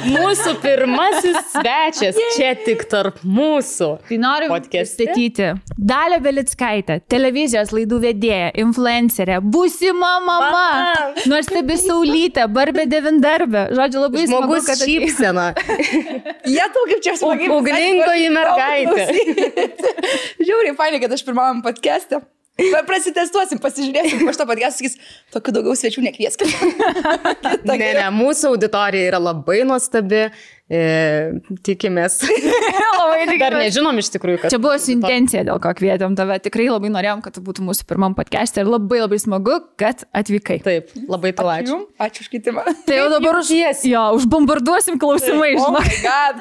Mūsų pirmasis svečias čia tik tarp mūsų. Tai noriu pristatyti Dalią Belickaitę, televizijos laidų vedėją, influencerę, būsima mama, nuostabi Saulytė, Barbė devindarbė. Žodžiu, labai smagu, kad šypsena. Jie tau kaip čia smagiai. Ugningoji mergaitė. Žiauriai fainai, kad aš pirmam podcast'e. Prasitestuosim, pasižiūrėsim, po šito podcast'o sakys, tokių daugiau svečių nekvieskit. Ne, mūsų auditorija yra labai nuostabi. Tikimės. Dar nežinom iš tikrųjų, kad... Čia buvo su intencija, dėl ko kvietėm tave. Tikrai labai norėjom, kad tu būtų mūsų pirmam podcast'e ir labai labai smagu, kad atvykai. Taip, labai tau ačiū. Ačiū už kvietimą. Tai jau dabar užbombarduosim klausimai, žinok.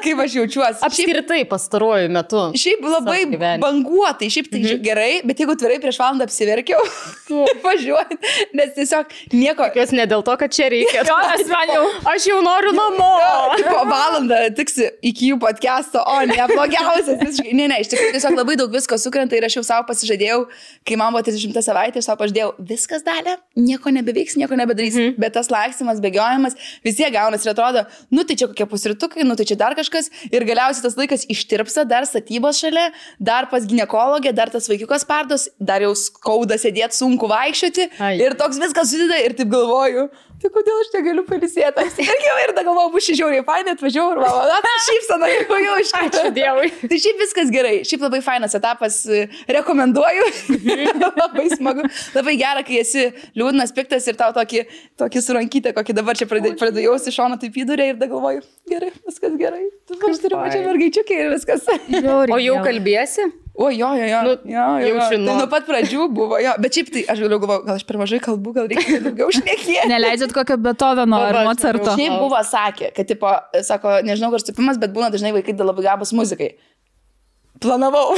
Kaip aš jaučiuosi. Apskritai pastaruoju metu. Šiaip labai banguotai, šiaip tai gerai, bet jeigu tvirtai prieš valandą apsiverkiau, važiuojant, nes tiesiog nieko... Jos ne dėl to, kad čia reikia. Aš jau noriu namo. Tiksi iki jų podcast'o, o ne, blogiausias. Ne, iš tikrųjų tiesiog labai daug visko sukrenta ir aš jau savo pasižadėjau, kai man buvo 30 savaitė, aš savo pažadėjau, viskas Dalia, nieko nebeveiks, nieko nebedarys, bet tas laksimas, bėgiojimas, vis tiek gaunas ir atrodo, nu tai čia kokie pusrytukai, nu tai čia dar kažkas ir galiausiai tas laikas ištirpsa, dar statybos šalia, dar pas ginekologę, dar tas vaikiukas pardos, dar jau skauda sėdėti, sunku vaikščioti ir toks viskas susideda ir taip galvoju. Tai kodėl aš negaliu pailsėti? Ir tada galvoju, bus žiauriai fainai, atvažiavau ir mama, šypsana, jau iš karto. Ačiū Dievui. Tai šiaip viskas gerai, šiaip labai fainas etapas, rekomenduoju, labai smagu, labai gera, kai esi liūdnas, piktas ir tau tokį surankytę, kokį dabar čia pradedu jausti šoną taip įdurė ir tada galvoju, gerai, viskas gerai, aš turiu pačią mergaičiukę ir viskas. O jau kalbėsi? O jo. Jaučiu, tai nuo pat pradžių buvo, jo. Bet šiaip tai aš galvoju, gal aš per mažai kalbu, gal reikia daugiau šnekėti. Neleidžiat kokio Beethoveno ar Mozarto. Šiaip buvo sakė, kad tipo, sako, nežinau, kur stupimas, bet būna dažnai vaikai labai gabūs muzikai. Planavau.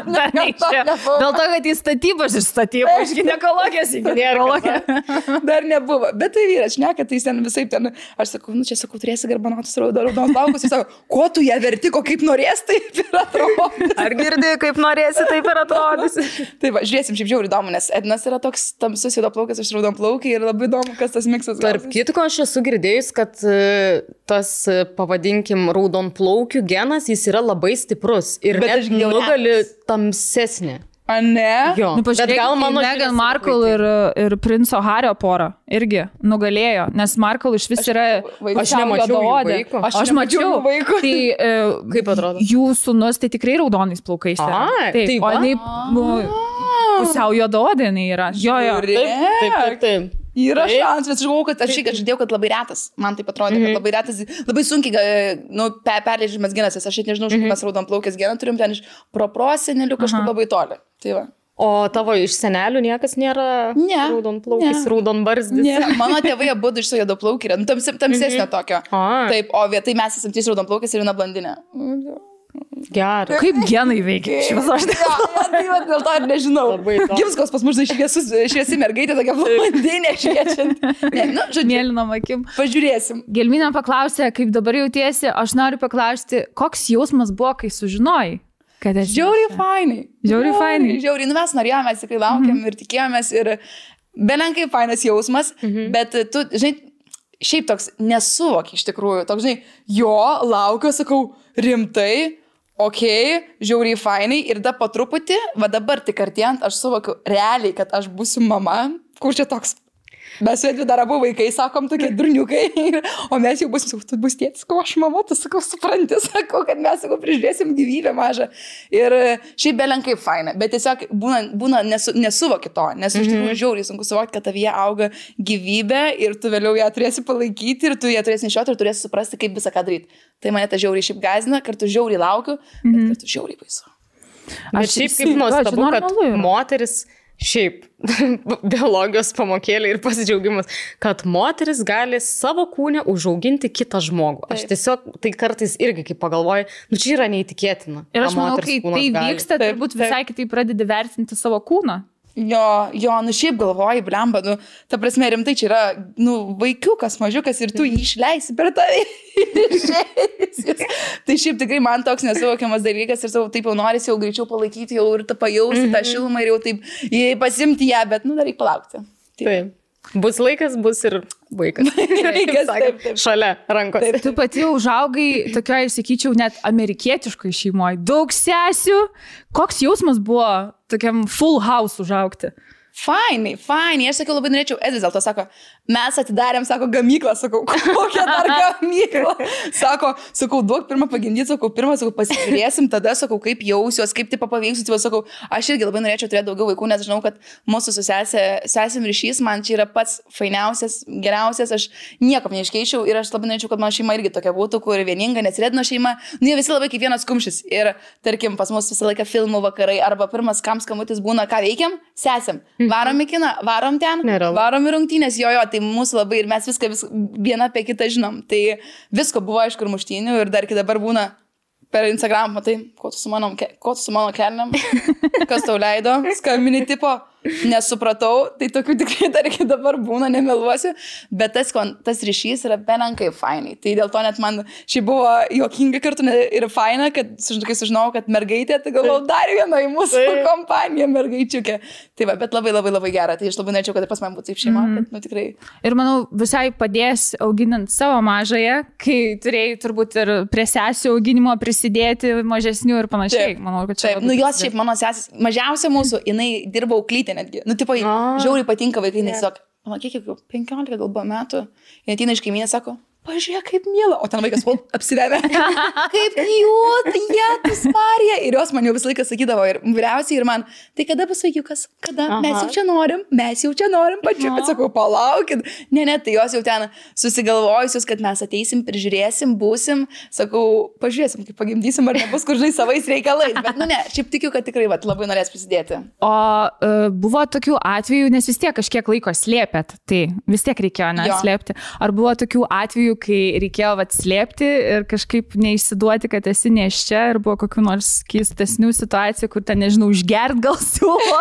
Dar neišėjo. Dėl to, kad į statybos iš statybos, iš ginekologijos į ginekologę. Dar nebuvo. Bet tai vyras šneka, tai ten visai ten, aš sakau, nu čia sakau, turėsi garbanotus raudonos plaukus. Jis sako, ko tu ją verti, ko kaip norės, taip ir atrodys. Ar girdi, kaip norėsi, taip ir atrodys. Tai va, žiūrėsim, šiaip žiauriai įdomu, nes Ednas yra toks tamsus juodaplaukas, aš raudonplaukiai ir labai įdomu, kas tas miksas. Tarp kitko, aš esu girdėjus, kad tas, pavadinkim, raudonplaukių genas, jis yra labai stiprus. Ir bet net nugali tamsesnė. A ne? Jo. Nu, pažiūrėk, Meghan Markle ir princo Hario porą irgi nugalėjo, nes Markle iš vis yra... Aš nemačiau jų vaiko. Aš mačiau vaiko. Tai kaip atrodo? Jų sūnus tai tikrai raudonais plaukais. Taip. O jinai pusiau juodaodė jinai yra. Jo. Taip. Yra šansas, aš galvoju, kad aš žadėjau, kad labai retas. Man taip atrodė, kad labai retas, labai sunkiai perleidžiamas genas. Aš nežinau, iš kur mes raudonplaukės geną turim ten iš proprosenelių kažkur labai toli. Tai va. O tavo iš senelių niekas nėra raudonplaukis, raudonbarzdis? Ne. Mano tėvai abudu iš juodaplaukį yra, tamsesnio tokio. Taip, o vietai mes esam 3 raudonplaukės ir viena blondinė. Gerai. Kaip genai veikia? Dėl to ir nežinau. Gimskos pas mus šviesi mergaitė, tokia blondinė šviečianti. Mėlynom akim. Pažiūrėsim. Gelminė paklausė, kaip dabar jautiesi. Aš noriu paklausti, koks jausmas buvo, kai sužinojai? Žiauriai fainai. Žiauriai. Nu mes norėjome, mes tikrai laukiam ir tikėjomės ir belenkai fainas jausmas, bet tu, žinai, šiaip toks nesuvoki iš tikrųjų. Toks, žinai, laukiu, sakau, rimtai, žiauriai fainai ir da po truputį, va dabar tik artėjant, aš suvokiu realiai, kad aš būsiu mama, kur čia toks, mes su Edviu dar abu vaikai, sakom, tokie durniukai, o mes jau būsim, tu bus tėtis, ko aš mama, tu sakau, supranti, sakau, kad mes, sakau, prižiūrėsim gyvybę mažą. Ir šiaip belenkai faina, bet tiesiog būna nesuvoki to, nes iš tikrųjų žiauriai sunku suvokti, kad tavyje auga gyvybė ir tu vėliau ją turėsi palaikyti ir tu ją turėsi nešioti ir turėsi suprasti, kaip visą ką daryti. Tai mane ta žiauriai šiaip gąsdina, kartu žiauriai laukiu, bet kartu žiauriai baisu. Aš šiaip kaip nuostabu, kad moteris šiaip biologijos pamokėlė ir pasidžiaugimas, kad moteris gali savo kūne užauginti kitą žmogų. Aš tiesiog, tai kartais irgi kaip pagalvoju, nu čia yra neįtikėtina. Ir aš manau, kai tai vyksta, turbūt visai kitaip pradedi vertinti savo kūną. Jo, nu šiaip galvoji, blemba, nu, ta prasme, rimtai čia yra, nu, vaikiukas, mažiukas ir tu jį išleisi per tave. Tai šiaip tikrai man toks nesuvokiamas dalykas ir savo taip jau norisi jau greičiau palaikyti jau ir pajausti tą šilumą ir jau taip pasimti ją, bet, nu, dar reikia palaukti. Taip. Bus laikas, bus ir vaikas. Taip. Šalia rankos. Taip. Tu pati užaugai tokioje, sakyčiau, net amerikietiškoje šeimoje. Daug sesių. Koks jausmas buvo tokiam full house užaugti? Fainai. Aš sakiau, labai norėčiau, Edis dėl to sako, mes atidarėm, sako, gamyklą, sakau, kokią dar gamyklą. Sakau, duok pirmą pagimdyti, sakau, pasižiūrėsim, tada, sakau, kaip jausiuos, kaip taip paveiksiu, sakau, aš irgi labai norėčiau turėti daugiau vaikų, nes žinau, kad mūsų su sesėm ryšys man čia yra pats fainiausias, geriausias, aš nieko neiškeičiau ir aš labai norėčiau, kad mano šeima irgi tokia būtų, kur vieninga, nesirėdino šeima, jie visi labai kaip vienas kumštis ir, tarkim, pas mus visą laiką filmų vakarai arba pirmas skambutis būna, ką veikiam, sesėm. Varom į kiną, varom ten, varom į rungtynės, jo, tai mūsų labai ir mes viską vieną apie kitą žinom. Tai visko buvo, aišku, ir muštynių ir dar iki dabar būna per Instagram, matai, ko tu su mano kelniam, kas tau leido, skambini tipo, nesupratau, tai tokių tikrai dar iki dabar būna, nemeluosiu, bet tas ryšys yra belenkai fainai. Tai dėl to net man šiai buvo juokinga kartu ir faina, kad kai sužinojau, kad mergaitė, tai galvau dar viena į mūsų kompaniją mergaičiukė. Tai va, bet labai, labai, labai gera. Tai aš labai norėčiau, kad pas man būtų taip šeima, kad, tikrai. Ir manau, visai padės auginant savo mažąją, kai turėjai turbūt ir prie sesių auginimo prisidėti mažesnių ir panašiai. Taip, manau, kad čia. Taip, jos šiaip mano sesis, mažiausia mūsų, jinai dirba auklytė netgi. Tipo, žiauriai patinka vaikai, nes tiesiog, kiek 15 gal buvo metų, jie ateina iš kaimynės, sako, pažiūrėk, kaip miela, o ten vaikas apsivemė. Kaip jūt, jėtus Marija. Ir jos man jau visą laiką sakydavo, ir vyriausiai, ir man, tai kada bus vaikiukas, kada, mes jau čia norim, pačiu, bet sakau, palaukit. Ne, tai jos jau ten susigalvojusius, kad mes ateisim, prižiūrėsim, būsim, sakau, pažiūrėsim, kaip pagimdysim, ar nebus kur žinai savais reikalais, bet ne, šiaip tikiu, kad tikrai labai norės prisidėti. O buvo tokių atvejų, nes vis tiek kažkiek laiko slėpėt, tai vis tiek reikėjo neslėpti. Ar buvo tokių atvejų, kai reikėjo slėpti ir kažkaip neišsiduoti, kad esi nėščia ir buvo kokių nors keistesnių situacijų, kur ten, nežinau, užgert gal siūlo.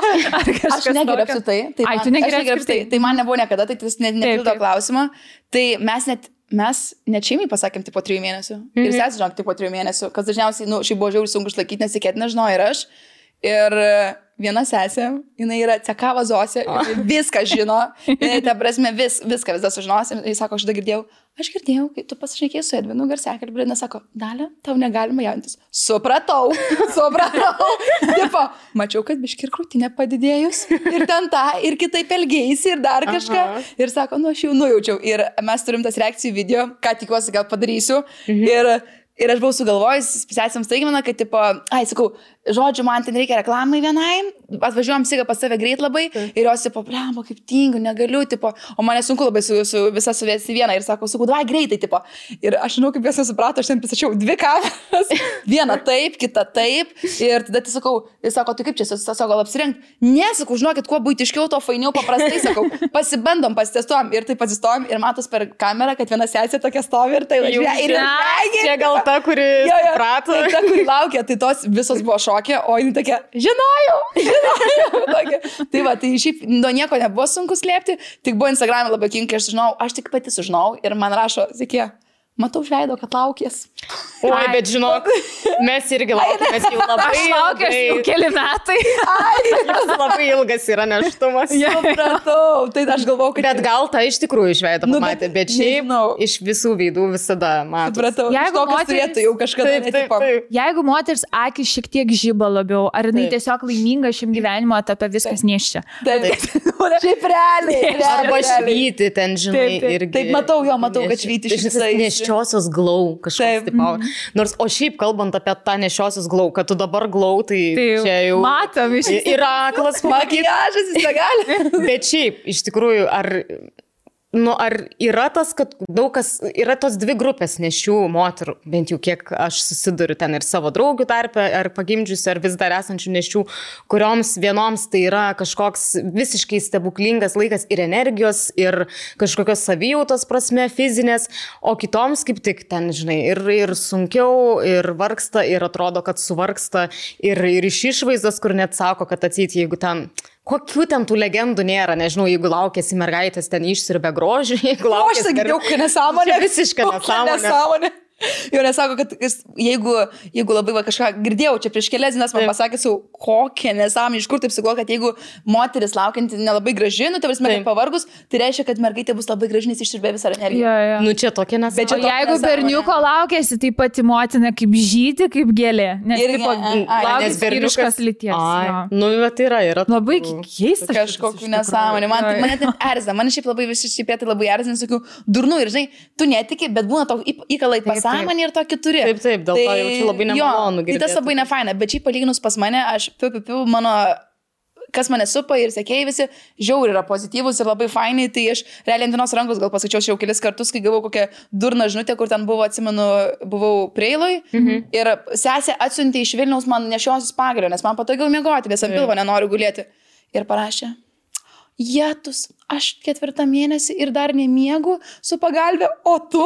Aš negeriu apsitai. Tu negeriu apsitai. Tai man nebuvo niekada, tai tas nepildo klausimą. Tai mes net šeimai pasakėm tipo 3 mėnesių. Ir sesė žinok tipo 3 mėnesių, kas dažniausiai, šiaip buvo žiauriai sunku išlaikyti, nes tikėtina žinau ir aš. Ir viena sesė, jinai yra cekava Zosė, viską žino, jinai, ta prasme, viską sužinos. Ir jis sako, aš girdėjau, kai tu pasišnekėjai su Edvinu garsiakalbį, ir sako, Dalia, tau negalima jauntis. Supratau. Tipo, mačiau, kad biški ir krūtinė padidėjus, ir ten tą, ir kitaip elgėjusi, ir dar kažką. Ir sako, aš jau nujaučiau. Ir mes turim tas reakcijų video, ką tikiuosi gal padarysiu. Ir aš buvau sugalvojus, sesėms staigmena, kad, tipo, sakau, žodžiu, man ten reikia reklamai vienai, atvažiuojam sigą pas save greit labai, ir jos, tipo, blemba, kaip tingiu, negaliu, tipo, o mane sunku labai su visą suvesti vieną, ir sakau, davai greitai, tipo. Ir aš žinau, kaip jos nesuprato, aš ten pristačiau 2 kameras, vieną taip, kitą taip, ir tada tai sakau, jis sako, tai kaip čia, sako, gal apsirengti? Ne, sakau, žinokit, kuo buitiškiau, to fainiau, paprastai, sakau, pasibandom, pasitestuojam, ir taip atsistojom, ir matos per kamerą, kad viena sesė tokia stovi, ir tai gal ta, kuri suprato. Ta, kuri laukia, tai tos visos buvo šokė, o jinai tokia, žinojau. Tai va, tai šiaip nuo nieko nebuvo sunku slėpti, tik buvo Instagram'e labai kinkai, aš tik pati sužinau ir man rašo, sakė, matau žveido, kad laukės. Oi, bet žinok, mes irgi laukėmės jau labai ilgai. Aš laukęs jau keli metai. Jis labai ilgas yra neštumas. Supratau, tai aš galvau, kad... Bet gal tą iš tikrųjų žveidą pamatė, bet šiaip iš visų veidų visada matau. Supratau, jeigu moteris turėtų jau kažkada netipo. Jeigu moteris akis šiek tiek žiba labiau, ar jinai tiesiog laiminga šiam gyvenimo etape viskas nėščia? Šiaip realiai. Arba švyti ten, žinai, irgi. Taip, matau, kad švyti šviesai. Nešiosios glau kažkoks tipo. Nors, o šiaip kalbant apie tą nešiosios glau, kad tu dabar glau, tai čia jau... Matom, yra aklas makiažas, jis negali. Bet šiaip, iš tikrųjų, ar yra tas, kad daug kas, yra tos 2 grupės nešių moterų, bent jau kiek aš susiduriu ten ir savo draugių tarpe, ar pagimdžiusių, ar vis dar esančių nešių, kurioms vienoms tai yra kažkoks visiškai stebuklingas laikas ir energijos, ir kažkokios savijautos prasme, fizinės, o kitoms kaip tik ten, žinai, ir sunkiau, ir vargsta, ir atrodo, kad suvargsta, ir iš išvaizdos, kur net sako, kad atseit, jeigu ten... Kokių ten tų legendų nėra, nežinau, jeigu laukėsi mergaitės ten išsirbė grožį, jeigu laukėsi... Aš sakiau, kad nesąmonė. Visiškai nesąmonė. Jo nesako, kad jeigu labai kažką girdėjau, čia prieš kelias dienas man pasakė, kokią nesąmonę, iš kur taip sugalvojo, kad jeigu moteris laukianti nelabai graži, nu, tai prasme, kad pavargus, tai reiškia, kad mergaitė bus labai graži, nes išsiurbė visą energiją. Ja. Nu, čia tokia nesąmonė. O jeigu berniuko laukėsi, tai pati motina kaip žydė, kaip gėlė. Nes berniukas lyties. Nu, bet yra. Labai keista. Kažkokiu nesąmonė. Mane taip erzina. Man šiaip labai visi šiaip labai erzina, sakiau, durnu ir žinai, tu netiki, bet būna tau įkalai pasąmonė ir tokį turi. Taip, dėl to jaučiu labai nemalonu girdėti. Tai tas labai nefaina, bet šiaip palyginus pas mane, aš mano, kas mane supa ir sekėjai visi, žiauri yra pozityvus ir labai fainai, tai aš realiai ant vienos rankos gal pasakiau jau kelis kartus, kai gavau kokią durną žinutę, kur ten buvo, atsimenu, buvau Preiloj ir sesė atsiuntė iš Vilniaus man nešiosis pagalio, nes man patogiau miegoti, nes ant pilvo nenoriu gulėti. Ir parašė, Jetus, aš 4 mėnesį ir dar nemiegu su pagalbė, o tu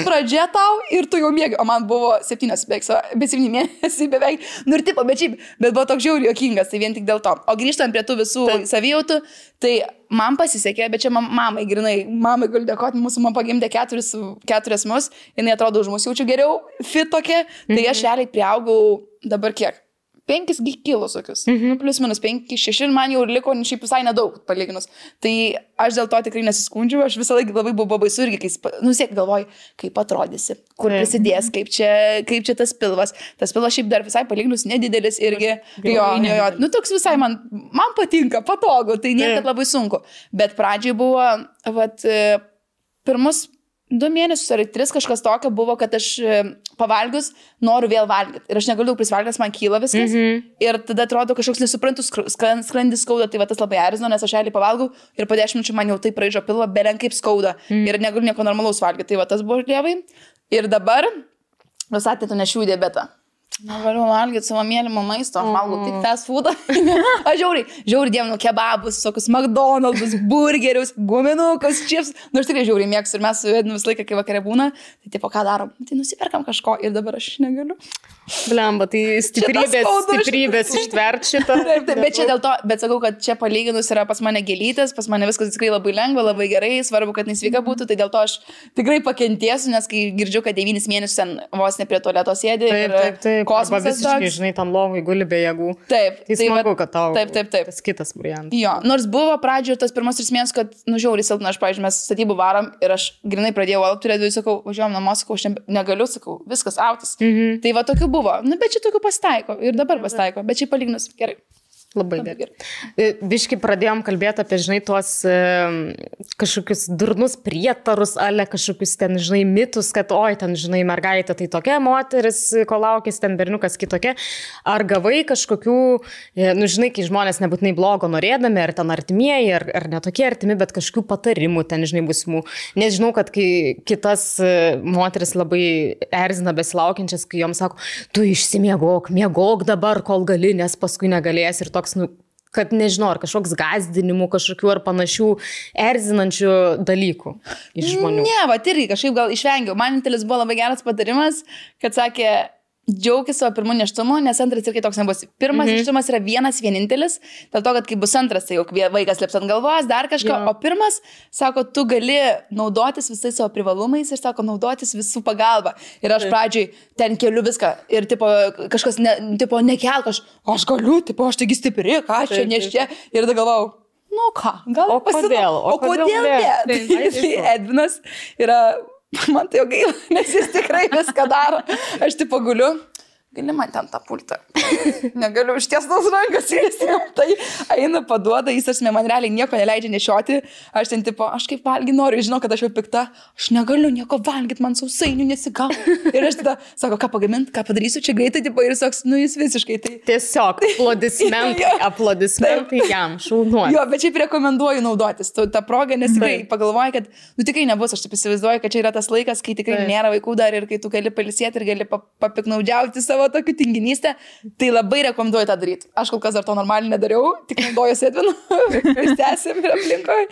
pradžia tau ir tu jau miegi. O man buvo 7 mėnesiai beveik. Nu ir tipo, bet buvo toks žiauriai juokingas, tai vien tik dėl to. O grįžtant prie tų visų savijautų, tai man pasisekė, bet čia mamai galiu dėkoti, mūsų man pagimdė 4 mus, jinai atrodo už mus jaučiu geriau, fit tokia, tai aš realiai priaugau dabar kiek? 5 kilus tokius, plus minus 5, 6 ir man jau liko šiaip visai nedaug palyginus. Tai aš dėl to tikrai nesiskundžiu, aš visą laiką labai buvo baisu irgi, kai siek galvoju, kaip atrodysi, kur prisidės, kaip čia tas pilvas. Tas pilvas šiaip dar visai palyginus nedidelis irgi, jo, nu toks visai man patinka, patogu, tai niekad labai sunku. Bet pradžiai buvo, pirmus 2 mėnesius ar 3 kažkas tokio buvo, kad aš pavalgius noriu vėl valgyti. Ir aš negaliu prisivalgyti, man kyla viskas. Ir tada atrodo kažkoks nesuprantus skrandis skauda, tai tas labai erzino, nes aš realiai pavalgau ir po 10 minučių man jau taip raižo pilvą, belen kaip skauda. Ir negaliu nieko normalaus valgyti. Tai tas buvo lievai. Ir dabar, jūs atėtų nešių diabetą. Negaliu valgyti savo mėlymo maisto, aš valgau tik fast foodą. Aš žiauri dievinu kebabus, tokius McDonald's, burgerius, guminukus, chips. Nu, aš tikrai žiauri mėgstu ir mes su Ednu visą laiką, kai vakare būna, tai tipo, ką darom? Tai nusiperkam kažko ir dabar aš negaliu. Blemba, tai stiprybės ištvert šitą. Taip, bet čia dėl to, bet sakau, kad čia palyginus yra pas mane gėlytės, pas mane viskas tikrai labai lengva, labai gerai, svarbu, kad nesveika būtų, tai dėl to aš tikrai pakentėsiu, nes kai girdžiu, kad 9 mėnesius ten vos ne prie tualeto sėdi. Taip. Kosmosas visiškai, žinai, tam lovai guli be jėgų. Taip. Tai smagu, kad tau taip. Tas kitas variantas. Jo, nors buvo pradžioje tas pirmas 3 mėnesius, kad, žiauriai silpna, aš, pavyzdžiui, mes statybų varom ir aš grinai pradėjau alpti, turėdavau, sakau, važiuojam namo, sakau, aš negaliu, sakau, viskas autis. Tai va tokių buvo. Nu, bet čia tokių pasitaiko ir dabar pasitaiko, bet čia palyginus gerai. Labai gerai. Biškai pradėjom kalbėti apie, žinai, tuos kažkokius durnus prietarus, ale kažkokius ten, žinai, mitus, kad, oi, ten, žinai, mergaitė tai tokia, moteris, ko laukės, ten berniukas kitokia. Ar gavai kažkokių, nu, žinai, kai žmonės nebūtinai blogo norėdami, ar ten artimieji, ar netokie artimi, bet kažkokių patarimų ten, žinai, būsimų. Nes žinau, kad kai kitas moteris labai erzina besilaukiančias, kai joms sako, tu išsimiegok, miegok dabar, kol gali, nes paskui negalės ir toks, nu, kad nežinau, ar kažkoks gazdinimų, kažkokių ar panašių erzinančių dalykų iš žmonių. Ne, va, irgi kažkaip gal išvengiau. Man vienintelis buvo labai geras patarimas, kad sakė, džiaukis savo pirmu nėštumu, nes antras irgi toks nebus. Pirmas nėštumas yra vienintelis, dėl to, kad kai bus antras, tai jau vaikas lips ant galvos, dar kažko, o pirmas, sako, tu gali naudotis visais savo privalumais ir, sako, naudotis visų pagalba. Ir aš pradžiai ten keliu viską ir, tipo, kažkas, nekelk, aš galiu, tipo, aš taigi stipri, ką aš čia neščia. Ir tada galvau, nu ką, gal kodėl? O kodėl ne? Tai Edvinas yra... Man tai jau gaila, nes jis tikrai viską daro. Aš tipo guliu, gali man ten tą pultą. Negaliu išties tos rankas, jis tai eina paduoda, jis asme man realiai nieko neleidžia nešioti. Aš ten tipo, aš kaip valgy noriu, žinau, kad aš jau pikta, aš negaliu nieko valgyti, man sausainių nesigau. Ir aš tada sako, ką pagaminti, ką padarysiu čia greitai, tipo, ir toks, nu jis visiškai tai. Tiesiog aplodismentai jam, šaunuoju. Jo, bet šiaip rekomenduoju naudotis tą progą, nes tikrai pagalvoju, kad, nu tikrai nebus, aš taip įsivaizduoju, kad čia yra tas laikas, kai tikrai nėra vaikų dar ir kai tu gali pailsėti ir gali papiknaudžiauti savo tokių tinginystę, tai labai rekomenduoju tą daryti. Aš kol kas dar to normaliai nedariau, tik naudojuosi Edvinu, stęsim ir aplinkoje,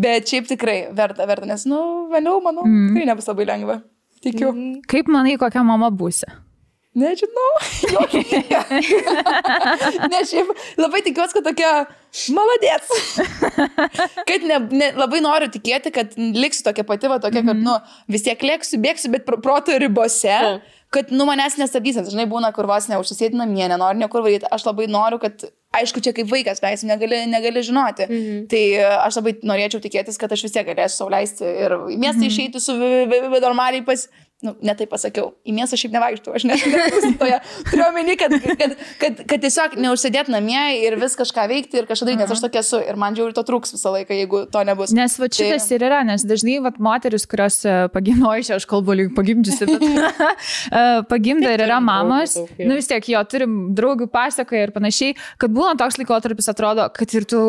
bet šiaip tikrai verta, nes, nu, vėliau, manau, tikrai nebus labai lengva. Tikiu. Kaip manai, kokia mama būsi? Nežinau. Ne, šiaip labai tikiuosi, kad tokia maladės. Kad labai noriu tikėti, kad liksiu tokia pati, tokia, kad, vis tiek lėksiu, bėgsiu, bet proto ribose, kad, manęs nestabdys. Žinai, būna, kur vos neužsisėti namie, nenoriu niekur varyti. Aš labai noriu, kad, aišku, čia kaip vaikas, leisim, negali žinoti. Tai aš labai norėčiau tikėtis, kad aš vis tiek galėsiu sau leisti ir į miestą išeiti su normaliai ne taip pasakiau, į miestą šiaip nevaikštų, aš nesustoja. Turiu omeny, kad tiesiog neužsėdėti namie ir vis kažką veikti ir kažką daryti, nes aš tokia esu ir man žiauriai to trūks visą laiką, jeigu to nebus. Nes šitas ir yra, nes dažnai moteris, kurios pagimdoja, aš kalbu lyg pagimdžiusi, bet pagimda ir yra mamos, vis tiek jo, turim draugių pasakoja ir panašiai, kad būna toks laikotarpis atrodo, kad ir tu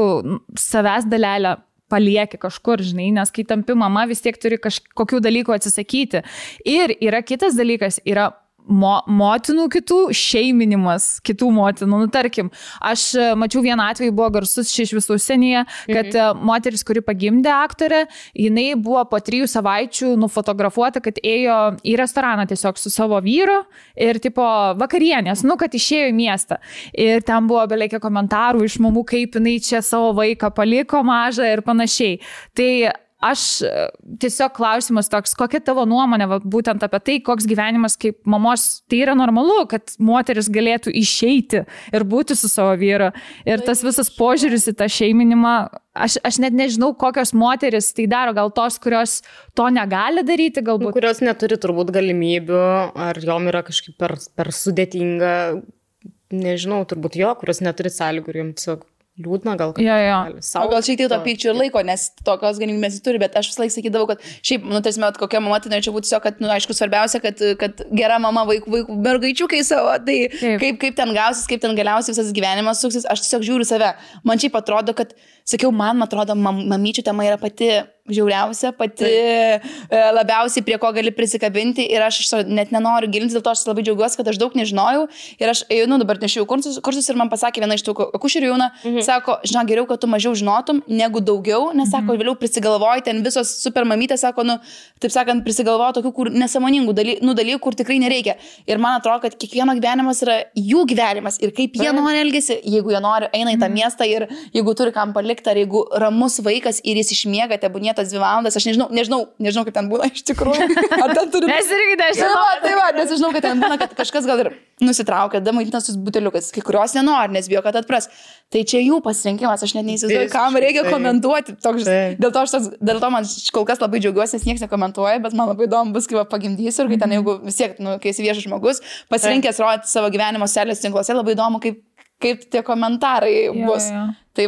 savęs dalelę palieki kažkur, žinai, nes kai tampi mama, vis tiek turi kažkokių dalykų atsisakyti. Ir yra kitas dalykas, yra motinų kitų šeiminimas, kitų motinų. Tarkim, aš mačiau vieną atvejį, buvo garsus iš visų užsienyje, kad moteris, kuri pagimdė aktorę, jinai buvo po 3 savaičių nufotografuota, kad ėjo į restoraną tiesiog su savo vyru ir tipo vakarienės, kad išėjo į miestą. Ir ten buvo beleikia komentarų iš mamų, kaip jinai čia savo vaiką paliko mažą ir panašiai. Tai aš tiesiog klausimas toks, kokia tavo nuomonė būtent apie tai, koks gyvenimas kaip mamos, tai yra normalu, kad moteris galėtų išeiti ir būti su savo vyru. Ir tas visas požiūris į tą šeiminimą, aš net nežinau, kokios moteris tai daro, gal tos, kurios to negali daryti, galbūt. Kurios neturi turbūt galimybių, ar jom yra kažkaip per sudėtinga, nežinau, turbūt kurios neturi sąlygų ir jom tiesiog liūdna gal. O gal šiek tiek to pykčio ir laiko, nes tokios galimybės turi, bet aš visą laiką sakydavau, kad šiaip, tarsi, kokia mama, tai norėčiau būti tiesiog, kad, aišku, svarbiausia, kad gera mama vaikų mergaičiukai savo, tai kaip ten gausis, kaip ten galiausiai visas gyvenimas suksis, aš tiesiog žiūriu save. Man šiaip atrodo, kad, sakiau, man atrodo, mamyčių tema yra pati žiauriausia, pati labiausiai prie ko gali prisikabinti ir aš net nenoriu gilintis, dėl to aš labai džiaugiuosi, kad aš daug nežinojau ir aš dabar nešiau kursus ir man pasakė viena iš tų akušerių jauna, sako, žinok, geriau, kad tu mažiau žinotum negu daugiau, nes sako, vėliau prisigalvoji, ten visos super mamytės, sako, taip sakant, prisigalvoja tokių, kur nesąmoningų dalykų, kur tikrai nereikia. Ir man atrodo, kad kiekvieno gyvenimas yra jų gyvenimas ir kaip jie nori elgesi, jeigu jie nori, eina į tą miestą ir jeigu turi kam palikti, ar jeigu ramus vaikas ir jis išmiega, tebūnie 2 valandas, aš nežinau, kaip ten būna iš tikrųjų. Ar ten turi... Mes irgi nežinau. Tai va, nes žinau, kad ten būna, kad kažkas gal ir nusitraukia, damaitintas su buteliukas, kai kurios nenori, nes bijo, kad atpras. Tai čia jų pasirinkimas, aš net neįsivaizduoju, kam reikia komentuoti. Dėl to man kol kas labai džiaugiuosi, nes niekas nekomentuoja, bet man labai įdomu bus, kai pagimdysiu ir kai ten, jeigu vis tiek, kai esi viešas žmogus, pasirinkęs rodyti savo gyvenimo socialiniuose tinkluose, labai įdomu, kaip tie komentarai bus. Tai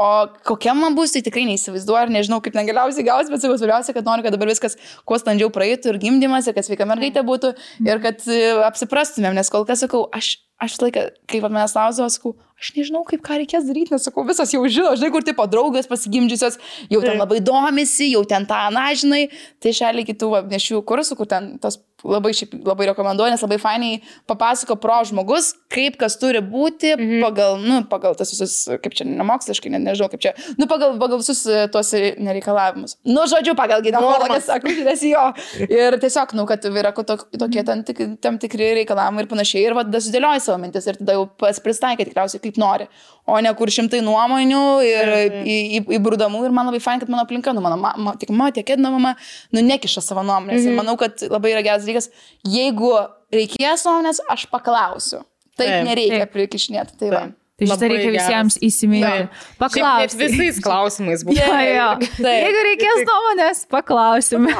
o kokia man bus, tai tikrai neįsivaizduoju ir nežinau, kaip ten galiausiai gaus, bet svarbiausia, kad noriu, kad dabar viskas kuo standžiau praeitų ir gimdymas, ir kad sveika mergaitė būtų ir kad apsiprastumėm, nes kol kas sakau, aš laiką, kaip manęs klausdavo, sakau, aš nežinau, kaip ką reikės daryti, nes sakau, visas jau žino, žinai, kur tipo draugės pasigimdžiusios, jau ten labai domisi, jau ten tą, žinai, tai šaliai kitų nešių kursų, kur ten tos labai rekomenduoju, nes labai fainiai papasako pro žmogus, kaip kas turi būti pagal tas visus, kaip čia nemoksliškai, nežinau, kaip čia, pagal visus tuos nereikalavimus. Žodžiu, pagal gyvenimą, sakau, nes jo. Ir tiesiog, kad yra tokie tam tikri reikalavimai ir panašiai. Ir sudėlioji savo mintis ir tada jau pristaikai tikriausiai kaip nori. O ne kur 100 nuomonių ir įbrūdamų. Ir man labai fain, kad mano aplinka, mano mama, tiek mama, tiek Edna mama, nekiša savo nuomonės. Ir manau, kad labai yra geras dalykas, jeigu reikės nuomonės, aš paklausiu. Taip nereikia prikišnėti. Tai va. Tai šitą reikia visiems įsiminti. Paklausti. Visais klausimais būtų. Jeigu reikės nuomonės, paklausime.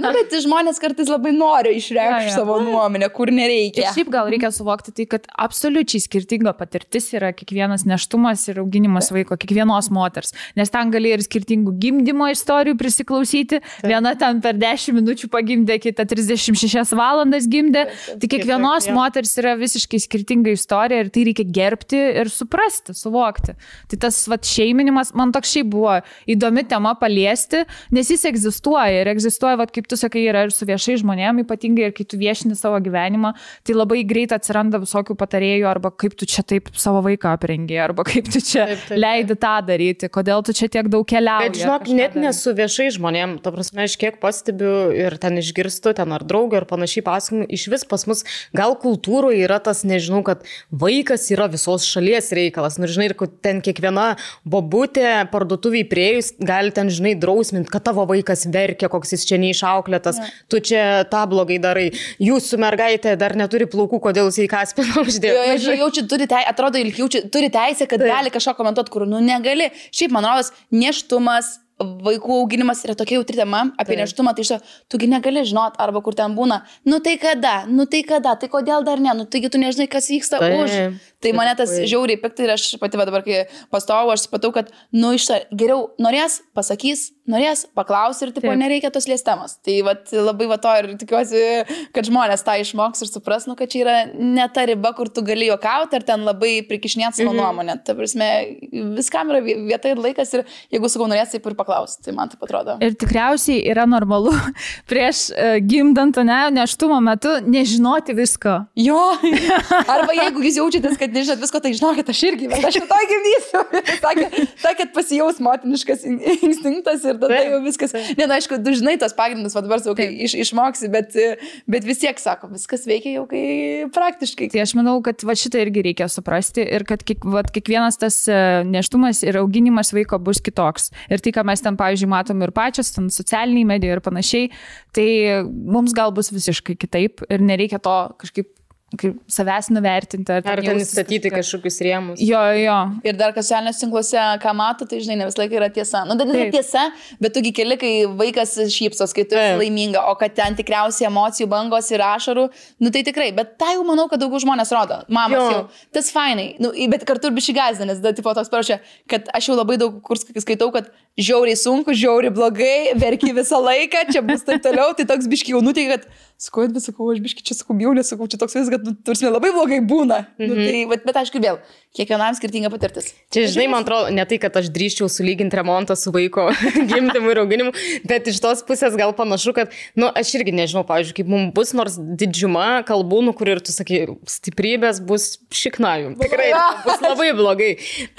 Bet žmonės kartais labai nori išreikšti savo nuomonę, kur nereikia. Ir šiaip gal reikia suvokti tai, kad absoliučiai skirtinga patirtis yra kiekvienas neštumas ir auginimas vaiko, kiekvienos moters. Nes ten gali ir skirtingų gimdymo istorijų prisiklausyti. Viena ten per 10 minučių pagimdė, kita 36 valandas gimdė. Tai kiekvienos moters yra visiškai skirtinga istorija ir tai reikia gerbti ir ir suprasti, suvokti. Tai tas šeiminimas, man toks šiaip buvo įdomi tema paliesti, nes jis egzistuoja ir egzistuoja, kaip tu sakai, yra ir su viešai žmonėm, ypatingai ir kai tu viešini savo gyvenimą, tai labai greit atsiranda visokių patarėjų, arba kaip tu čia taip savo vaiką aprengi, arba kaip tu čia leidi tą daryti, kodėl tu čia tiek daug keliauji. Bet žinok, net nesu viešai žmonėm, ta prasme, aš kiek pastebiu ir ten išgirstu, ten ar draugą ir panašiai pasakymų, iš vis pas mus gal kultūroje yra tas, nežinau, kad vaikas yra visos šalies reikalas. Nu, žinai, ir ten kiekviena bobutė parduotuviai priejus gali ten, žinai, drausminti, kad tavo vaikas verkia, koks jis čia neišauklėtas, tu čia tą blogai darai. Jūsų mergaitė dar neturi plaukų, kodėl jis į kaspiną uždėjo. Jaučiu, atrodo, turi teisę, kad gali kažką komentuoti, kur, negali. Šiaip, man rodos, nėštumas, vaikų auginimas yra tokia jautri tema apie nėštumą, tai tugi negali žinot, arba kur ten būna, tai kada, tai kodėl dar ne, taigi tu nežinai, kas vyksta už. Tai mane tas žiauriai piktai ir aš pati dabar, kai pastovau, aš supratau, kad, geriau norės, pasakys, norės, paklaus ir, nereikia tos liestemos. Tai labai to ir tikiuosi, kad žmonės tą išmoks ir supras, kad čia yra ne ta riba, kur tu gali juokauti, ar ten labai prikišnėti savo nuomonę. Ta prasme, viskam yra vieta ir laikas ir jeigu sakau norės, taip ir paklaus. Tai man taip atrodo. Ir tikriausiai yra normalu prieš gimdant, nėštumo metu nežinoti visko. Jo. Arba jeigu jūs jaučiatės, kad nežinot visko, tai žinokit, aš irgi, bet aš to gimdysiu. Sakėt, pasijaus motiniškas instinktas ir tada jau viskas. Aišku, tu žinai tos pagrindus, dabar sau, kai išmoksi, bet vis tiek sako, viskas veikia jau kai praktiškai. Tai aš manau, kad šitą irgi reikia suprasti ir kad kiekvienas tas nėštumas ir auginimas vaiko bus kitoks. Ir tai, ką mes ten, pavyzdžiui, matom ir pačios, ten socialiniai medijai ir panašiai, tai mums gal bus visiškai kitaip ir nereikia to kažkaip savęs nuvertinti. Ar ten įstatyti kažkokius rėmus. Jo. Ir dar socialiniuose tinkluose, ką mato, tai žinai, ne visą laiką yra tiesa. Tai nėra tiesa, bet tugi keli, kai vaikas šypsos, kai tu esi laiminga, o kad ten tikriausiai emocijų bangos ir ašarų, tai tikrai. Bet tai jau manau, kad daugiau žmonės rodo. Mamos jau. Tas fainai. Bet kartu ir bišį gąsdina, nes tipo toks parašė, kad aš jau labai daug kur skaitau, kad žiauriai sunku, žiauriai blogai, verki visą laiką, čia bus taip toliau, tai toks biški jau nuteikia, kad sakau, bet sakau, aš biški čia sakau, bjaulė, sakau, čia toks viskas, kad tursime labai blogai būna. Bet aišku, vėl, kiekvienam skirtinga patirtis. Čia, žinai, man atrodo, ne tai, kad aš drįščiau sulyginti remontą su vaiko gimdymu ir auginimu, bet iš tos pusės gal panašu, kad, aš irgi nežinau, pavyzdžiui, kaip mums bus, nors didžiuma kalbų, kur ir tu sakai, stiprybės bus šiknajum. Tikrai bus labai blogai.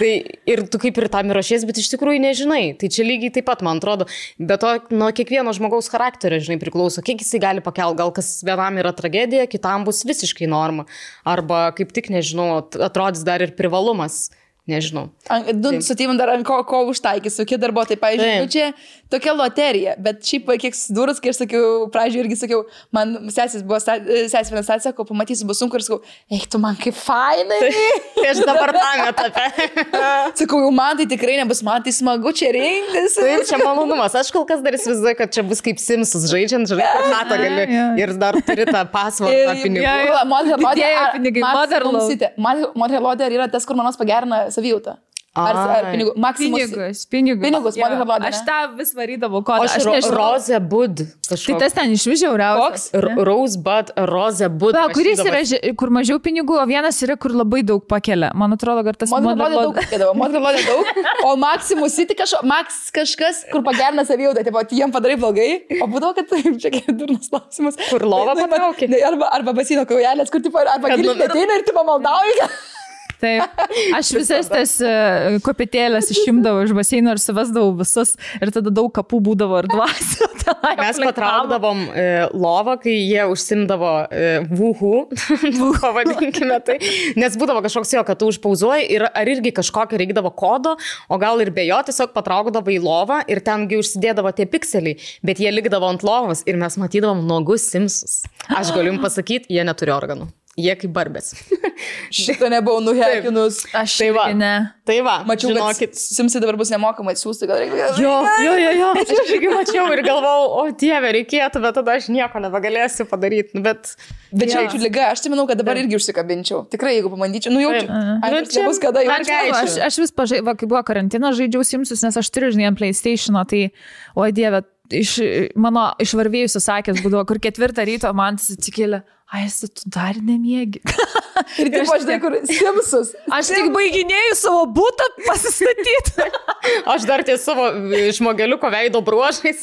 Tai ir tu kaip ir tam ruošies, bet iš tikrųjų nežinai. Tai čia lygiai taip pat, man atrodo, bet to nuo kiekvieno žmogaus charakterio, žinai, priklauso, kiek jisai gali pakelti. Gal kas vienam yra tragedija, kitam bus visiškai norma. Arba kaip tik, nežinau, atrodys dar ir privalumas. Nežinau. Su tėvim dar ant ko užtaikys, kokie darbuotojai, pavyzdžiui, čia tokia loterija, bet šiaip kiek sudūrus, kai aš sakiau, pradžioje irgi sakiau, man sesės vienas sako, pamatysiu, bus sunku ir sakau, tu man kaip fainai. Tai aš dabar tam etape. Sakau, jau man tai tikrai nebus, man tai smagu čia rinktis. Tai čia malonumas, aš kol kas dar įsivaizduoju, kad čia bus kaip Simsus žaidžiant, natą gali ir dar turi tą pasvardą pinigų. Mother yra tas, kur manos pagerina savijautą. Ar pinigų? Pinigus. Aš tą vis varydavau. Rosebud. Tai tas ten iš vis žiauriausias. Rosebud, Rosebud. Kuris yra, kur mažiau pinigų, o vienas yra, kur labai daug pakelia. Man atrodo, kad tas Mother daug. O Maximus City kažkas, kur pagerina savijautą. Jiem padarai blogai. O būdavo, kad taip, čia kaip durnas klausimas. Kur lova patraukė. Arba basino kaujelės, kur arba gilinė ateina ir tu pamaldauji. Taip, aš visas tas kopėtėlės išimdavau iš baseino ir suvesdavau visus ir tada daug kapų būdavo ir dvasių. Mes patraukdavom lovą, kai jie užsimdavo vuhų, pavadinkime tai, nes būdavo kažkoks jo, kad tu užpauzuoji ir ar irgi kažkokio reikdavo kodo, o gal ir be jo tiesiog patraukdavo į lovą ir tengi užsidėdavo tie pikseliai, bet jie likdavo ant lovos ir mes matydavom nuogus Simsus. Aš galiu jums pasakyti, jie neturi organų. Jie kaip barbės. Šitą nebuvau nuhekinus. Aš tai va. Tai va. Mačiau, kad Simsai dabar bus nemokamai siūsti, gal reikia. Jo. Aš irgi mačiau ir galvojau, o Dieve, reikėtų, bet tada aš nieko nebegalėsiu padaryti. Bet čia jaučiu lyga, aš tai manau, kad dabar irgi užsikabinčiau. Tikrai, jeigu pabandyčiau, jaučiu. Čia bus kada jaučiu. Aš vis kai buvo karantinas, žaidžiau Simsus, nes aš turiu, žinai, PlayStation'o, tai, o Dieve, iš varvėjusios akės būdavo, kur 4 ryto man atsikėlė, Esi, tu dar nemiegi. Ir taip, aš žinai, kur Simsus. Aš tik baiginėjau savo butą pasistatyti. Aš dar ties savo žmogeliuko veido bruožais.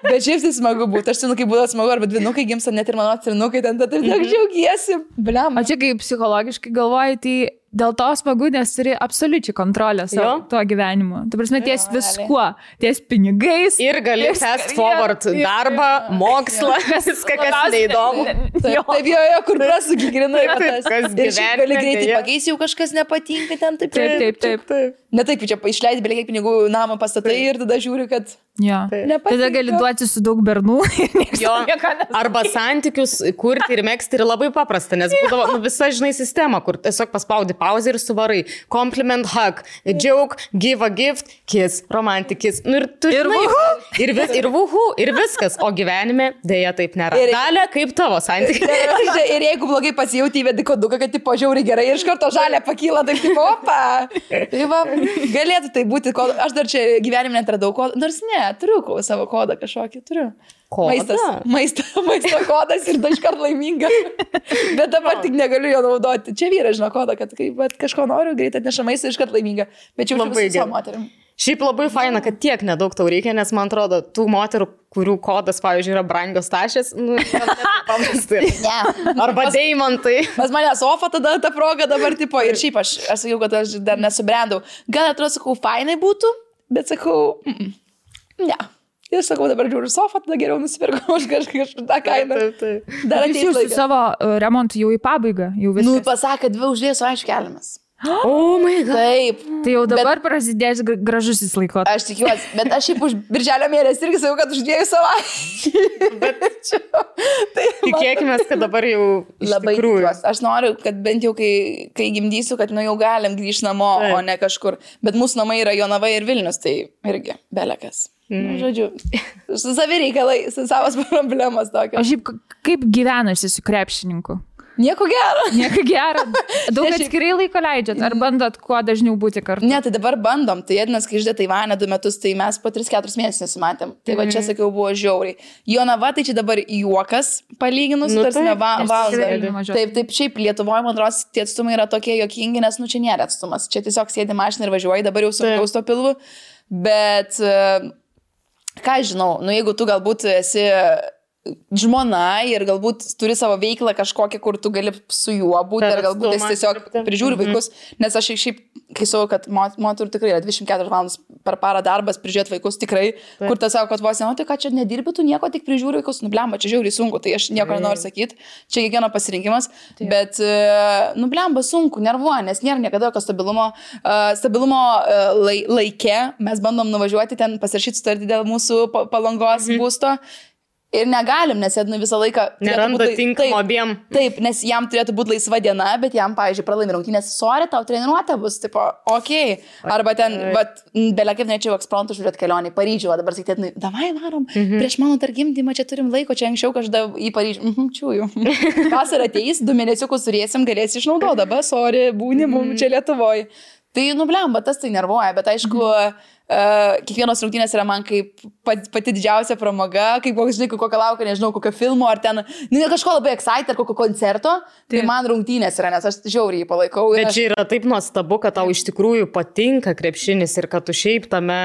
Bet šiaip tai smagu būtų. Aš žinau, kaip būtų smagu, arba dvynukai gimsta, net ir mano atsirinukai, ten tai tiek džiaugiesi. Bliam. O čia kaip psichologiškai galvoji, tai dėl to smagu, nes turi absoliučiai kontrolę savo tuo gyvenimu. Tu prasme, ties viskuo. Ties pinigais. Ir gali fast forward darbą, mokslą, viską, kas neįdomu. Taip, jo, kur prasukį grinai. Ir šiaip gali greitai pakeisti, jau kažkas nepatinka ten. Taip. Ne taip, čia išleidai belie kiek pinigų namą pastatai ir tada žiūri, kad nepatinka. Tada gali duoti su daug bernų. Arba santykius kurti ir megzti ir labai paprasta, nes būdavo visa, žinai, sistema, kur tiesiog paspaudi pauzę ir suvarai. Compliment, hug, joke, give a gift, kiss, romantic kiss. Nu, ir tu žinai, ir vuhu, ir viskas. O gyvenime dėja taip nėra. Dalia, kaip tavo santykiai? Ir jeigu blogai pasijauti, įvedi koduką, kad tipo žiauri gerai ir iš karto žalia pakyla, taip tipo, opa. Tai va, galėtų tai būti, aš dar čia gyvenime netradau kodą, nors ne, turiu savo kodą kažkokį, turiu. Maisto kodas ir iškart laiminga. Bet dabar tik negaliu jo naudoti. Čia vyras žino kodą, kad kažko noriu, greit atneša maistą ir iškart laiminga. Bet čia labai su moterim. Šiaip labai faina, kad tiek nedaug tau reikia, nes man atrodo, tų moterų, kurių kodas, pavyzdžiui, yra brangios tašės, paprastai. Arba deimantai. Pas mane sofa tada ta proga dabar tipo. Ir šiaip aš sakiau, kad aš dar nesubrendau. Gal atrodo, sakau, fainai būtų, bet sakau, ne. Ir sakau, dabar žiūriu sofą, tada geriau nusipirkau už kažką kainą. Dar ateis laikas. Su savo remontu jau į pabaigą, jau viskas. Nu, pasakė, 2 už 2 aišku keliamas. Oh my God. Taip. Tai jau dabar prasidės gražusis laikotarpis. Aš tikiuosi, bet aš šiaip už birželio mėnesį irgi sakau, kad už 2 savaičių. Bet tikėkime, kad dabar jau labai tikiuosi. Aš noriu, kad bent jau kai gimdysiu, kad jau galim grįžti namo, o ne kažkur. Bet mūsų namai yra Jonava ir Vilnius, tai irgi belekas. Nu, žodžiu, su savi reikalai, su savas problemas tokios. O šiaip kaip gyvenasi su krepšininku? Nieko gero. Nieko gero. Daug atskirai laiko leidžiat, ar bandot kuo dažniau būti kartu? Ne, tai dabar bandom. Tai Ednas, kai išdė Taivanę 2 metus, tai mes po 3-4 mėnesius nesimatėm. Tai va čia, sakiau, buvo žiauriai. Jonava, tai čia dabar juokas palyginus, tarsi valandą. Taip, šiaip Lietuvoje, man atrodo, tie atstumai yra tokie juokingi, nes nu čia nėra atstumas. Čia tiesiog sėdi mašiną ir važiuoji, dabar jau sunkiau to pilvu. Bet, ką žinau, nu jeigu tu galbūt esi žmona ir galbūt turi savo veiklą kažkokią, kur tu gali su juo būti, ar galbūt jis tiesiog prižiūri vaikus, nes aš šiaip, kai sakau, kad moterų tikrai yra 24 valandas per parą darbas, prižiūrėti vaikus tikrai, kur tas sako, kad vos, tai ką čia nedirbi, tu nieko, tik prižiūri vaikus, nublemba, čia žiauriai sunku, tai aš nieko nenoriu sakyti, čia kiekvieno pasirinkimas, bet nublemba sunku, nervuoja, nes nėra niekada jokio stabilumo laike, mes bandom nuvažiuoti ten, pasirašyti sutartį dėl mūsų Palangos būsto. Ir negalim, nes Ednui visą laiką neranda tinkamo abiem. Taip, nes jam turėtų būti laisva diena, bet jam, pavyzdžiui, pralaimi rungtynės, sorry, tau treniruotė bus, tipo, okei. Arba ten, belia kaip nečiau ekspromtu žiūrėti kelionį į Paryžių, o dabar sakyti, Ednui, davai varom, prieš mano targimdymą čia turim laiko, čia anksčiau kažkada į Paryžių. Čiūjų. Vasarą ateis, 2 mėnesiukus turėsim, galėsi išnaudoti, dabar, sorry, būni mums čia Lietuvoje. Tai nublemba, tas tai nervuoja, bet aišku, kiekvienos rungtynės yra man kaip pati didžiausia pramoga, kaip žinai, kokią laukia, nežinau, kokio filmo, ar ten kažko labai excited, ar kokio koncerto, tai man rungtynės yra, nes aš žiauriai palaikau. Bet čia yra taip nuostabu, kad tau iš tikrųjų patinka krepšinis ir kad tu šiaip tame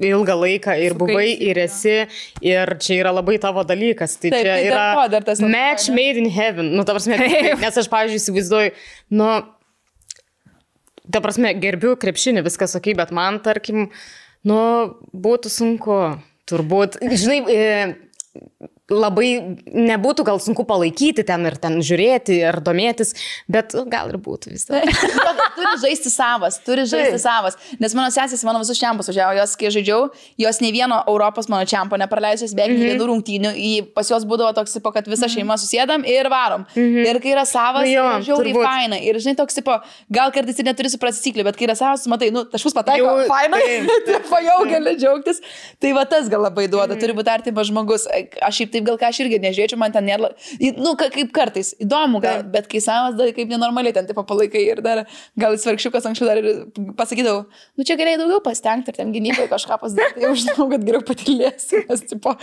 ilgą laiką ir buvai, ir esi, ir čia yra labai tavo dalykas. Tai taip, čia yra match made in heaven. Nu, ta prasme, nes aš, pavyzdžiui, įsivaizduoju, nu, ta prasme, gerbiu krepšinį, viskas okei, bet man, tarkim, nu, būtų sunku, turbūt, žinai, labai nebūtų gal sunku palaikyti ten ir ten žiūrėti ir domėtis, bet gal ir būtų vis tai. Turi žaisti savas, nes mano sesės mano visus čempus važiavo, jos, kai žaidžiau, jos nei vieno Europos mano čempo nepraleidžios, beveik nei vienų rungtynių, pas jos būdavo toks, kad visa šeima susėdam ir varom. Ir kai yra savas, žiauriai faina. Ir žinai, toks, gal kartais ir neturi suprasti taisyklių, bet kai yra savas, matai, nu, taškus pataiko, faina, jau gali džiaugtis. Tai va tas gal labai duoda, turi būti artimas žmogus. Aš šiaip taip gal ką aš irgi nežiūrėčiau, man ten nėra, nu, kaip kartais, įdomu gal, bet kai savas dar kaip nenormaliai ten tipo palaikai ir dar gal svarkščiukas anksčiau dar ir pasakydavau, nu čia galėjai daugiau pasitengti ir ten gynybai kažką pasidaryti, jau žinau, kad geriau patilėsiu, nes tipo,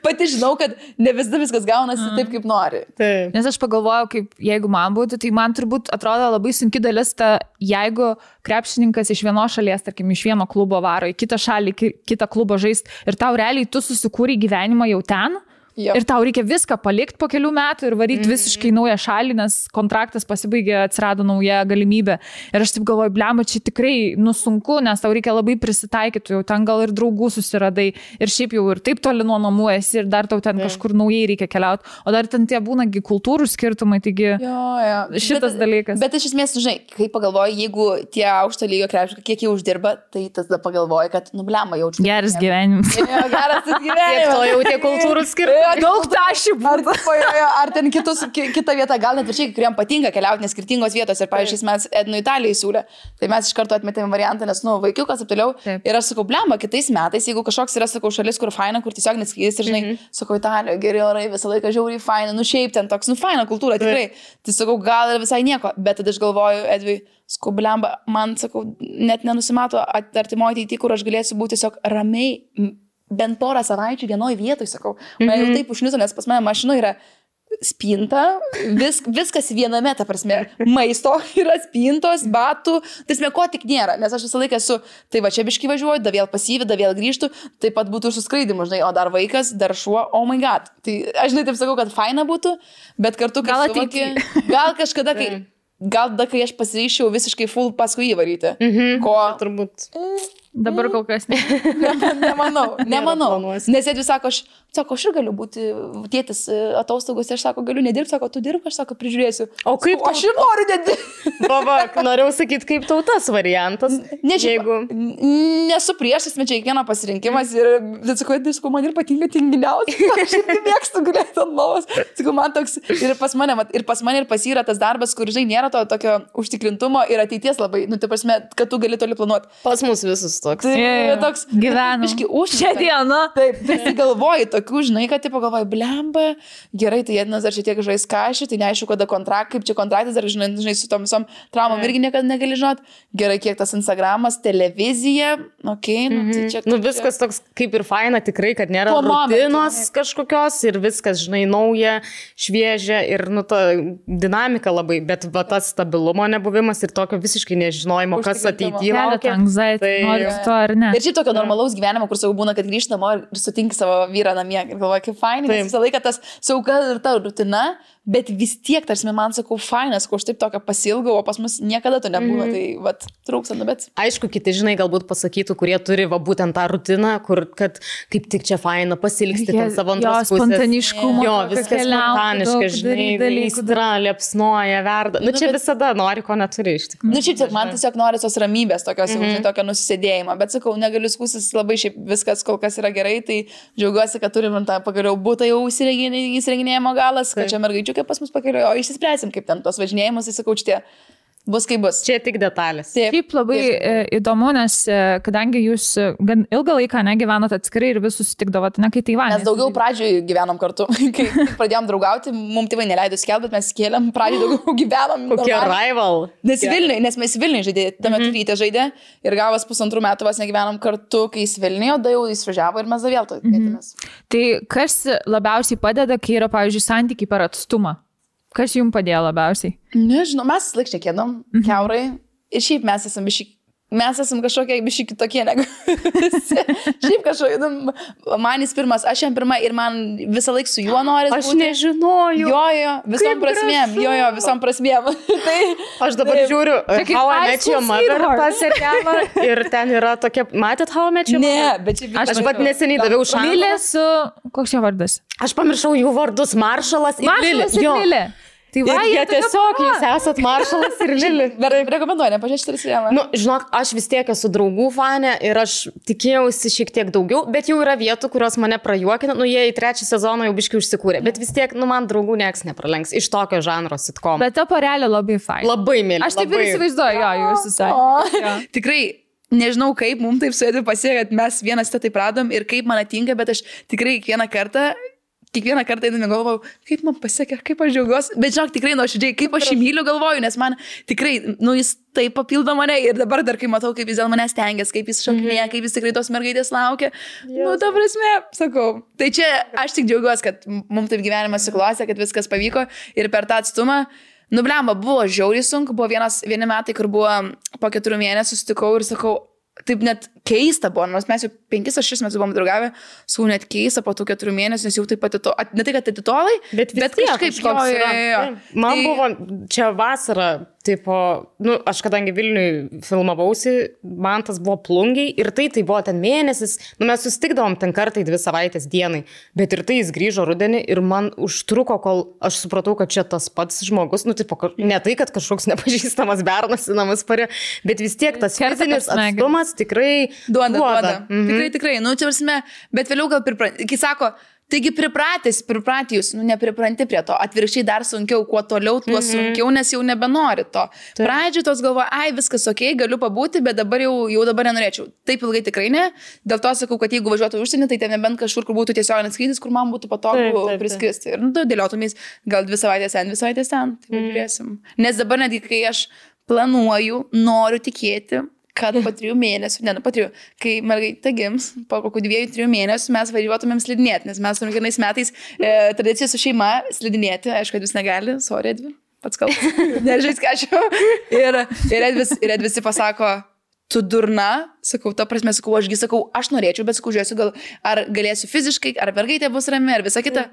pati žinau, kad ne viskas gaunasi taip, kaip nori. Taip. Nes aš pagalvojau, kaip jeigu man būtų, tai man turbūt atrodo labai sunki dalis ta, jeigu krepšininkas iš vienos šalies, tarkim, iš vieno klubo varo į kitą šalį, kitą klubą žaisti ir tau realiai tu susikūrei gyvenimą jau ten. Yep. Ir tau reikia viską palikti po kelių metų ir varyti visiškai naują šalį, nes kontraktas pasibaigė, atsirado nauja galimybė. Ir aš taip galvoju, blemba, čia tikrai sunku, nes tau reikia labai prisitaikyti, jau ten gal ir draugų susiradai ir šiaip jau ir taip toli nuo namų esi ir dar tau ten kažkur naujai reikia keliauti. O dar ten tie būnagi kultūrų skirtumai, taigi šitas dalykas. Bet iš esmės, žinai, kai pagalvoji, jeigu tie aukšto lygio krepšininkai, kiek jie uždirba, tai tada pagalvoji, kad, nu, blemba, jaučiu. Geras gyvenimas. Geras gyvenimas. Kiek to jau tie kultūrų skirtumai. Daug tašių būtų. Ar ten kita vieta, gal net viršiai, kuriem patinka keliauti nes skirtingos vietos. Ir, pavyzdžiui, mes Ednu Italijai siūlė. Tai mes iš karto atmetėme variantą, nes, nu, vaikiukas ir toliau. Ir aš sakau, blemba, kitais metais, jeigu kažkoks yra, sakau, šalis, kur faina, kur tiesiog neskydys ir, žinai, sakau, Italijoje geri orai, visą laiką žiauriai faina, nu šiaip ten toks, nu, faina kultūra, tikrai. Tai sakau, gal ir visai nieko. Bet tada aš galvoju, Edvi, sakau, blemba, man, sakau, net nenusimato artimoje ateityje, kur aš galėsiu būti tiesiog ramiai. Bent porą savaičių vienoje vietoje, sakau. Man jau taip užniuso, nes pas mane mašinoje yra spinta, viskas viename, ta prasme, maisto yra spintos, batų, tai ko tik nėra, nes aš visą laiką esu, tai va čia biškai važiuoju, da vėl pasyvi, da vėl grįžtu, taip pat būtų ir suskraidimu, žinai, o dar vaikas, dar šuo, oh my god. Tai aš žinai taip sakau, kad faina būtų, bet kartu, gal ateity. Gal kažkada, kai aš pasiryščiau visiškai full paskui įvaryti. Ko turbūt. Dabar kol kas nemanau. Nes jie sako, aš ir galiu būti tėtis atostogos, aš sako, galiu nedirbti, sako, tu dirbi, aš sako, prižiūrėsiu. O kaip aš ir noriu nedirbti. Baba, norėjau sakyti, kaip tau tas variantas. Nesu priešas, bet čia kiekvieno pasirinkimas ir sakau, man ir patinka tinginiausiai. Aš irgi mėgstu gulėti ant lovos. Sakau, man toks ir pas mane ir pas yra tas darbas, kur, žinai, nėra to tokio užtikrintumo ir ateities labai, nu, tai prasme, kad tu gali toli planuoti. Pas mus visus toks. Toks gyvenam. Už šią dieną. Taip, visi galvoji tokių, žinai, kad tipo galvoji, blemba, gerai, tai Ednas dar šiek tiek žais kažį, tai neaišku, kaip čia kontraktas, ar žinai, su tom visom traumom irgi niekada negali žinoti. Gerai, kiek tas Instagramas, televizija, okei, tai čia. Nu, viskas toks kaip ir faina, tikrai, kad nėra rutinos kažkokios ir viskas, žinai, nauja, šviežia ir, nu, ta dinamika labai, bet va tas stabilumo nebuvimas ir tokio visiškai nežinojimo, kas ateityje laukia. To, ar ne? Ir šiaip tokio normalaus gyvenimo, kur savo būna, kad grįžti namo ir sutinki savo vyrą namie ir galvoja, kaip fainai, nes visą laiką tas sauga ir ta rutina, bet vis tiek, tarsi man sakau, fainas, ko aš taip tokio pasilgau, o pas mus niekada to nebūna, tai vat, trūksta, nu bet. Aišku, kiti, žinai, galbūt pasakytų, kurie turi va būtent tą rutiną, kur, kad kaip tik čia faina pasilgsti ten savo antros pusės. Spontaniškumo. Jo, viskas spontaniška, žinai, aistra, liepsnoja, verda. Nu, čia visada nori, ko neturi iš tikrųjų. Nu, šiaip man tiesiog nori tos ramybės, tokios, tokio nusisėdėjimo, bet sakau, negaliu skūstis, labai šiaip viskas kol kas yra gerai, tai džiaugiuosi, kad turim tą pagaliau būtą jau įsirenginėjimo galas, kad čia mergaičių kaip pas mus pakeliu, o išsispręsim, kaip ten tos važinėjimus, tai sakau, šitie bus kaip bus. Čia tik detalės. Taip labai įdomu, nes kadangi jūs gan ilgą laiką negyvenot atskirai ir vis susitikdavot, ne, kai Taivane. Mes daugiau pradžioj gyvenom kartu, kai pradėjom draugauti, mums tėvai neleido skelbti, bet mes kėlėm, pradžioj daugiau gyvenom. Kokie rival. Nes mes Vilniuje žaidė, tame Ryte žaidė ir gavas 1,5 metų vos negyvenom kartu, kai jis Vilniuje, o da jau jis važiavo ir mes da vėl to vietėmės. Tai kas labiausiai padeda, kai yra, pavyzdžiui, santykiai per atstumą? Kas jums padėjo labiausiai? Nežinau, mes laik šnekėdom, kiaurai. Ir šiaip mes esam kažkokie biški kitokie negu visi. Šiaip kažkokie, man jis pirmas, aš jam pirma ir man visą laiką su juo noris būti. Aš nežinojau. Jo, visom prasmėm. Visom prasmėm. Tai aš dabar žiūriu How I Met Your Mother tą serialą ir ten yra tokia, matėt How I Met Your Mother? Ne, bet čia aš pat neseniai daviau šansą. Lilė su, koks jo vardas? Aš pamiršau jų vardus, Maršalas ir Lilė. Tai va, jie tiesiog, jūs esat Maršalas ir Lili. Rekomenduoju, nepažiūrėti serialą. Nu, žinok, aš vis tiek esu draugų fanė ir aš tikėjausi šiek tiek daugiau, bet jau yra vietų, kurios mane prajuokina. Nu, jie į 3 sezoną jau biškai užsikūrė, bet vis tiek, nu, man draugų nieks nepralenks iš tokio žanro sitcom. Bet ta porelė labai fain. Labai mėly. Aš taip ir įsivaizduoju, jo, jūs visai. Tikrai. Nežinau, kaip mums taip suėdė pasiekė, kad mes vienas tą taip radom ir kaip man atinka, bet aš tikrai kiekvieną kartą kiekvieną kartą einame galvoju, kaip man pasiekė, kaip aš džiaugiuosi, bet žinok, tikrai nuoširdžiai, kaip aš jį myliu galvoju, nes man tikrai, jis taip papildo mane ir dabar dar kai matau, kaip jis dėl manęs stengiasi, kaip jis šokinėja, kaip jis tikrai tos mergaitės laukia, ta prasme, sakau. Tai čia aš tik džiaugiuosi, kad mums taip gyvenimas suklostė, kad viskas pavyko ir per tą atstumą, blemba, buvo žiauriai sunku, buvo vieni metai, kur buvo po 4 mėnesių sutikau ir sakau, taip net keista buvo, nors mes jau 5 ar 6 metus buvom draugavę, sakau, net keista po tų 4 mėnesių, nes jau taip pat, ne tai, kad atitolai, bet kažkaip Man buvo čia vasara, tipo, aš kadangi Vilniui filmavausi, man tas buvo Plungiai ir tai buvo ten mėnesis, mes susitikdavom ten kartą 2 savaitės dienai, bet ir tai jis grįžo rudenį ir man užtruko, kol aš supratau, kad čia tas pats žmogus, tipo, ne tai, kad kažkoks nepažįstamas bernas į namus parė, bet vis tiek tas fizinis atstumas tikrai duoda. Tikrai, čia prasme, bet vėliau gal kai sako, taigi pripratę jūs, nepripranti prie to, atvirkščiai dar sunkiau, kuo toliau, tuo sunkiau, nes jau nebenori to. Pradžiai tos galvoja, viskas ok, galiu pabūti, bet dabar jau dabar nenorėčiau. Taip ilgai tikrai ne, dėl to sakau, kad jeigu važiuotų užsienį, tai ten nebent kažkur, kur būtų tiesioginis skrydis, kur man būtų patogu priskristi. Ir dėliotumės gal 2 savaitės ten, 2 savaitės ten, tai žiūrėsim. Nes dabar netgi, kai aš planuoju, noriu tikėti, kad po 3 mėnesių, kai mergaitė gims, po kokių 2-3 mėnesių mes važiuotumėm slidinėti, nes mes turim kiekvienais metais tradiciją su šeima slidinėti, aišku, kad jūs negali, sorry, Edvi, pats kalbas, nežais ką aš jau. Ir Edvisi pasako, tu durna, sakau, ta prasme, sakau, aš norėčiau, bet sakau, žiūrėsiu, gal ar galėsiu fiziškai, ar mergaitė bus rami, ar visa kita.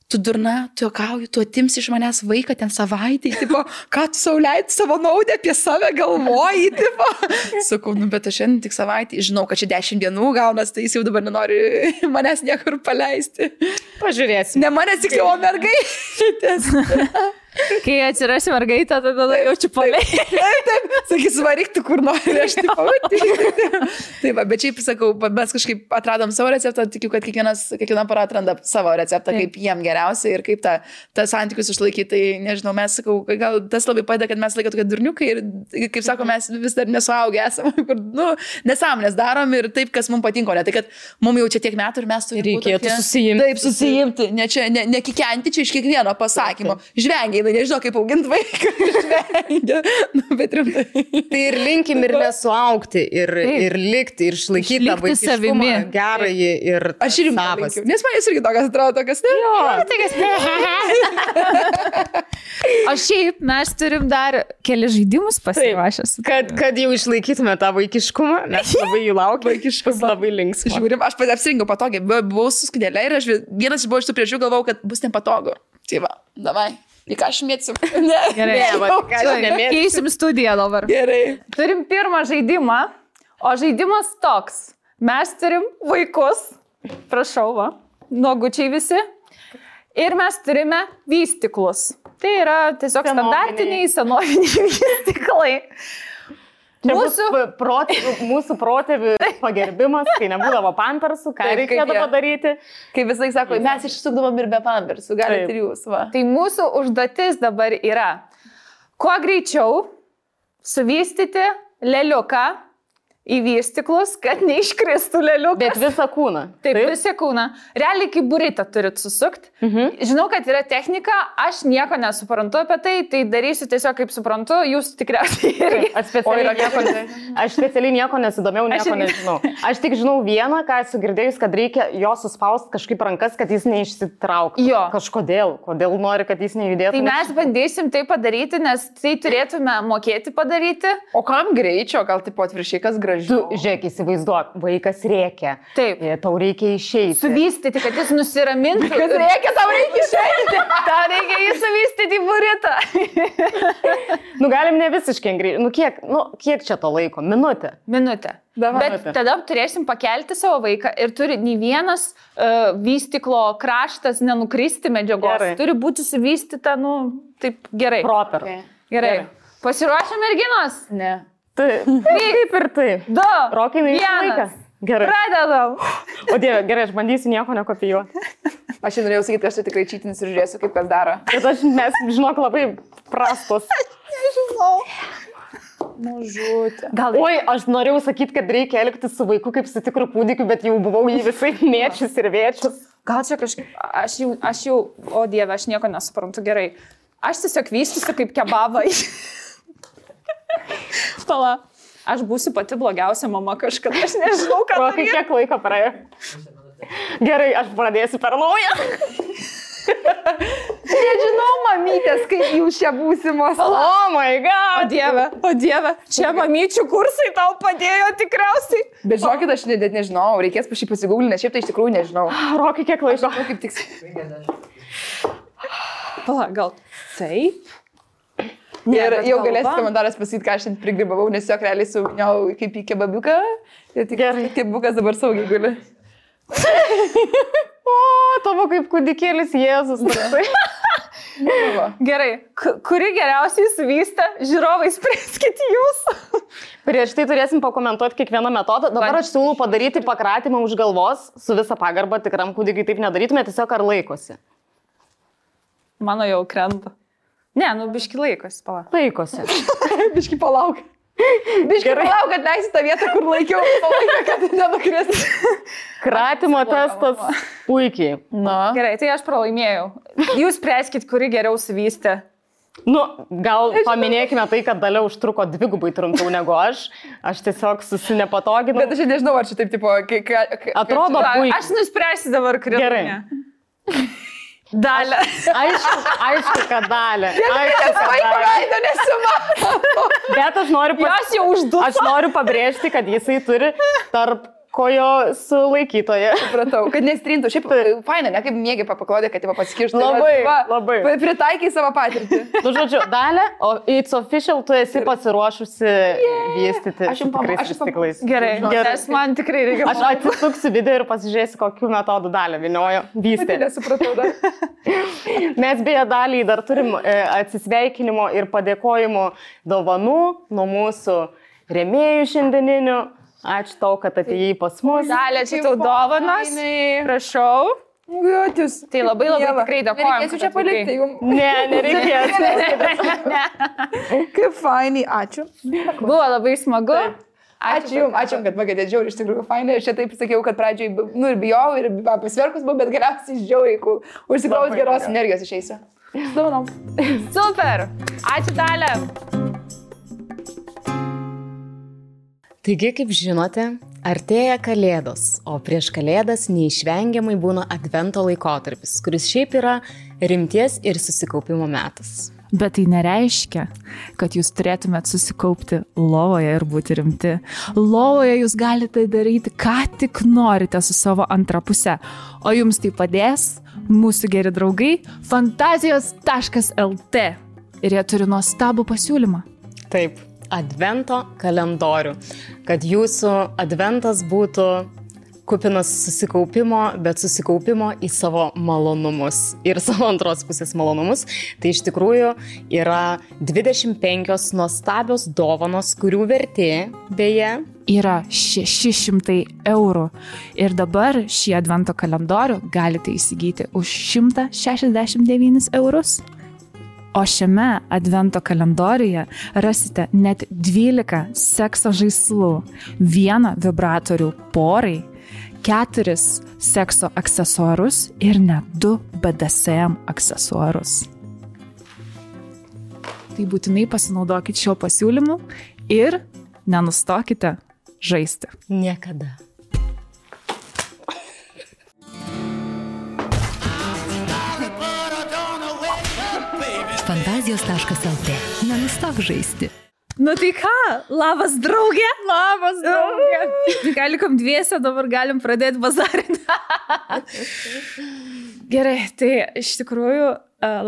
Tu durna, tu juokauji, tu atimsi iš manęs vaiką ten savaitę, tipo, ką tu sau leidži savo naudą apie save galvoji, tipo. Sakau, bet aš šiandien tik savaitę, žinau, kad čia 10 dienų gaunas, tai jis jau dabar nenori manęs niekur paleisti. Pažiūrėsim. Ne manęs tik jau mergaitės. Kai atsirasi mergaitę, tada jaučiu paleidžiu. Taip, sakys, varyk tu kur nori, aš taip, bet šiaip sakau, mes kažkaip atradom savo receptą, tikiu, kad kiekviena para atranda savo receptą, kaip jiem geriausia ir kaip tą santykius išlaikyti. Tai nežinau, mes sakau, gal tas labai padeda, kad mes laiką tokie durniukai ir, kaip sako, mes vis dar nesuaugę esame, kur, nesąmonės darom ir taip, kas mums patinko, ne tai, kad mums jau čia tiek metų ir mes turime reikėtų susijimti. Taip, susijimti, ne kikenti čia iš kiekvieno pasakymo. Žvengiai, nežinau, kaip auginti vaiką, žvengia, bet rimtai. Tai ir linkim ir nesuaugti, ir likti, ir išlaikyti tą vaikiškumą gerąjį ir aš ir linkiu, nes man jis irgi tokias atrodo, tokias ne. O šiaip mes turim dar keli žaidimus pasiruošęs. Kad jau išlaikytume tą vaikiškumą, mes labai jų laukiam, vaikiškus labai linksmas. Žiūrim, aš apsirinkiau patogiai, buvau su skudėlė ir vienas buvo iš tų priežių galvojau, kad bus nepatogu. Tai va, davai. Į ką aš mėtsim? Gerai, keisim studiją dabar. Gerai. Turim pirmą žaidimą, o žaidimas toks. Mes turim vaikus, prašau, va, nuogučiai visi, ir mes turime vystiklus. Tai yra tiesiog standartiniai, senoviniai vystiklai. Mūsų protėvių pagerbimas, kai nebūdavo pampersų, ką reikėtų padaryti. Kaip visai sako, mes išsukdavom ir be pampersų, galite ir jūs. Va. Tai mūsų užduotis dabar yra, kuo greičiau suvystyti leliuką į vystiklus, kad neiškristų leliukas. Bet visą kūną. Taip, visą kūną. Realiai kaip buritą turit susukti. Žinau, kad yra technika, aš nieko nesuprantu apie tai, tai darysiu tiesiog kaip suprantu, jūs tikriausiai irgi. Aš specialiai nieko nesidomėjau, nieko nežinau. Aš tik žinau vieną, ką esu girdėjus, kad reikia jo suspausti kažkaip rankas, kad jis neišsitrauktų. Jo. Kodėl nori, kad jis nejudėtų. Tai mes bandysim tai padaryti, nes tai turėtume mokėti padaryti. O kam greičio, gal taip atviršiai, kas gražiai? Tu, žiūrėk, įsivaizduok, vaikas rėkia. Taip. Tau reikia išeiti. Suvystyti, kad jis nusiramintų. Kas reikia, tau reikia išeiti. Tau reikia jį suvystyti į buritą. Galim ne visiškai greitai. Kiek čia to laiko? Minutę. Bet tada turėsim pakelti savo vaiką ir turi nei vienas vystiklo kraštas nenukristi medžiagos. Gerai. Turi būti suvystyta, taip gerai. Proper. Gerai. Pasiruošę merginos? Ne. Taip ir taip. 2, Rokai, 1. Gerai. Pradedam. O Dieve, gerai, aš bandysiu nieko nekopijuoti. Aš norėjau sakyti, kad aš tikrai čytins ir žiūrėsiu, kaip kas daro. Bet mes, žinok, labai prastos. Nežinau. Mažutė. Oi, aš norėjau sakyti, kad reikia elgtis su vaiku kaip su tikru kūdikiu, bet jau buvau jį visai mėčius ir vėčius. Gal čia kažkaip, aš jau, o Dieve, aš nieko nesuprantu gerai. Aš tiesiog vystysiu kaip kebabai. Pala, aš būsiu pati blogiausia mama kažkada, aš nežinau, ką. Rokai, kiek laiko praėjo? Gerai, aš pradėsiu per naują. Nežinau, mamytės, kaip jūs čia būsimos. Oh my god. O Dieve, čia mamyčių kursai tau padėjo tikriausiai. Bet žinokit, aš net nežinau, reikės pašį pasigūglinti, nes šiaip tai iš tikrųjų nežinau. Rokai, kiek laiko? Kaip tik. Pala, gal taip? Ir jau galėsit komentaras pasakyti, ką aš šiandien prigribavau, nes jo realiai suviniau kaip į kebabiuką. Ir tik kebabiukas dabar saugiai guli. O, tavo kaip kūdikėlis Jėzus. Gerai, kuri geriausiai suvystė, žiūrovai spręskit jūs. Prieš tai turėsim pakomentuoti kiekvieną metodą. Dabar aš siūlau padaryti pakratymą už galvos, su visa pagarba tikram kūdikiui taip nedarytume, tiesiog ar laikosi. Mano jau krenta. Ne, biški laikosi, palauk. Laikosi. Biški palauk. Biški palauk, kad leisi tą vietą, kur laikiau palaiką, kad nenukris. Kratimo testas puikiai. Na. Gerai, tai aš pralaimėjau. Jūs spręskit, kuri geriau suvystė. Gal paminėkime tai, kad Dalia užtruko dvigubai trumpiau negu aš. Aš tiesiog susinepatoginau. Bet aš nežinau, ar čia taip tipo... Atrodo puikiai. Aš nuspręsiu dabar kritinę. Gerai. Dalia. Aišku, kad Dalia. Bet aš noriu pabrėžti, kad jisai turi tarp kojo sulaikytoje. Supratau, kad nestrintų. Šiaip faina, ne kaip mėgiai papaklodė, kad paskirštų. Labai. Pritaikai savo patirtį. Žodžiu, Dalia, it's official, tu esi pasiruošusi vystyti tikrais stiklais. Gerai, nes man tikrai reikia. Aš atsisuksiu video ir pasižiūrėsiu, kokiu metodu Dalia viniojo vystyti. Nesupratau dar. Mes beje Daliai dar turim atsisveikinimo ir padėkojimo dovanų nuo mūsų rėmėjų šiandieninių. Ačiū tau, kad atėjai pas mus. Dalia, čia tau dovanos. Prašau. Gautis. Tai labai tikrai dėkojom. Nereikėsiu čia palikti jums. Ne, nereikės. Kaip fainai, ačiū. Buvo labai smagu. Ačiū jums, kad pagadėt žiauriai, iš tikrųjų fainai. Aš čia taip sakiau, kad pradžiai, ir bijau, ir pasverkus buvau, bet galiausiai žiauriai, kur užsikraus geros energijos išeisiu. Dovanom. Super. Ačiū, Dalia. Taigi, kaip žinote, artėja Kalėdos, o prieš Kalėdas neišvengiamai būna advento laikotarpis, kuris šiaip yra rimties ir susikaupimo metas. Bet tai nereiškia, kad jūs turėtumėt susikaupti lovoje ir būti rimti. Lovoje jūs galite daryti, ką tik norite su savo antra puse, o jums tai padės mūsų geri draugai fantazijos.lt ir jie turi nuostabų pasiūlymą. Taip. Advento kalendorių, kad jūsų adventas būtų kupinas susikaupimo, bet susikaupimo į savo malonumus ir savo antros pusės malonumus. Tai iš tikrųjų yra 25 nuostabios dovanos, kurių vertė beje yra 600 eurų. Ir dabar šį advento kalendorių galite įsigyti už 169 eurus. O šiame advento kalendoriuje rasite net 12 sekso žaislų, 1 vibratorių porai, 4 sekso aksesuarus ir net 2 BDSM aksesuarus. Tai būtinai pasinaudokite šio pasiūlymu ir nenustokite žaisti. Niekada. Fantazijos.lt. Nenustok žaisti. Nu tai ką, labas draugė. Labas draugė. Gal likom dviese, dabar galim pradėti bazarinę. Gerai, tai iš tikrųjų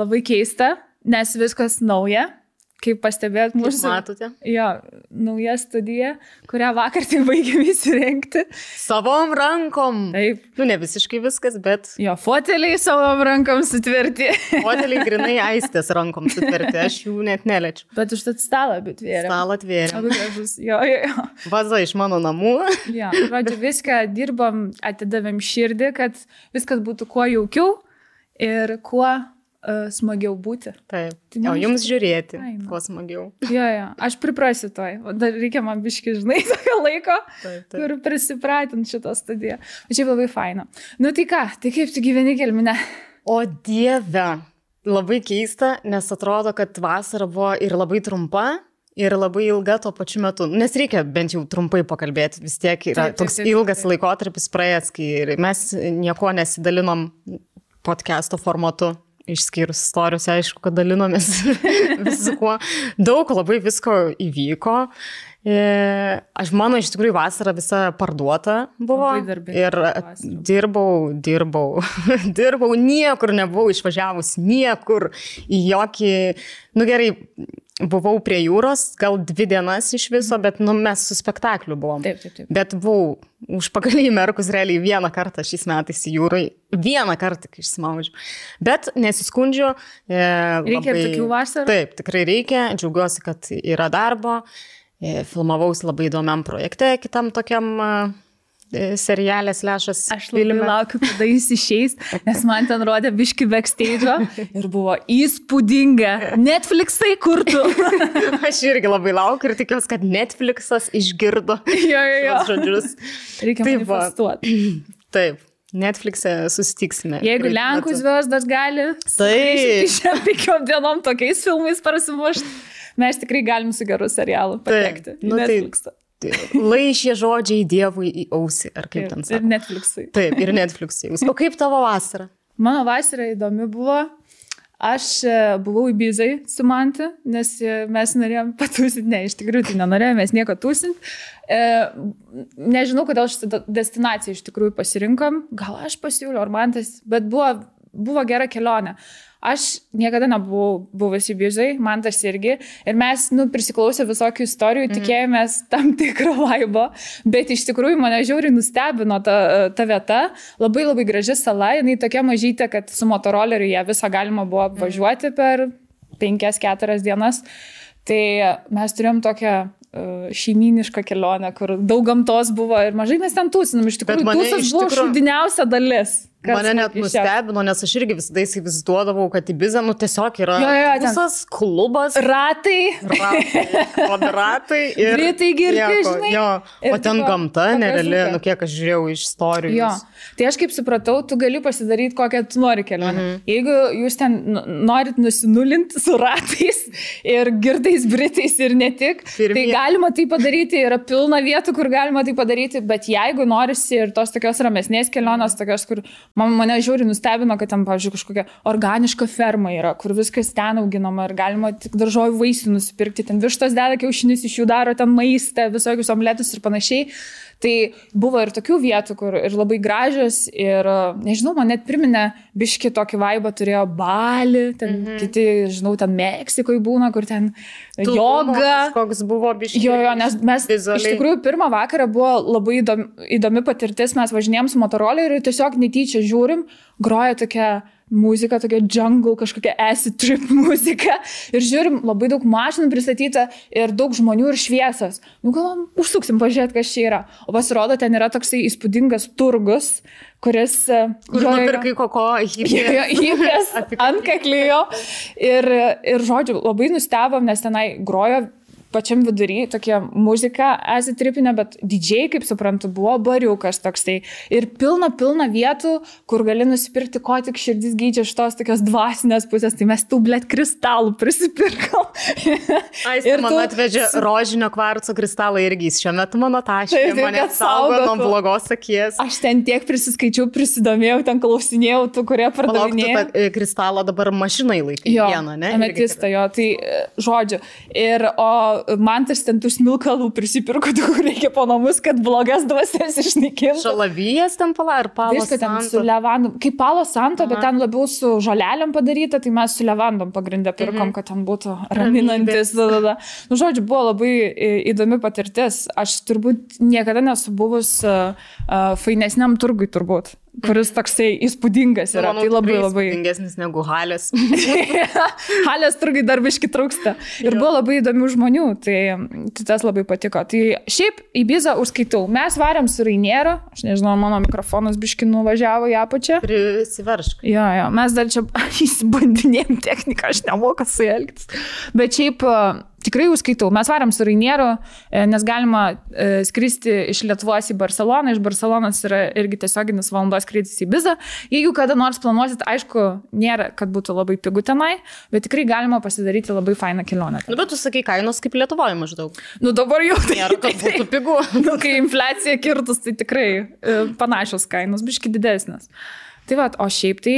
labai keista, nes viskas nauja. Kaip pastebėt mūsų... Matote? Jo, nauja studija, kurią vakar tik baigėm įsirengti. Savom rankom. Taip. Ne visiškai viskas, bet... Jo, foteliai savom rankom sutverti. Foteliai grinai Aistės rankom sutverti, aš jų net neliečiu. Bet užtat stalą atvėrėm. Stalą atvėrėm. Labai gražus. Jo. Vaza iš mano namų. Jo, žodžiu, viską dirbom, atidavėm širdį, kad viskas būtų kuo jaukiau ir kuo smagiau būti. Taip. O jums žiūrėti, kuo smagiau. Jo, aš priprasiu toj. Dar reikia man biški, žinai, tokio laiko, kur prisipratinti šitą studiją. Šiaip labai faina. Nu tai ką, tai kaip tu gyveni Kelmine? O Dieve, labai keista, nes atrodo, kad vasara buvo ir labai trumpa, ir labai ilga tuo pačiu metu. Nes reikia bent jau trumpai pakalbėti. Vis tiek yra toks ilgas laikotarpis praėjęs, kai mes nieko nesidalinom podcast'o formatu. Išskyrus istorijos, aišku, kad dalinomės viskuo. Daug labai visko įvyko. Mano iš tikrųjų vasara visa parduota buvo. Ir dirbau, niekur nebuvau išvažiavus, niekur į jokį, gerai, buvau prie jūros, gal 2 dienas iš viso, bet mes su spektakliu buvom. Taip. Bet buvau užpakalį įmerkus realiai 1 kartą šiais metais į jūrai. 1 kartą, kai išsimaudžiu. Bet nesiskundžiu. Reikia ir tokių vasarų? Taip, tikrai reikia. Džiaugiuosi, kad yra darbo. Filmavausi labai įdomiam projekte, kitam tokiam serialės lešas. Aš labai laukiu, kada jis išeis, nes man ten rodė biški backstage'o ir buvo įspūdinga. Netflixai kurtų. Aš irgi labai laukiu ir tikiuosi, kad Netflixas išgirdo šios žodžius. Reikia manifestuoti. Taip. Netflix'e susitiksime. Jeigu Lenkų zvezdas gali, šiam 5 dienom tokiais filmais prasimušti, mes tikrai galim su geru serialu patekti. Netflix'ą. Laišė žodžiai Dievui į ausį, ar kaip ten sako. Ir Netflix'ui. Taip, ir Netflix'ui. O kaip tavo vasara? Mano vasara įdomi buvo. Aš buvau Ibizai su Mante, nes mes norėjom patūsinti. Ne, iš tikrųjų tai nenorėjom, mes nieko tūsinti. Nežinau, kodėl šitą destinaciją iš tikrųjų pasirinkom. Gal aš pasiūliau, ar Mantas, bet buvo gera kelionė. Aš niekada nebuvau buvęs Ibizai, Mantas irgi, ir mes, prisiklausę visokių istorijų, tikėjomės tam tikro vaibo, bet iš tikrųjų mane žiauriai nustebino ta vieta, labai labai graži sala, jinai tokia mažytė, kad su motoroleriu ją visą galima buvo apvažiuoti per 5-4 dienas, tai mes turėjom tokią šeimynišką kelionę, kur daug gamtos buvo ir mažai mes ten tūsinom, iš tikrųjų tūsas buvo šūdiniausia dalis. Mane net nustebino, nes aš irgi visada įsivaizduodavau, kad Ibiza, tiesiog yra visas klubas. Ratai. Kvadratai. Britai girti, žinai. O ten gamta nereali, kiek aš žiūrėjau iš istorijų. Tai aš kaip supratau, tu gali pasidaryti kokią tu nori kelionę. Jeigu jūs ten norit nusinulinti su ratais ir girtais Britais ir ne tik, tai galima tai padaryti, yra pilna vietų, kur galima tai padaryti, bet jeigu norisi ir tos tokios ramesnės kelionės, tokios, kur mane žiauriai nustebino, kad ten, pavyzdžiui, kažkokia organiška ferma yra, kur viskas ten auginama ir galima tik daržovių vaisių nusipirkti, ten vištos deda kiaušinius, iš jų daro ten maistą, visokius omletus ir panašiai. Tai buvo ir tokių vietų, kur ir labai gražios ir, nežinau, man net priminė biški tokį vaibą turėjo Balį, ten kiti, žinau, ten Meksikoje būna, kur ten joga. Koks buvo biški. Nes mes iš tikrųjų pirmą vakarą buvo labai įdomi patirtis, mes važinėjom su motoroleriu ir tiesiog netyčia žiūrim, groja tokia muzika, tokia jungle, kažkokia acid trip muzika ir žiūrim, labai daug mašinų pristatyta ir daug žmonių ir šviesas. Galvom, užsuksim pažiūrėti, kas čia yra. O pasirodo, ten yra toksai įspūdingas turgus, kuris... Kur nupirkai koko hipės ant kaklijo. Ir žodžiu, labai nustebom, nes tenai grojo pačiam vidury tokia muzika asitripinė, bet DJ, kaip suprantu, buvo bariukas toksai. Ir pilna vietų, kur gali nusipirkti, ko tik širdis geidžia iš tos tokios dvasinės pusės. Tai mes tų, kristalų prisipirkom. Ir man atvežė rožinio kvarco kristalą irgi. Šiuo metu mano taškė mane saugo nuo blogos akies. Aš ten tiek prisiskaičiau, prisidomėjau, ten klausinėjau tų, kurie pardavinėjo. Palauk, tu kristalą dabar mašinai laikai vieną, ne? Ametistą, tai žodžiu. Ir Mantas ten tų smilkalų prisipirko, kur reikia po namus, kad blogas dvasias išnaikintų. Šalavijas ten ir palo santo. Ten su levandom. Kaip palo santo, bet ten labiau su žolelėm padaryta, tai mes su levandom pagrindę pirkom, kad ten būtų raminantis. Žodžiu, buvo labai įdomi patirtis. Aš turbūt niekada nesu buvus fainesniam turgui turbūt. kuris toksai įspūdingas yra. Manau, tai labai įspūdingesnis negu Halės. Halės turgai dar biški trūksta. Ir buvo labai įdomių žmonių, tai tas labai patiko. Tai šiaip į Ibizą užskaitau. Mes varėm su Rainiero, aš nežinau, mano mikrofonas biški nuvažiavo į apačią. Prisiveršk. Jo, mes dar čia įsibandinėjom techniką, aš nemoku su elgtis. Bet šiaip tikrai užskaitau. Mes varėm su Rainiero, nes galima skristi iš Lietuvos į Barceloną. Iš Barcelonos yra irgi tiesioginis valandos skrydis į Ibizą. Jeigu kada nors planuosit, aišku, nėra, kad būtų labai pigu tenai, bet tikrai galima pasidaryti labai fainą kelionę. Nu, bet tu sakai, kainos kaip Lietuvoje maždaug. Nu, dabar jau tai nėra, kad būtų pigu. Nu, kai infliacija kirtus, tai tikrai panašios kainos, biški didesnės. Tai va, o šiaip tai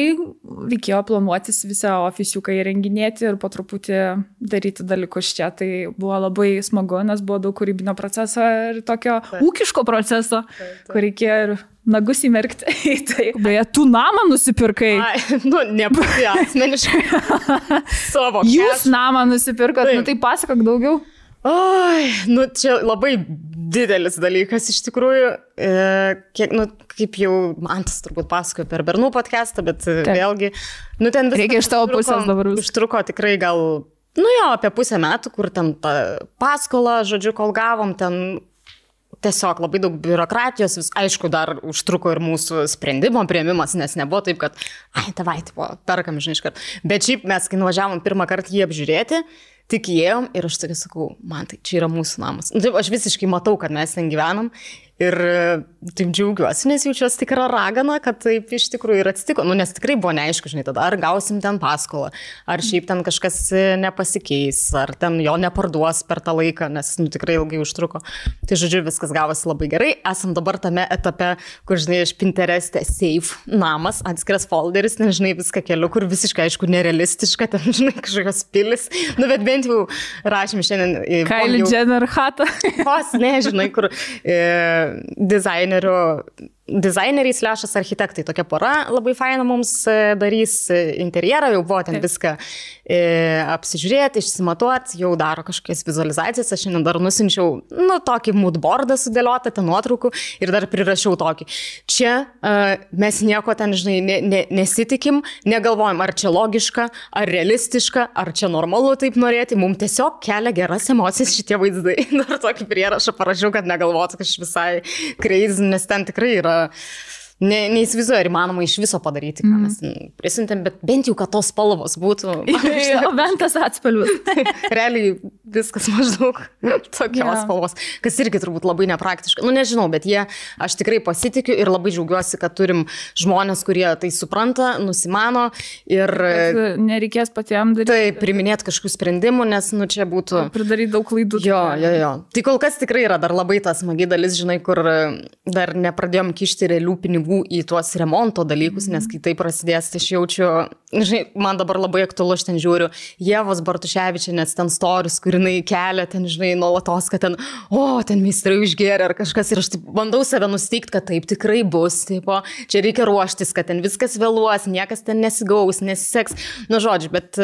reikėjo planuotis visą ofisiuką įrenginėti ir po truputį daryti dalykus čia. Tai buvo labai smagu, nes buvo daug kūrybinio proceso ir tokio ūkiško proceso, kur reikėjo ir nagus įmerkti. Tai, beje, tu namą nusipirkai. Nu, nebūti asmeniškai. Savo. Jūs namą nusipirkot, nu tai pasakok daugiau. Oi, nu čia labai didelis dalykas iš tikrųjų, kiek, nu, kaip jau Mantas turbūt pasakojo per Bernų podcastą, bet vėlgi, nu ten viskas. Reikia iš tavo pusės dabar. Užtruko tikrai gal, nu jo, apie pusę metų, kur ten tą paskolą, žodžiu, kol gavom, ten tiesiog labai daug biurokratijos, vis, aišku, dar užtruko ir mūsų sprendimo priėmimas, nes nebuvo taip, kad, tavai, tipo, perkam, žinai, iškart. Bet šiaip mes, kai nuvažiavom pirmą kartą jį apžiūrėti, tik įėjom ir aš tokia sakau, man tai čia yra mūsų namas. Taip, aš visiškai matau, kad mes ten gyvenam ir taip džiaugiuosi, nes jaučiuosi tikra ragana, kad taip iš tikrųjų ir atsitiko. Nu, nes tikrai buvo neaišku, žinai, tada ar gausim ten paskolą, ar šiaip ten kažkas nepasikeis, ar ten jo neparduos per tą laiką, nes nu, tikrai ilgai užtruko. Tai žodžiu, viskas gavosi labai gerai. Esam dabar tame etape, kur, žinai, iš Pinterest'e save namas, atskiras folderis, nežinai, viską keliu, kur visiškai, aišku, nerealistiška, ten, žinai, kažkokios pilis. Nu, bet bent jau rašym šiandien. Kylie Jenner hatą. Vos, nežinai, kur dizaineriai / architektai. Tokia pora labai faina mums darys interjerą, jau buvo ten viską apsižiūrėti, išsimatuoti, jau daro kažkokias vizualizacijas. Aš šiandien dar nusinčiau, nu, tokį moodboardą sudėliotą, ten nuotraukų ir dar prirašiau tokį. Čia mes nieko ten, žinai, nesitikim, negalvojam, ar čia logiška, ar realistiška, ar čia normalu taip norėti. Mums tiesiog kelia geras emocijas šitie vaizdai. Dar tokį prierašą parašiau, kad negalvotų, kad aš visai crazy, nes ten tikrai yra neįsivaizduoju, ar įmanoma iš viso padaryti, ką mes prisintėm, bet bent jau, kad tos spalvos būtų. O bent tas atspalvis. Realiai viskas maždaug tokios spalvos, kas irgi turbūt labai nepraktiška. Nu, nežinau, bet aš tikrai pasitikiu ir labai džiaugiuosi, kad turim žmonės, kurie tai supranta, nusimano ir nereikės patiems daryti. Tai priminėti kažkokių sprendimų, nes, nu, čia būtų pridaryti daug klaidų. Jo. Tai kol kas tikrai yra dar labai tas smagi dalis, žinai, kur dar nepradėjom kišti realių pinigų į tuos remonto dalykus, nes kai tai prasidės, tai aš jaučiu, žinai, man dabar labai aktualu, aš ten žiūriu Ievos Bartuševičienės ten stories, kur jinai kelia ten, žinai, nuolatos, kad ten, ten meistrai išgėrė ar kažkas ir aš taip bandau save nusteikti, kad taip tikrai bus, tipo, čia reikia ruoštis, kad ten viskas vėluos, niekas ten nesigaus, nesiseks, nu žodžiu, bet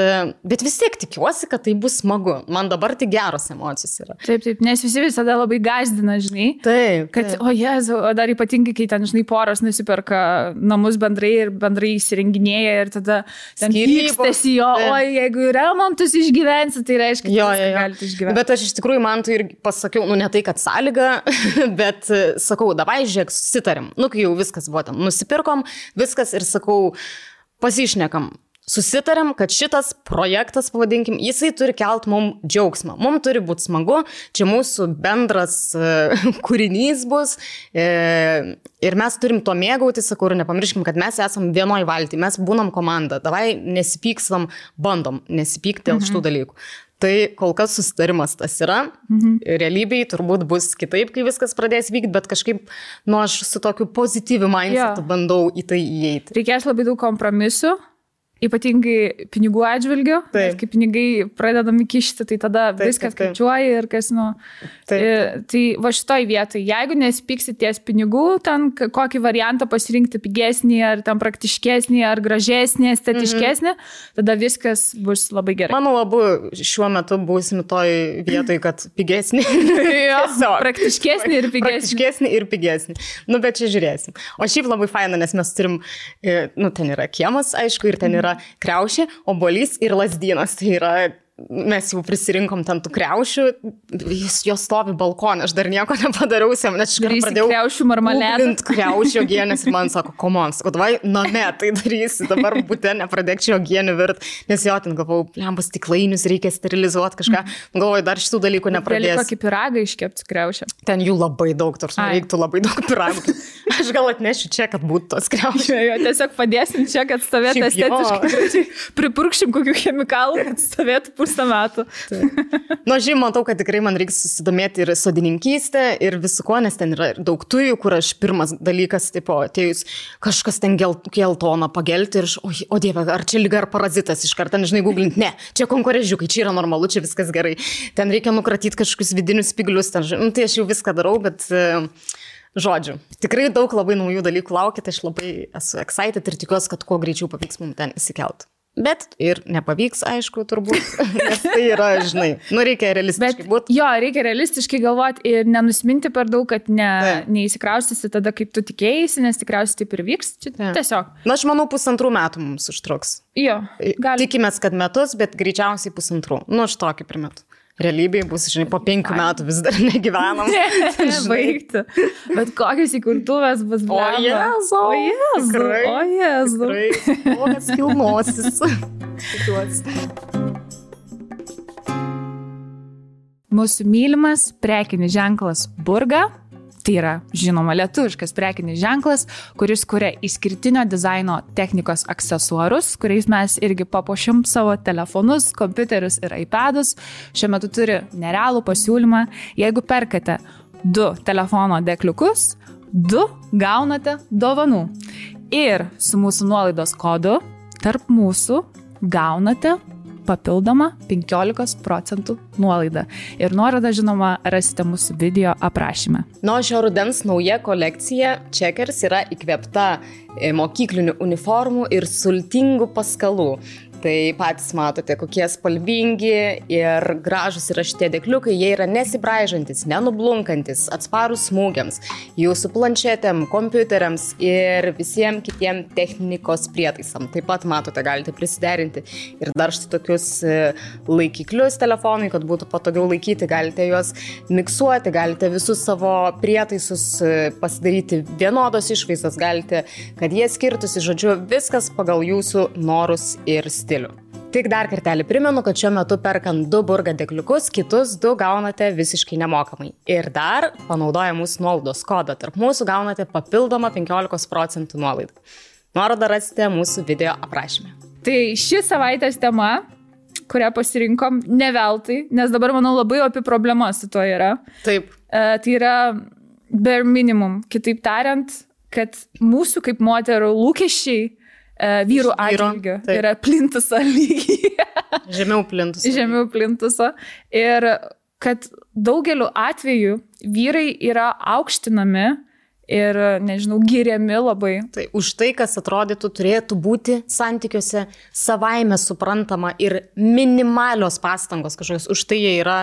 vis tiek tikiuosi, kad tai bus smagu. Man dabar tik geros emocijos yra. Taip, nes visi visada labai gąsdina, žinai. Taip. Kad, o Jezu, dar ypatingai, kai ten, žinai, poros nusiperka namus bendrai ir bendrai įsirenginėja ir tada ten pykstasi jo, jeigu remontus išgyvensi, tai reiškia, kad galite išgyventi. Bet aš iš tikrųjų man tai ir pasakiau, nu ne tai, kad sąlyga, bet sakau, davai, žiūrėk, susitarim. Nu, kai jau viskas buvo ten, nusipirkom, viskas ir sakau, pasišnekam. Susitariam, kad šitas projektas, pavadinkim, jisai turi kelt mums džiaugsmą. Mums turi būti smagu, čia mūsų bendras kūrinys bus ir mes turim to mėgauti, sakau, ir nepamirškim, kad mes esam vienoj valty, mes būnam komanda, davai nesipykstam, bandom nesipykti dėl šitų dalykų. Tai kol kas susitarimas tas yra, realybėj turbūt bus kitaip, kai viskas pradės vykti, bet kažkaip, aš su tokiu pozityviu mindsetu bandau į tai įeiti. Reikės labai daug kompromisų. Ypatingai pinigų atžvilgiu, kai pinigai pradedami kišti, tai tada viskas skaičiuoja ir kas, tai va šitoj vietoj, jeigu nesipyksi ties pinigų, ten kokį variantą pasirinkti pigesnį, ar ten praktiškesnį, ar gražesnį, estetiškesnį, tada viskas bus labai gerai. Manau, abu šiuo metu būsim toj vietoj, kad pigesnį. Praktiškesnį ir pigesnį. Praktiškesnį ir pigesnį. Bet čia žiūrėsim. O šiaip labai faina, nes mes turim, ten yra kiemas, aišku, ir ten yra kriaušė, obuolys ir lazdynas. Tai yra, mes jau prisirinkom ten tų kriaušių, jos stovi balkonė, aš dar nieko nepadariau, nes aš pradėjau kriaušių marmaledą. Kriaušių ogienės ir man sako, komon, sako, davai, name, tai darysi, dabar būte nepradėk čia ogienių virt, nes jo ten galvau, lembas stiklainius reikia sterilizuoti kažką, galvoju, dar šitų dalykų nepradėsiu. Gali kokį piragą iškepti kriaušę. Ten jų labai daug, tarsi reiktų labai daug piragų. Aš gal atnešiu čia, kad būtų tos kriaušės. Jo, tiesiog padėsim čia, kad stovėtų estetiškai. Pripurkšim kokių chemikalų, kad stovėtų pusę metų. Žinoma, matau, kad tikrai man reikia susidomėti ir sodininkystę, ir visu ko, nes ten yra daug tujų, kur aš pirmas dalykas, atėjus kažkas ten geltoną pagelti ir o dieve, ar čia lyga ar parazitas iš karto, nežinai, googlinti, ne, čia konkurežiukai, čia yra normalu, čia viskas gerai. Ten reikia nukratyti kažkokius vidinius spiglius, tai aš jau viską darau, bet... Žodžiu, tikrai daug labai naujų dalykų laukia, tai aš labai esu excited ir tikiuosi, kad kuo greičiau pavyks mums ten įsikelt. Bet ir nepavyks, aišku, turbūt, nes tai yra, žinai, reikia realistiškai būti. Jo, reikia realistiškai galvoti ir nenusminti per daug, kad neįsikraustysi tada, kaip tu tikėjai, nes tikriausiai taip ir vyks. Tiesiog. Aš manau, 1,5 metų mums užtruks. Jo, gali. Tikimės, kad metus, bet greičiausiai 1,5. Aš tokį primetu. Realybėje bus, žinai, po 5 metų vis dar negyvenam. Baigti. Bet kokios įkurtuvės bus blema. O Jezu. Tikrai. Kokias kilnosis. Mūsų mylimas prekinis ženklas Burga. Tai yra, žinoma, lietuviškas prekinis ženklas, kuris kuria išskirtinio dizaino technikos aksesuarus, kuriais mes irgi papuošim savo telefonus, kompiuterius ir iPadus. Šiuo metu turi nerealų pasiūlymą. Jeigu perkate 2 telefono dėkliukus, 2 gaunate dovanų. Ir su mūsų nuolaidos kodu tarp mūsų gaunate papildomą 15% nuolaidą. Ir nuorodą, žinoma, rasite mūsų video aprašyme. Šio rudens nauja kolekcija Checkers yra įkvėpta mokyklinių uniformų ir sultingų paskalų. Tai patys matote, kokie spalvingi ir gražus yra šitie dėkliukai, jie yra nesibraižantis, nenublunkantis, atsparūs smūgiams, jūsų planšetėm, kompiuteriams ir visiems kitiem technikos prietaisam. Taip pat matote, galite prisiderinti ir dar štai tokius laikiklius telefonui, kad būtų patogiau laikyti, galite juos miksuoti, galite visus savo prietaisus pasidaryti vienodos išvaizdos, galite, kad jie skirtųsi, žodžiu, viskas pagal jūsų norus ir stilių. Tik dar kartelį primenu, kad šiuo metu perkant 2 Burga dėkliukus, kitus 2 gaunate visiškai nemokamai. Ir dar, panaudoję mūsų nuolaidos kodą, tarp mūsų gaunate papildomą 15% nuolaidą. Nuorodą rasite mūsų video aprašyme. Tai ši savaitės tema, kurią pasirinkom, ne veltui, nes dabar, manau, labai opi problema su tuo yra. Taip. Tai yra bare minimum. Kitaip tariant, kad mūsų kaip moterų lūkesčiai vyrų atžvilgiu yra plintuso lygiai. Žemiau plintuso. Žemiau plintuso. Ir kad daugeliu atveju vyrai yra aukštinami ir, nežinau, giriami labai. Tai už tai, kas atrodytų turėtų būti santykiuose savaime suprantama ir minimalios pastangos kažkokios, už tai jie yra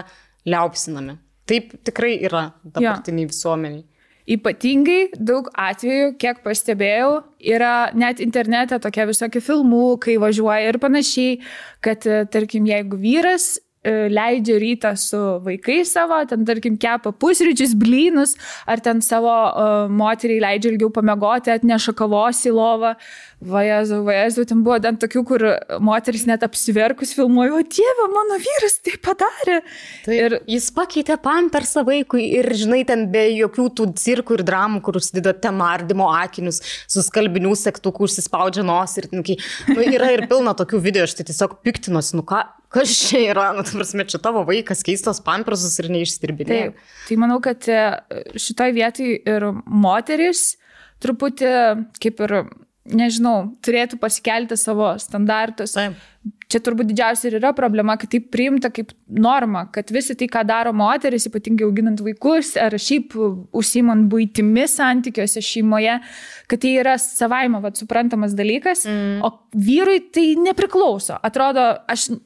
liaupsinami. Taip tikrai yra dabartiniai visuomeniai. Ypatingai daug atvejų, kiek pastebėjau, yra net internete tokie visokie filmukai važiuoja ir panašiai, kad, tarkim, jeigu vyras leidžia rytą su vaikais savo, ten, tarkim, kepa pusryčius, blynus, ar ten savo moteriai leidžia ilgiau pamiegoti, atneša kavos į lovą. Vajezu, ten buvo ten tokių, kur moteris net apsiverkus filmuoja, o dieve, mano vyras tai padarė. Tai ir jis pakeitė pampersą vaikui ir, žinai, ten be jokių tų cirkų ir dramų, kur užsideda ten nardymo akinius, su skalbinių segtukų užsispaudžia nos ir yra ir pilna tokių video, aš tai tiesiog piktinuosi, kas čia yra, prasme, čia tavo vaikas keistos pampersus ir neišstirbinė. Tai manau, kad šitoj vietoj ir moteris truputį kaip ir nežinau, turėtų pasikelti savo standartus. Taip. Čia turbūt didžiausia ir yra problema, kad tai priimta kaip norma, kad visi tai, ką daro moteris, ypatingai auginant vaikus ar šiaip užsiimant buitimi santykiuose šeimoje, kad tai yra savaime suprantamas dalykas, o vyrui tai nepriklauso. Atrodo,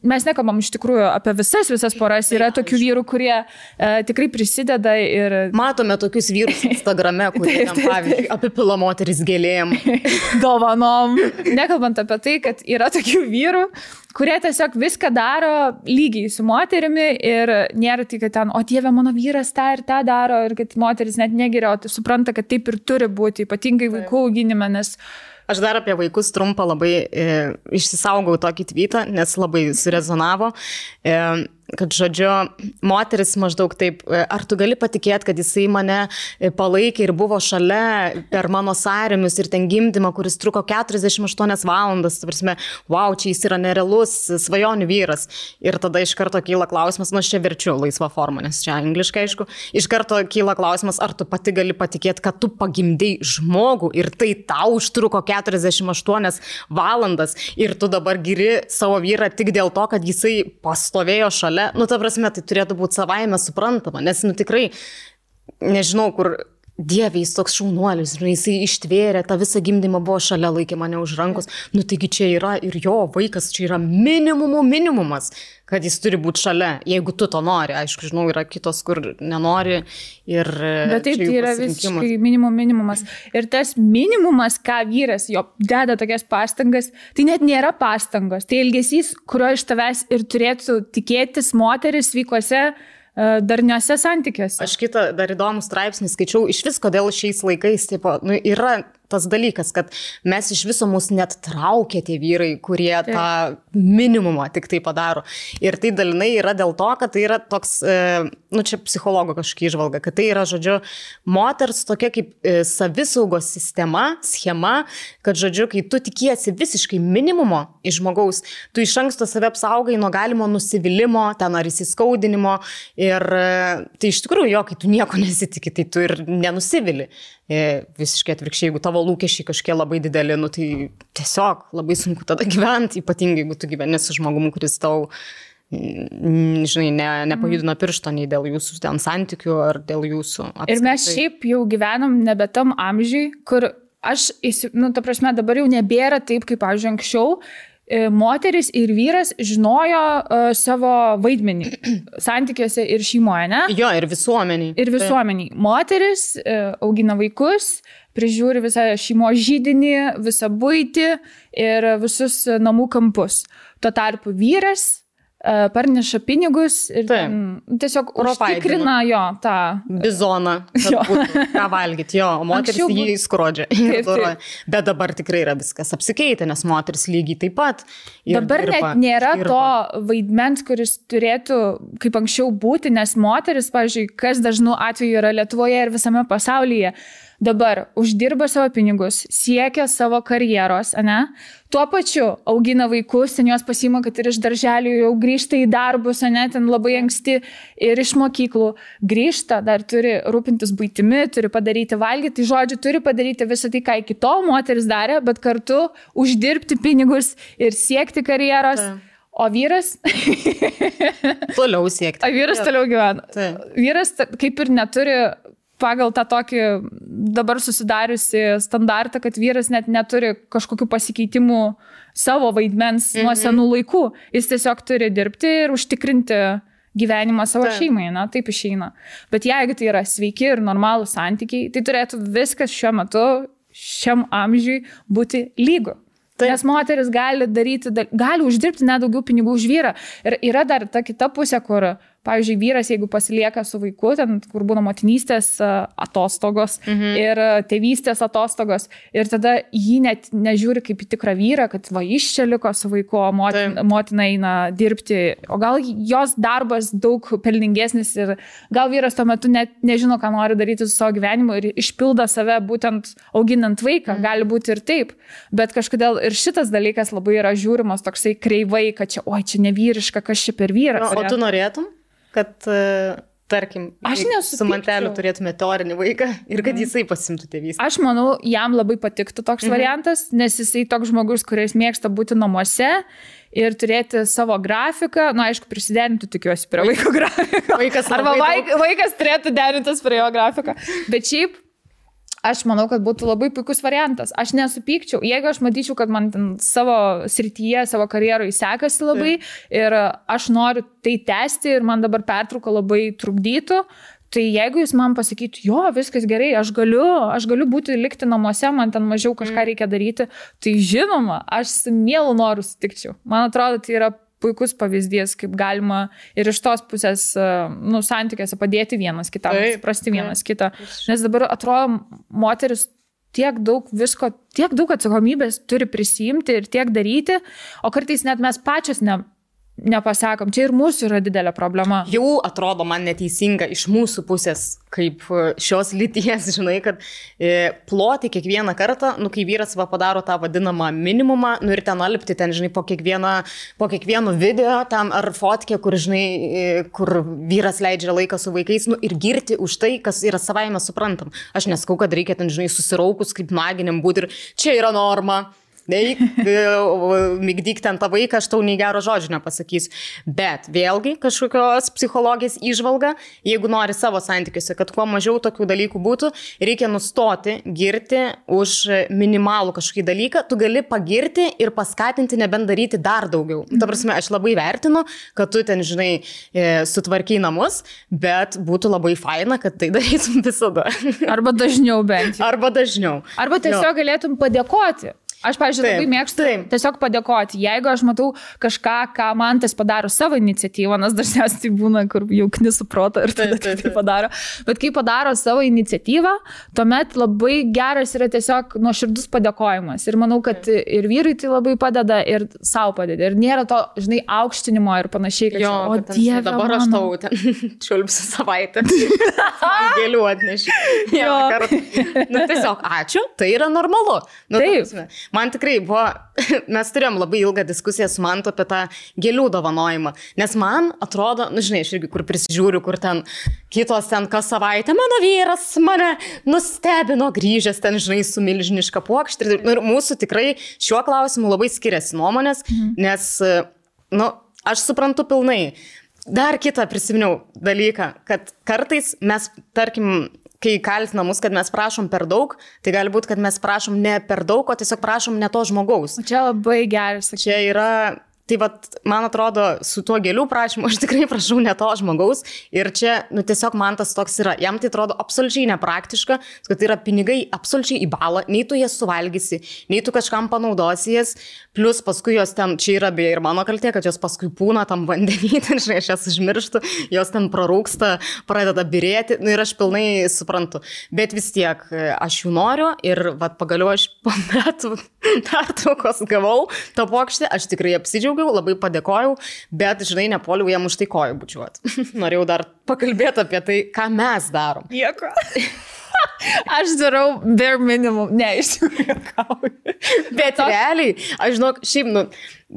mes nekalbam iš tikrųjų apie visas poras, yra tokių vyrų, kurie tikrai prisideda ir... Matome tokius vyrus Instagrame, kurie pavyzdžiui apipila moteris gėlėm. Dovanom. Nekalbant apie tai, kad yra tokių vyrų, kurie tiesiog viską daro lygiai su moterimi ir nėra tai, kad ten, o Dieve, mano vyras tą ir tą daro ir kad moteris net negeria, o tai supranta, kad taip ir turi būti, ypatingai vaikų auginime, nes... Aš dar apie vaikus trumpą labai išsisaugau tokį tweetą, nes labai surezonavo, kad, žodžiu, moteris maždaug taip, ar tu gali patikėti, kad jisai mane palaikė ir buvo šalia per mano sąrėmius ir ten gimdymą, kuris truko 48 valandas, prasme, wow, čia jis yra nerealus svajonių vyras. Ir tada iš karto kyla klausimas, aš čia verčiu laisvą formą, nes čia angliškai, aišku, iš karto kyla klausimas, ar tu pati gali patikėti, kad tu pagimdei žmogų ir tai tau užtruko 48 valandas ir tu dabar giri savo vyrą tik dėl to, kad jisai pastovėjo šalia. Nu, ta prasme, tai turėtų būti savaime suprantama, nes, nu, tikrai, nežinau, kur Dieve, jis toks šaunuolis, jisai ištvėrė, tą visą gimdymą buvo šalia, laikė mane už rankos, nu, taigi čia yra ir jo vaikas, čia yra minimumas, kad jis turi būti šalia, jeigu tu to nori, aišku, žinau, yra kitos, kur nenori ir... Bet taip, tai yra visiškai minimumas. Ir tas minimumas, ką vyras jo deda tokias pastangas, tai net nėra pastangos, tai elgesys, kurio iš tavęs ir turėtų tikėtis moteris vykuose darniuose santykiuose. Aš kitą dar įdomų straipsnį skaičiau, iš vis kodėl šiais laikais, tipo, nu, yra tas dalykas, kad mes iš viso mus net traukia tie vyrai, kurie tą minimumą tik tai padaro. Ir tai dalinai yra dėl to, kad tai yra toks, nu čia psichologo kažkokia įžvalga, kad tai yra, žodžiu, moters tokia kaip savisaugos schema, kad, žodžiu, kai tu tikiesi visiškai minimumo iš žmogaus, tu iš anksto save apsaugai nuo galimo nusivylimimo, ten ar įsiskaudinimo. Ir tai iš tikrųjų, kai tu nieko nesitikė, tai tu ir nenusivili. Visiškai atvirkščiai, jeigu tavo lūkesčiai kažkiek labai dideli, nu, tai tiesiog labai sunku tada gyventi, ypatingai jeigu tu gyveni su žmogumu, kuris tau, žinai, nepajudino piršto nei dėl jūsų ten santykių ar dėl jūsų apskritai. Ir mes šiaip jau gyvenam nebe tam amžiui, kur aš, nu, ta prasme, dabar jau nebėra taip, kaip, pavyzdžiui, anksčiau. Moteris ir vyras žinojo savo vaidmenį santykiuose ir šeimoje, ne? Jo, ir visuomeniai. Ir visuomeniai. Moteris augina vaikus, prižiūri visą šeimos židinį, visą buitį ir visus namų kampus. Tuo tarpu vyras parneša pinigus ir tiesiog užtikrina jo tą bizoną, ką valgyti, o moteris jį skrodžia. Bet dabar tikrai yra viskas apsikeitę, nes moteris lygiai taip pat. Dabar net nėra to vaidmens, kuris turėtų kaip anksčiau būti, nes moteris, pavyzdžiui, kas dažnu atveju yra Lietuvoje ir visame pasaulyje, dabar uždirba savo pinigus, siekia savo karjeros, ane? Tuo pačiu augina vaikus, ten jos pasiima, kad ir iš darželių jau grįžta į darbus, ane, ten labai anksti ir iš mokyklų grįžta, dar turi rūpintis buitimi, turi padaryti valgyti, tai žodžiu, turi padaryti visą tai, ką iki tol moteris darė, bet kartu uždirbti pinigus ir siekti karjeros. O vyras... Toliau siekti. O vyras toliau gyvena. Vyras kaip ir neturi... pagal tą tokį dabar susidariusi standartą, kad vyras net neturi kažkokių pasikeitimų savo vaidmens nuo senų laikų. Jis tiesiog turi dirbti ir užtikrinti gyvenimą savo šeimai, na, taip išeina. Bet jeigu tai yra sveiki ir normalūs santykiai, tai turėtų viskas šiuo metu, šiam amžiui būti lygu. Nes moteris gali uždirbti net daugiau pinigų už vyrą. Ir yra dar ta kita pusė, kur, pavyzdžiui, vyras, jeigu pasilieka su vaiku, ten, kur būna motinystės atostogos ir tėvystės atostogos, ir tada jį net nežiūri kaip į tikrą vyrą, kad va, iš čia liko su vaiku, o motina eina dirbti, o gal jos darbas daug pelningesnis ir gal vyras tuo metu net nežino, ką nori daryti su savo gyvenimu ir išpildo save būtent auginant vaiką, gali būti ir taip, bet kažkodėl ir šitas dalykas labai yra žiūrimas toksai kreivai, kad čia, oi, čia nevyriška, kas čia per vyrą. O tu norėtum, kad tarkim, su manteliu turėtume teorinį vaiką ir kad jisai pasimtų tėvystę. Aš manau, jam labai patiktų toks variantas, nes jisai toks žmogus, kuris mėgsta būti namuose ir turėti savo grafiką, aišku, prisiderinti, tikiuosi, prie vaiko grafiką. Arba vaikas turėtų derintis prie jo grafiką. Bet šiaip, aš manau, kad būtų labai puikus variantas. Aš nesupykčiau, jeigu aš matyčiau, kad man savo srityje, savo karjeroje sekasi labai ir aš noriu tai tęsti ir man dabar pertrauka labai trukdytų, tai jeigu jūs man pasakytų, jo, viskas gerai, aš galiu likti namuose, man ten mažiau kažką reikia daryti, tai žinoma, aš su mielu noru sutikčiau. Man atrodo, tai yra puikus pavyzdys, kaip galima ir iš tos pusės, santykiuose padėti vienas kitam, suprasti vienas kitą. Nes dabar atrodo, moteris tiek daug visko, tiek daug atsakomybės turi prisijimti ir tiek daryti, o kartais net mes pačios nepasakom. Čia ir mūsų yra didelė problema. Jau atrodo man neteisinga iš mūsų pusės, kaip šios lyties, žinai, kad ploti kiekvieną kartą, kai vyras padaro tą vadinamą minimumą, ir ten alpti, ten, žinai, po kiekvieno video tam ar fotkė, kur, žinai, kur vyras leidžia laiką su vaikais, ir girti už tai, kas yra savaime suprantam. Aš neskau, kad reikia ten, žinai, susiraukus kaip naginiam būti ir čia yra norma. Migdyk ten tą vaiką, aš tau nei gero žodžio nepasakysiu. Bet vėlgi kažkokios psichologijos įžvalga, jeigu nori savo santykiuose, kad kuo mažiau tokių dalykų būtų, reikia nustoti girti už minimalų kažkokį dalyką, tu gali pagirti ir paskatinti nebent daryti dar daugiau. Ta prasme, aš labai vertinu, kad tu ten, žinai, sutvarkiai namus, bet būtų labai faina, kad tai darytum visada. Arba dažniau bent. Arba dažniau. Arba tiesiog galėtum padėkoti. Aš, pavyzdžiui, labai mėgstu tiesiog padėkoti. Jeigu aš matau kažką, ką man tas padaro savo iniciatyvą, nes dažniausiai tai būna, kur jau knisų protą ir tada tai padaro. Bet kai padaro savo iniciatyvą, tuomet labai geras yra tiesiog nuoširdus padėkojimas. Ir manau, kad ir vyrui tai labai padeda, ir savo padeda. Ir nėra to, žinai, aukštinimo ir panašiai. Kad, o Dieve, dabar aš tau ten čiulpsiu savaitę. Gėlių atnešiu. Tiesiog ačiū, tai yra normalu. Taip. Man tikrai buvo, mes turėjom labai ilgą diskusiją su Mantu apie tą gėlių dovanojimą, nes man atrodo, žinai, aš irgi kur prisižiūriu, kur ten kitos ten kas savaitę, mano vyras mane nustebino grįžęs ten, žinai, su milžiniška puokštė. Ir mūsų tikrai šiuo klausimu labai skiriasi nuomonės, nes, aš suprantu pilnai. Dar kitą prisiminiau dalyką, kad kartais mes, tarkim, kai kaltina mus, kad mes prašom per daug, tai gali būti, kad mes prašom ne per daug, o tiesiog prašom ne to žmogaus. O čia labai geras. Čia yra, tai man atrodo, su tuo gėlių prašymu aš tikrai prašau ne to žmogaus ir čia, tiesiog man tas toks yra. Jam tai atrodo absoliučiai nepraktiška, kad tai yra pinigai absoliučiai į balą, nei tu jas suvalgysi, nei tu kažkam panaudosi jas, plus paskui jos ten, čia yra beje ir mano kaltė, kad jos paskui pūna tam vandenį, ten, žinai, aš jas užmirštu, jos ten prarūksta, pradeda birėti, ir aš pilnai suprantu. Bet vis tiek aš jų noriu ir pagaliau aš po metų pertraukos gavau tą puokštę, aš tikrai apsidžiaugiau, labai padėkojau, bet, žinai, nepoliau jam už tai kojų bučiuoti. Norėjau dar pakalbėti apie tai, ką mes darom. Nieko. Aš darau bare minimum. Ne, iš tikrųjų. Bet realiai, aš žinok, šiaip,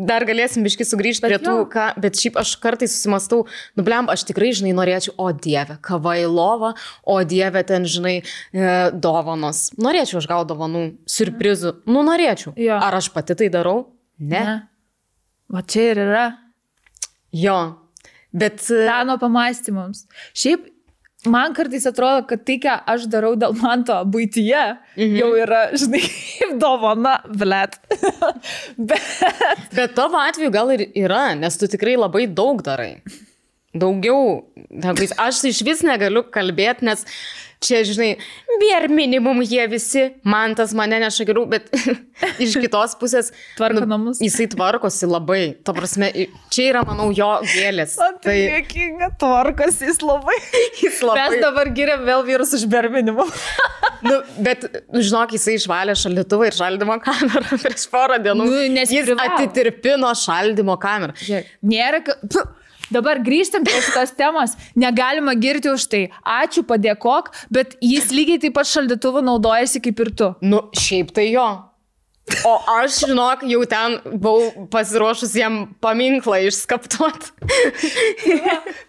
dar galėsim biškai sugrįžti prie tų, bet šiaip aš kartais susimastau, blem, aš tikrai, žinai, norėčiau, o Dieve, kava į lovą, o Dieve, ten, žinai, dovanos. Norėčiau aš gauti dovanų, siurprizų. Norėčiau. Jo. Ar aš pati tai darau? Ne. Va čia ir yra. Jo, bet... Peno pamąstymams. Šiaip, man kartais atrodo, kad tai, ką aš darau dėl Manto buityje, jau yra, žinai, dovana, blet. Bet tavo atveju gal ir yra, nes tu tikrai labai daug darai. Daugiau. Aš iš vis negaliu kalbėti, nes čia, žinai, bare minimum jie visi, Mantas mane neša geriau, bet iš kitos pusės tvarko namus. Jisai tvarkosi labai. Ta prasme, čia yra, manau, jo gėlės. Tai dėkinga, tvarkosi jis labai. Mes dabar giriam vėl vyrus už bare minimum. Bet, žinok, jisai išvalė šaldytuvą ir šaldymo kamerą prieš porą dienų. Jis atitirpino šaldymo kamerą. Nėra... Dabar grįžtam prie šitos temos, negalima girti už tai. Ačiū, padėkok, bet jis lygiai taip pat šaldytuvu naudojasi kaip ir tu. Šiaip tai jo. O aš, žinok, jau ten buvau pasiruošus jam paminklą išskaptuoti.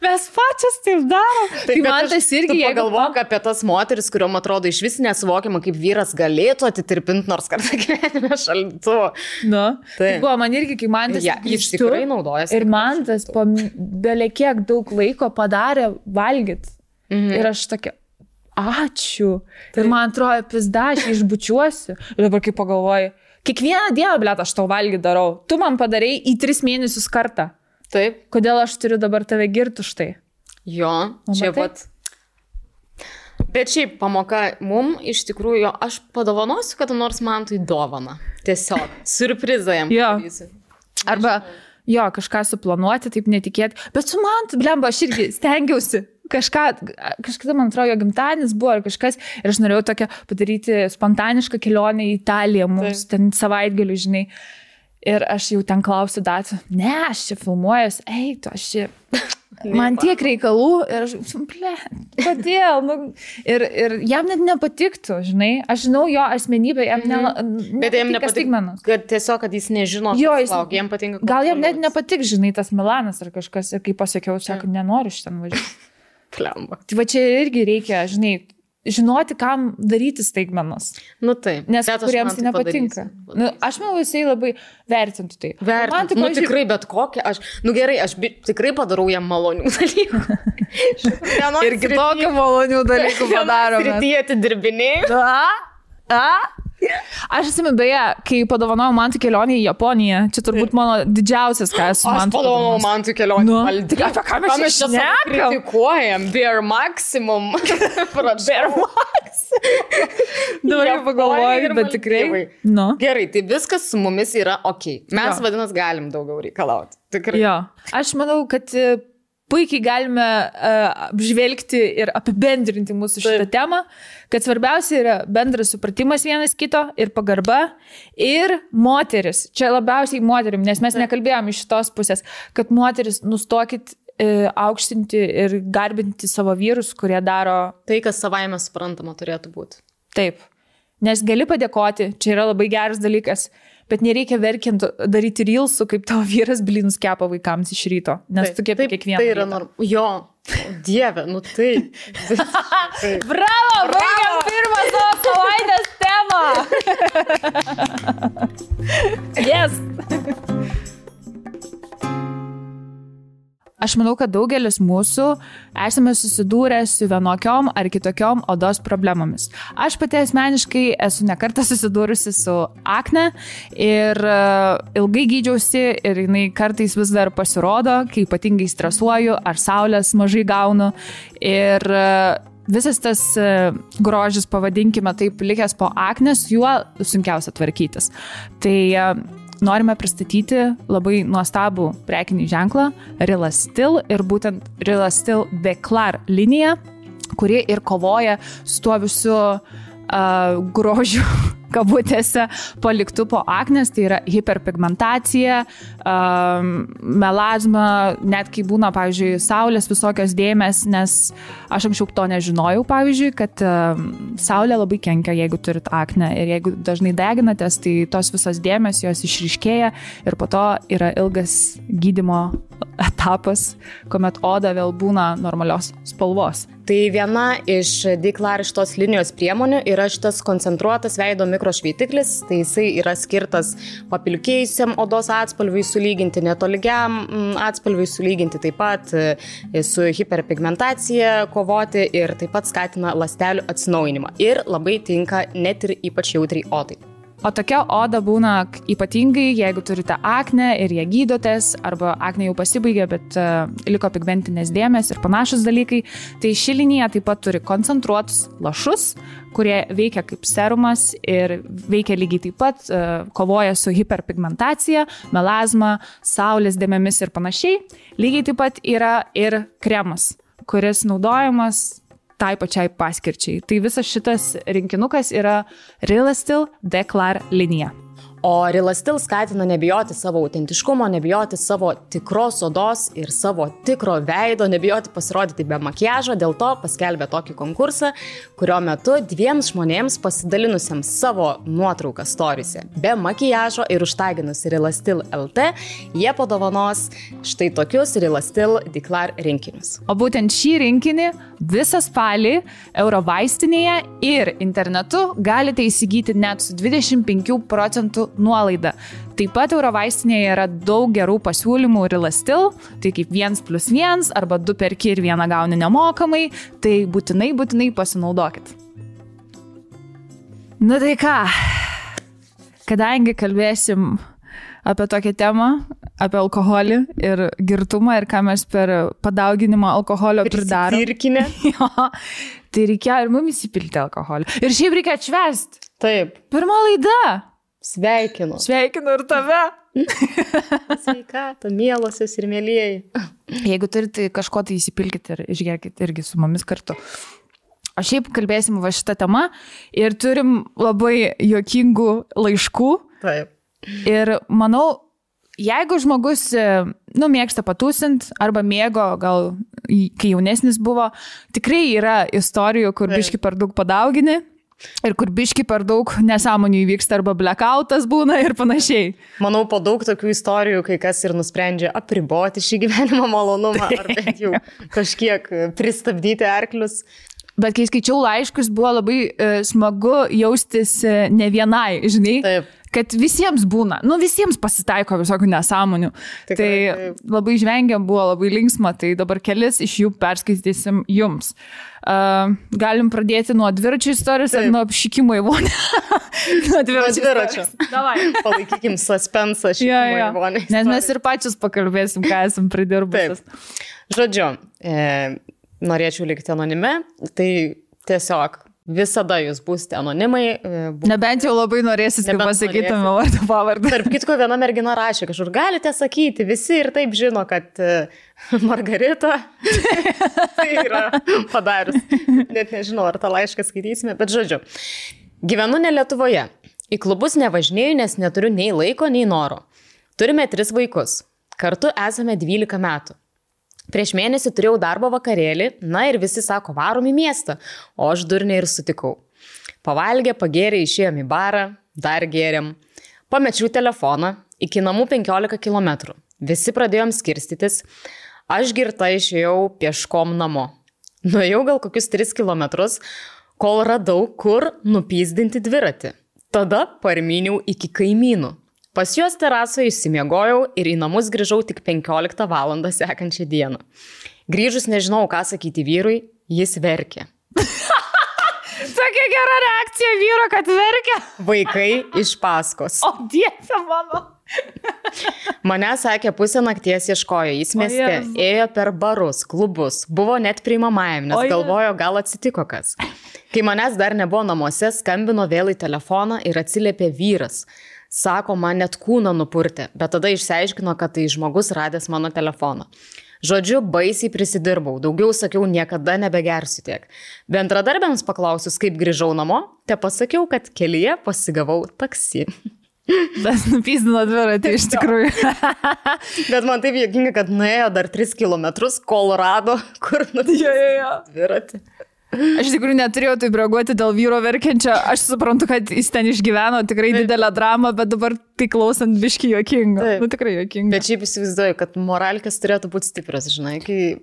Mes pačias taip darom. Tai man tas irgi, jeigu galvok apie tas moteris, kuriuom atrodo iš vis nesuvokiama, kaip vyras galėtų atitirpinti nors kartą gyvenime šaldytuvo. Nu, tai buvo man irgi, kai man tas jis tikrai naudojasi. Ir man tas po belekiek daug laiko padarė valgyt. Ir aš tokia, ačiū. Ir man atrodo, pizda, aš išbučiuosiu. Ir dabar kaip pagalvoju, kiekvieną dieną, blet, aš tau valgį darau. Tu man padarei į 3 mėnesius kartą. Taip. Kodėl aš turiu dabar tave girti už tai? Jo, čia pat. Bet šiaip pamoka mum, iš tikrųjų, aš padovanosiu, kad nors man tai dovana. Tiesiog, surprizą jam. Jo. Arba, jo, kažką suplanuoti, taip netikėti. Bet su man, blemba, aš irgi stengiausi. Kažkada, man atrodo, jo gimtadienis buvo ar kažkas ir aš norėjau tokią padaryti spontanišką kelionę į Italiją, mums ten savaitgalių, žinai. Ir aš jau ten klausiu datų, ne, aš čia filmuojas, tu aš čia, man tiek reikalų ir aš, kodėl? Nu, ir jam net nepatiktų, žinai, aš žinau jo asmenybę, jam bet jam nepatinka, kad tiesiog, kad jis nežino, jam patinka. Gal jam net nepatik, žinai, tas Milanas ar kažkas ir kai pasakiau, sako, nenoriu šiandien važiuoti. Klemba. Tai va čia irgi reikia, žinai, žinoti, kam daryti staigmenas. Nu taip. Nes kuriems tai nepatinka. Nu, aš manau, jisai labai vertintų tai. Vertintų. Nu tikrai, bet kokią aš... Nu gerai, aš tikrai padarau jam malonių dalykų. Ir kitokių malonių dalykų padarome. Srityje atidirbinėjau. Aš atsimenu, beje, kai padovanojau man kelionę į Japoniją, čia turbūt mano didžiausias, ką esu man. Aš padovanojau man kelionę. Nu, apie ką mes čia kritikuojam? Bare maximum. Bare maximum. Dabar jau pagalvoju, bet tikrai. Nu. Gerai, tai viskas su mumis yra ok. Mes vadinas galim daugiau reikalauti. Tikrai. Jo. Aš manau, kad puikiai galime apžvelgti ir apibendrinti mūsų šitą temą, kad svarbiausia yra bendras supratimas vienas kito ir pagarba ir moteris. Čia labiausiai moterim, nes mes nekalbėjom iš šitos pusės, kad moteris nustokit aukštinti ir garbinti savo vyrus, kurie daro tai, kas savaime suprantama turėtų būti. Taip. Nes gali padėkoti, čia yra labai geras dalykas, bet nereikia verkiant daryti reelsų, kaip tavo vyras blynus kepa vaikams iš ryto, nes tu kepi kiekvieną. Tai yra jo, dieve, nu tai. Bravo, baigiam pirmą savo savaitės temą. Yes. Aš manau, kad daugelis mūsų esame susidūrę su vienokiom ar kitokiom odos problemomis. Aš pati asmeniškai esu nekartą susidūrusi su akne ir ilgai gydžiausi ir jinai kartais vis dar pasirodo, kai ypatingai stresuoju ar saulės mažai gaunu. Ir visas tas grožis, pavadinkime taip, likęs po aknės, juo sunkiausia tvarkytis. Tai norime pristatyti labai nuostabų prekinį ženklą Real Still ir būtent Real Still Declar linija, kuri ir kovoja su tuo visu grožiu kabutėse paliktų po aknės, tai yra hiperpigmentacija, melazma, net kai būna, pavyzdžiui, saulės visokios dėmės, nes aš anksčiau to nežinojau, pavyzdžiui, kad saulė labai kenkia, jeigu turit aknę ir jeigu dažnai deginatės, tai tos visos dėmės jos išryškėja ir po to yra ilgas gydymo etapas, kuomet oda vėl būna normalios spalvos. Tai viena iš Declar šitos linijos priemonių yra šitas koncentruotas veido mikrošveitiklis, tai jisai yra skirtas papilkėjusiam odos atspalviui sulyginti, netolygiam atspalviui sulyginti, taip pat su hiperpigmentacija kovoti ir taip pat skatina ląstelių atsinaujinimą ir labai tinka net ir ypač jautriai odai. O tokia oda būna ypatingai, jeigu turite aknę ir ją gydotės, arba aknė jau pasibaigė, bet liko pigmentinės dėmės ir panašus dalykai. Tai ši linija taip pat turi koncentruotus lašus, kurie veikia kaip serumas ir veikia lygiai taip pat, kovoja su hiperpigmentacija, melazma, saulės dėmėmis ir panašiai. Lygiai taip pat yra ir kremas, kuris naudojamas tai pačiai paskirčiai. Tai visas šitas rinkinukas yra Real Still Declar linija. O Relastil skatina nebijoti savo autentiškumo, nebijoti savo tikros odos ir savo tikro veido, nebijoti pasirodyti be makiažo, dėl to paskelbė tokį konkursą, kurio metu 2 žmonėms pasidalinusiems savo nuotrauką storyse be makiažo ir užtaginus Relastil LT, jie padovanos štai tokius Relastil Declare rinkinius. O būtent šį rinkinį visą spalį Eurovaistinėje ir internetu galite įsigyti net su 25% nuolaida. Taip pat Eurovaistinėje yra daug gerų pasiūlymų Relastil, tai kaip 1+1 arba 2 perki ir 1 gauni nemokamai, tai būtinai pasinaudokit. Nu tai ką, kadangi kalbėsim apie tokią temą, apie alkoholį ir girtumą ir ką mes per padauginimą alkoholio pridarom. Prisipirkinę. Jo, tai reikėjo ir mums įsipilti alkoholį. Ir šiaip reikia atšvęsti. Taip. Pirma laida. Sveikinu. Sveikinu ir tave. Sveikata, mielosios ir mėlieji. Jeigu turite kažko, tai įsipilkite ir išgerkite irgi su mumis kartu. O šiaip kalbėsim va šitą temą ir turim labai juokingų laiškų. Taip. Ir manau, jeigu žmogus, mėgsta patūsint arba mėgo, gal kai jaunesnis buvo, tikrai yra istorijų, kur biški per daug padaugini ir kur biški per daug nesąmonių įvyksta arba blackoutas būna ir panašiai. Manau, po daug tokių istorijų, kai kas ir nusprendžia apriboti šį gyvenimo malonumą ar bent jau kažkiek pristabdyti arklius. Bet kai skaičiau laiškus, buvo labai smagu jaustis ne vienai, žinai. Taip. Kad visiems būna, visiems pasitaiko visokių nesąmonių. Tikrai, tai taip. Labai žvengiam, buvo labai linksma, tai dabar kelis iš jų perskaitysim jums. Galim pradėti nuo dviračių istorijos ar nuo apšikimo į vonę? Nuo dviračio. Davai. Palaikykim suspensą šikimo į vonę. Nes mes ir pačius pakalbėsim, ką esam pridirbusios. Žodžiu, norėčiau likti anonime, tai tiesiog visada jūs būsite anonimai. Nebent jau labai norėsit, kad pasakytume vardą pavardę. Tarp kitko, viena mergina rašė, kažkur galite sakyti, visi ir taip žino, kad Margarita tai yra padarius. Net nežinau, ar tą laišką skaitysime, bet žodžiu. Gyvenu ne Lietuvoje. Į klubus nevažinėju, nes neturiu nei laiko, nei noro. Turime 3 vaikus. Kartu esame 12 metų. Prieš mėnesį turėjau darbo vakarėlį, ir visi sako, varom į miestą, o aš durniai ir sutikau. Pavalgė, pagėrė, išėjom į barą, dar gėrėm. Pamečiau telefoną, iki namų 15 km. Visi pradėjom skirstytis, aš girta išėjau pieškom namo. Nuėjau gal kokius 3 km, kol radau, kur nupyzdinti dviratį. Tada parmyniau iki kaimynų. Pas juos terasoje išsimiegojau ir į namus grįžau tik 15 valandą sekančią dieną. Grįžus nežinau, ką sakyti vyrui, jis verkė. Tokia gera reakcija vyro, kad verkia. Vaikai iš paskos. O Dieve mano. Mane sakė, pusę nakties ieškojo, jis mieste, ėjo per barus, klubus, buvo net priimamajam, nes galvojo, gal atsitiko kas. Kai manęs dar nebuvo namuose, skambino vėl į telefoną ir atsiliepė vyras. Sako, man net kūną nupurtė, bet tada išsiaiškino, kad tai žmogus radęs mano telefoną. Žodžiu, baisiai prisidirbau, daugiau sakiau, niekada nebegersiu tiek. Bendradarbiams paklausius, kaip grįžau namo, te pasakiau, kad kelyje pasigavau taksi. Bet nupyzdino dviratį iš tikrųjų. Bet man taip juokinga, kad nuėjo dar 3 km, kol rado, kur nupyzdino dviratį. Aš tikrųjų neturėjau taip reaguoti dėl vyro verkiančio. Aš suprantu, kad jis ten išgyveno tikrai didelę dramą, bet dabar tai klausant biški juokinga. Tikrai juokinga. Bet šiaip įsivaizduoju, kad moralkės turėtų būti stiprios, žinai, kai...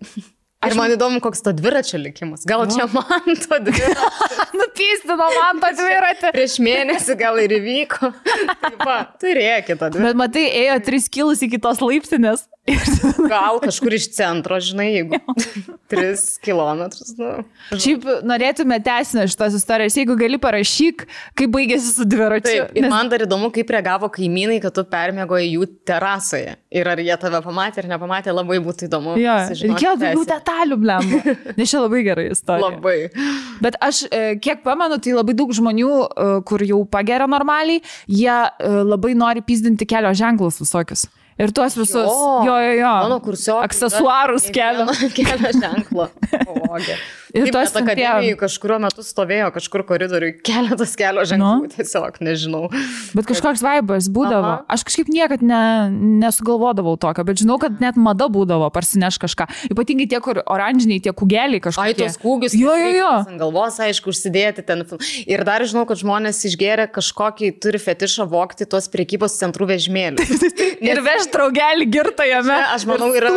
Ir man įdomu, koks to dviračio likimas. Gal čia man to dviračio. Nupystino man to dviratį. Prieš mėnesį gal ir įvyko. Taip, turėkite tą dviratį. Bet matai, ėjo 3 kilus iki tos laiptinės. Gal kažkur iš centro, žinai, jeigu 3 kilometrus. Šiaip norėtume tęsinę šitos istorijos. Jeigu gali, parašyk, kaip baigėsi su dviračiu. Taip, ir man dar įdomu, kaip reagavo kaimynai, kad tu permiegoji jų terasoje. Ir ar jie tave pamatė ar nepamatė, labai būtų įdomu. Reikėjo daugiau detalių, blemba. Nes čia labai gerai istorija. Labai. Bet aš, kiek pamenu, tai labai daug žmonių, kur jau pageria normaliai, jie labai nori pyzdinti kelio ženklus visokius. Ir tuos visus, Mano aksesuarus kelio ženklo. Ir taip, tos akademijai kažkurio metu stovėjo kažkur koridoriui keletas kelio ženklų, tiesiog nežinau. Bet kažkoks vaibas būdavo. Aš kažkaip niekad nesugalvodavau tokio, bet žinau, kad net mada būdavo parsineš kažką. Ypatingai tie, kur oranžiniai, tie kūgeliai kažkokie. Ai, tos kūgius. Jo. Ant galvos, aišku, užsidėti ten. Ir dar žinau, kad žmonės išgėrė kažkokį, turi fetišą vogti tos prekybos centrų vežimėlius. Ir veš draugelį girtą jame. Aš manau, yra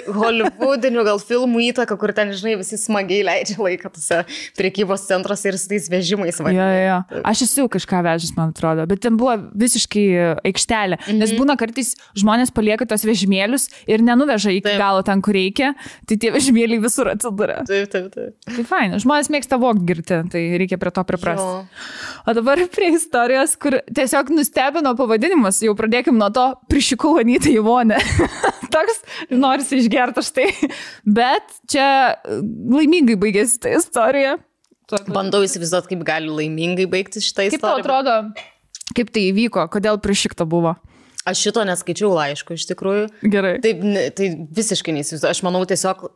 holivudinių gal filmų įtaka, kur ten, žinai, visi smagiai leidžia laiką tose prekybos centruose ir su tais vežimais. Jo. Aš esu kažką vežęs, man atrodo, bet ten buvo visiškai aikštelė, nes būna kartais žmonės palieka tos vežimėlius ir nenuveža iki galo ten, kur reikia, tai tie vežimėliai visur atsiduria. Taip. Tai fain, žmonės mėgsta vogti girti, tai reikia prie to priprasti. O dabar prie istorijos, kur tiesiog nustebino pavadinimas, jau pradėkim nuo to, prišikau Anytą į vonę. Toks norisi išgerti aš tai, bet čia laimingai baigėsi ta istorija. Bandau įsivaizduoti, kaip gali laimingai baigtis šitą istoriją. Kaip tau atrodo, kaip tai įvyko, kodėl prišikta buvo? Aš šito neskaičiau laiško, iš tikrųjų. Gerai. Tai visiškai neįsivaizduoju. Aš manau, tiesiog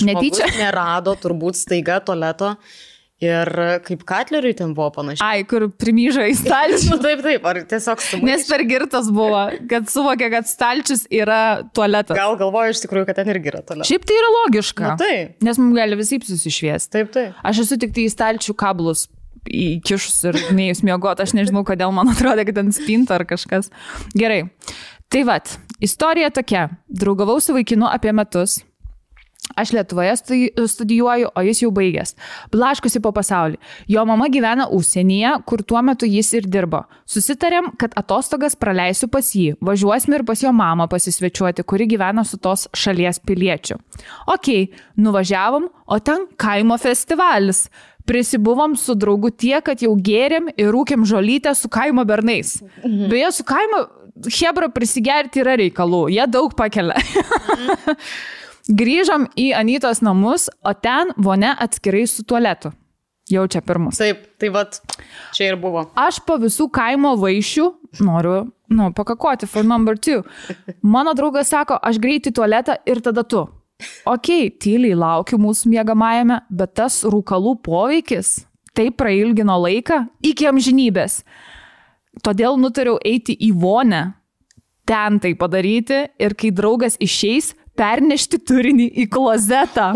žmogus nerado turbūt staiga tualeto. Ir kaip Katleriui ten buvo panašiai. Ai, kur primyžo į stalčių. Taip, ar tiesiog sumaišė. Nes per girtas buvo, kad suvokė, kad stalčius yra tualetas. Gal galvoju iš tikrųjų, kad ten irgi yra tualetas. Šiaip tai yra logiška. Taip. Nes mums gali visai susišviesti. Taip. Aš esu tik tai į stalčių kablus įkišus ir neįs miegoti. Aš nežinau, kodėl man atrodo, kad ten spinta ar kažkas. Gerai. Tai vat, istorija tokia. Draugavau su vaikinu apie metus. Aš Lietuvoje studijuoju, o jis jau baigęs. Blaškusi po pasaulį. Jo mama gyvena užsienyje, kur tuo metu jis ir dirbo. Susitarėm, kad atostogas praleisiu pas jį. Važiuosime ir pas jo mamą pasisvečiuoti, kuri gyvena su tos šalies piliečiu. Okei, nuvažiavom, o ten kaimo festivalis. Prisibuvom su draugu tiek, kad jau gėrėm ir rūkėm žolytę su kaimo bernais. Beje, su kaimo hebra prisigerti yra reikalų. Jie daug pakelia. Grįžom į Anytos namus, o ten vonia atskirai su tualetu. Jau čia pirmus. Taip, tai vat, čia ir buvo. Aš po visų kaimo vaišių noriu, pakakoti for number 2. Mano draugas sako, aš greit į tualetą ir tada tu. Okei, tyliai laukiu mūsų miegamajame, bet tas rūkalų poveikis taip prailgino laiką iki amžinybės. Todėl nutariau eiti į vonę, ten tai padaryti ir kai draugas išeis, pernešti turinį į klozetą.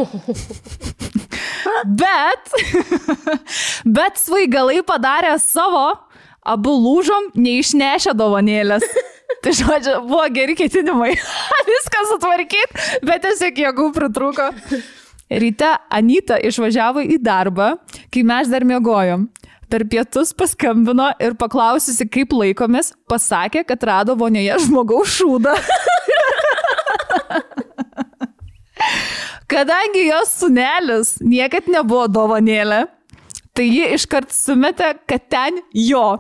Bet svaigalai padarė savo, abu lūžom, neišnešę dovanėlės. Tai žodžiu, buvo geri ketinimai. Viską sutvarkyti, bet tiesiog jėgų pritrūko. Ryte Anyta išvažiavo į darbą, kai mes dar miegojom. Per pietus paskambino ir paklausiusi, kaip laikomės, pasakė, kad rado vonioje žmogaus šūdą. Kadangi jos sūnelis niekad nebuvo dovanėlė, tai ji iškart sumetė, kad ten jo.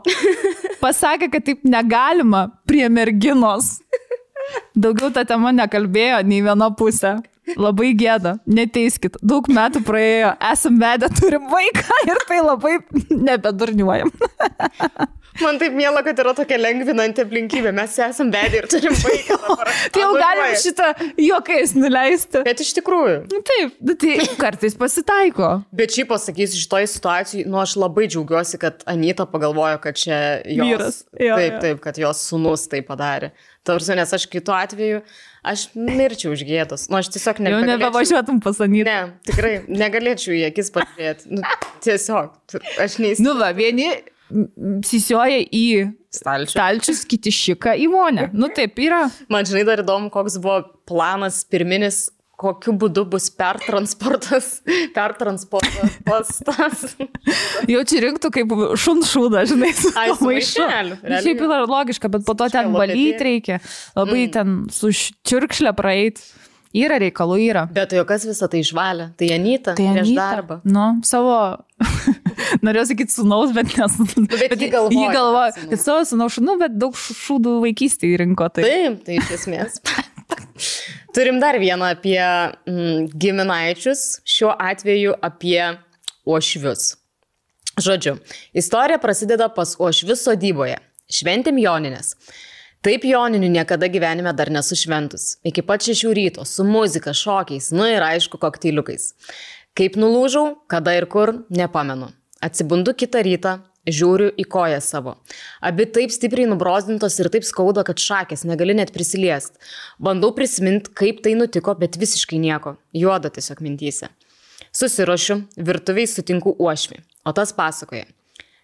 Pasakė, kad taip negalima prie merginos. Daugiau ta tema nekalbėjo nei viena pusė. Labai gėda, neteiskit. Daug metų praėjo, esam vedę, turim vaiką ir tai labai nebedurniuojam. Man taip miela, kad yra tokia lengvinanti aplinkybė. Mes esam vedę ir turim vaiką. Tai jau galim šitą juokais nuleisti. Bet iš tikrųjų. Taip, tai kartais pasitaiko. Bet šiaip pasakysiu, šitoj situacijai, aš labai džiaugiuosi, kad Anyta pagalvojo, kad čia jos... Vyras. Taip, kad jos sūnus tai padarė. Tarsi, nes aš kitu atveju, aš mirčiau už gėdos. Aš tiesiog negalėčiau... Jau nebevažiuotum pas Anytą. Ne, tikrai, negalėčiau į akis pažiūrėti. Tiesiog, aš neįsivaizduoju. Vieni sisioja į stalčius, kiti šika į vonę. Taip yra. Man žinai dar įdomu, koks buvo planas pirminis, kokiu būdu bus pertransportas tas. Jau čia rinktų kaip šunšūdą, žinai, su maišeliu. Šiaip yra logiška, bet po to ten valyti reikia. Labai ten su čiurkšlė praeit. Yra reikalų, yra. Bet jo kas visą tai išvalė? Tai Anyta prieš darbą. Savo... Norėjau sakyti sūnaus, bet nesūnaus. Bet jį galvoja. Kad savo sūnaus šūnų, bet daug šūdų vaikystėje rinko. Taip, tai iš esmės. Turim dar vieną apie giminaičius, šiuo atveju apie uošvius. Žodžiu, istorija prasideda pas uošvius sodyboje. Šventėm Jonines. Taip Joninių niekada gyvenime dar nesu šventus. Iki pat 6 ryto, su muzika, šokiais, ir aišku, kokteiliukais. Kaip nulūžau, kada ir kur, nepamenu. Atsibundu kitą rytą, žiūriu į koją savo. Abi taip stipriai nubrozdintos ir taip skauda, kad šakės negali net prisiliest. Bandau prisiminti, kaip tai nutiko, bet visiškai nieko. Juoda tiesiog mintyse. Susiruošiu, virtuviai sutinku uošvį, o tas pasakoja.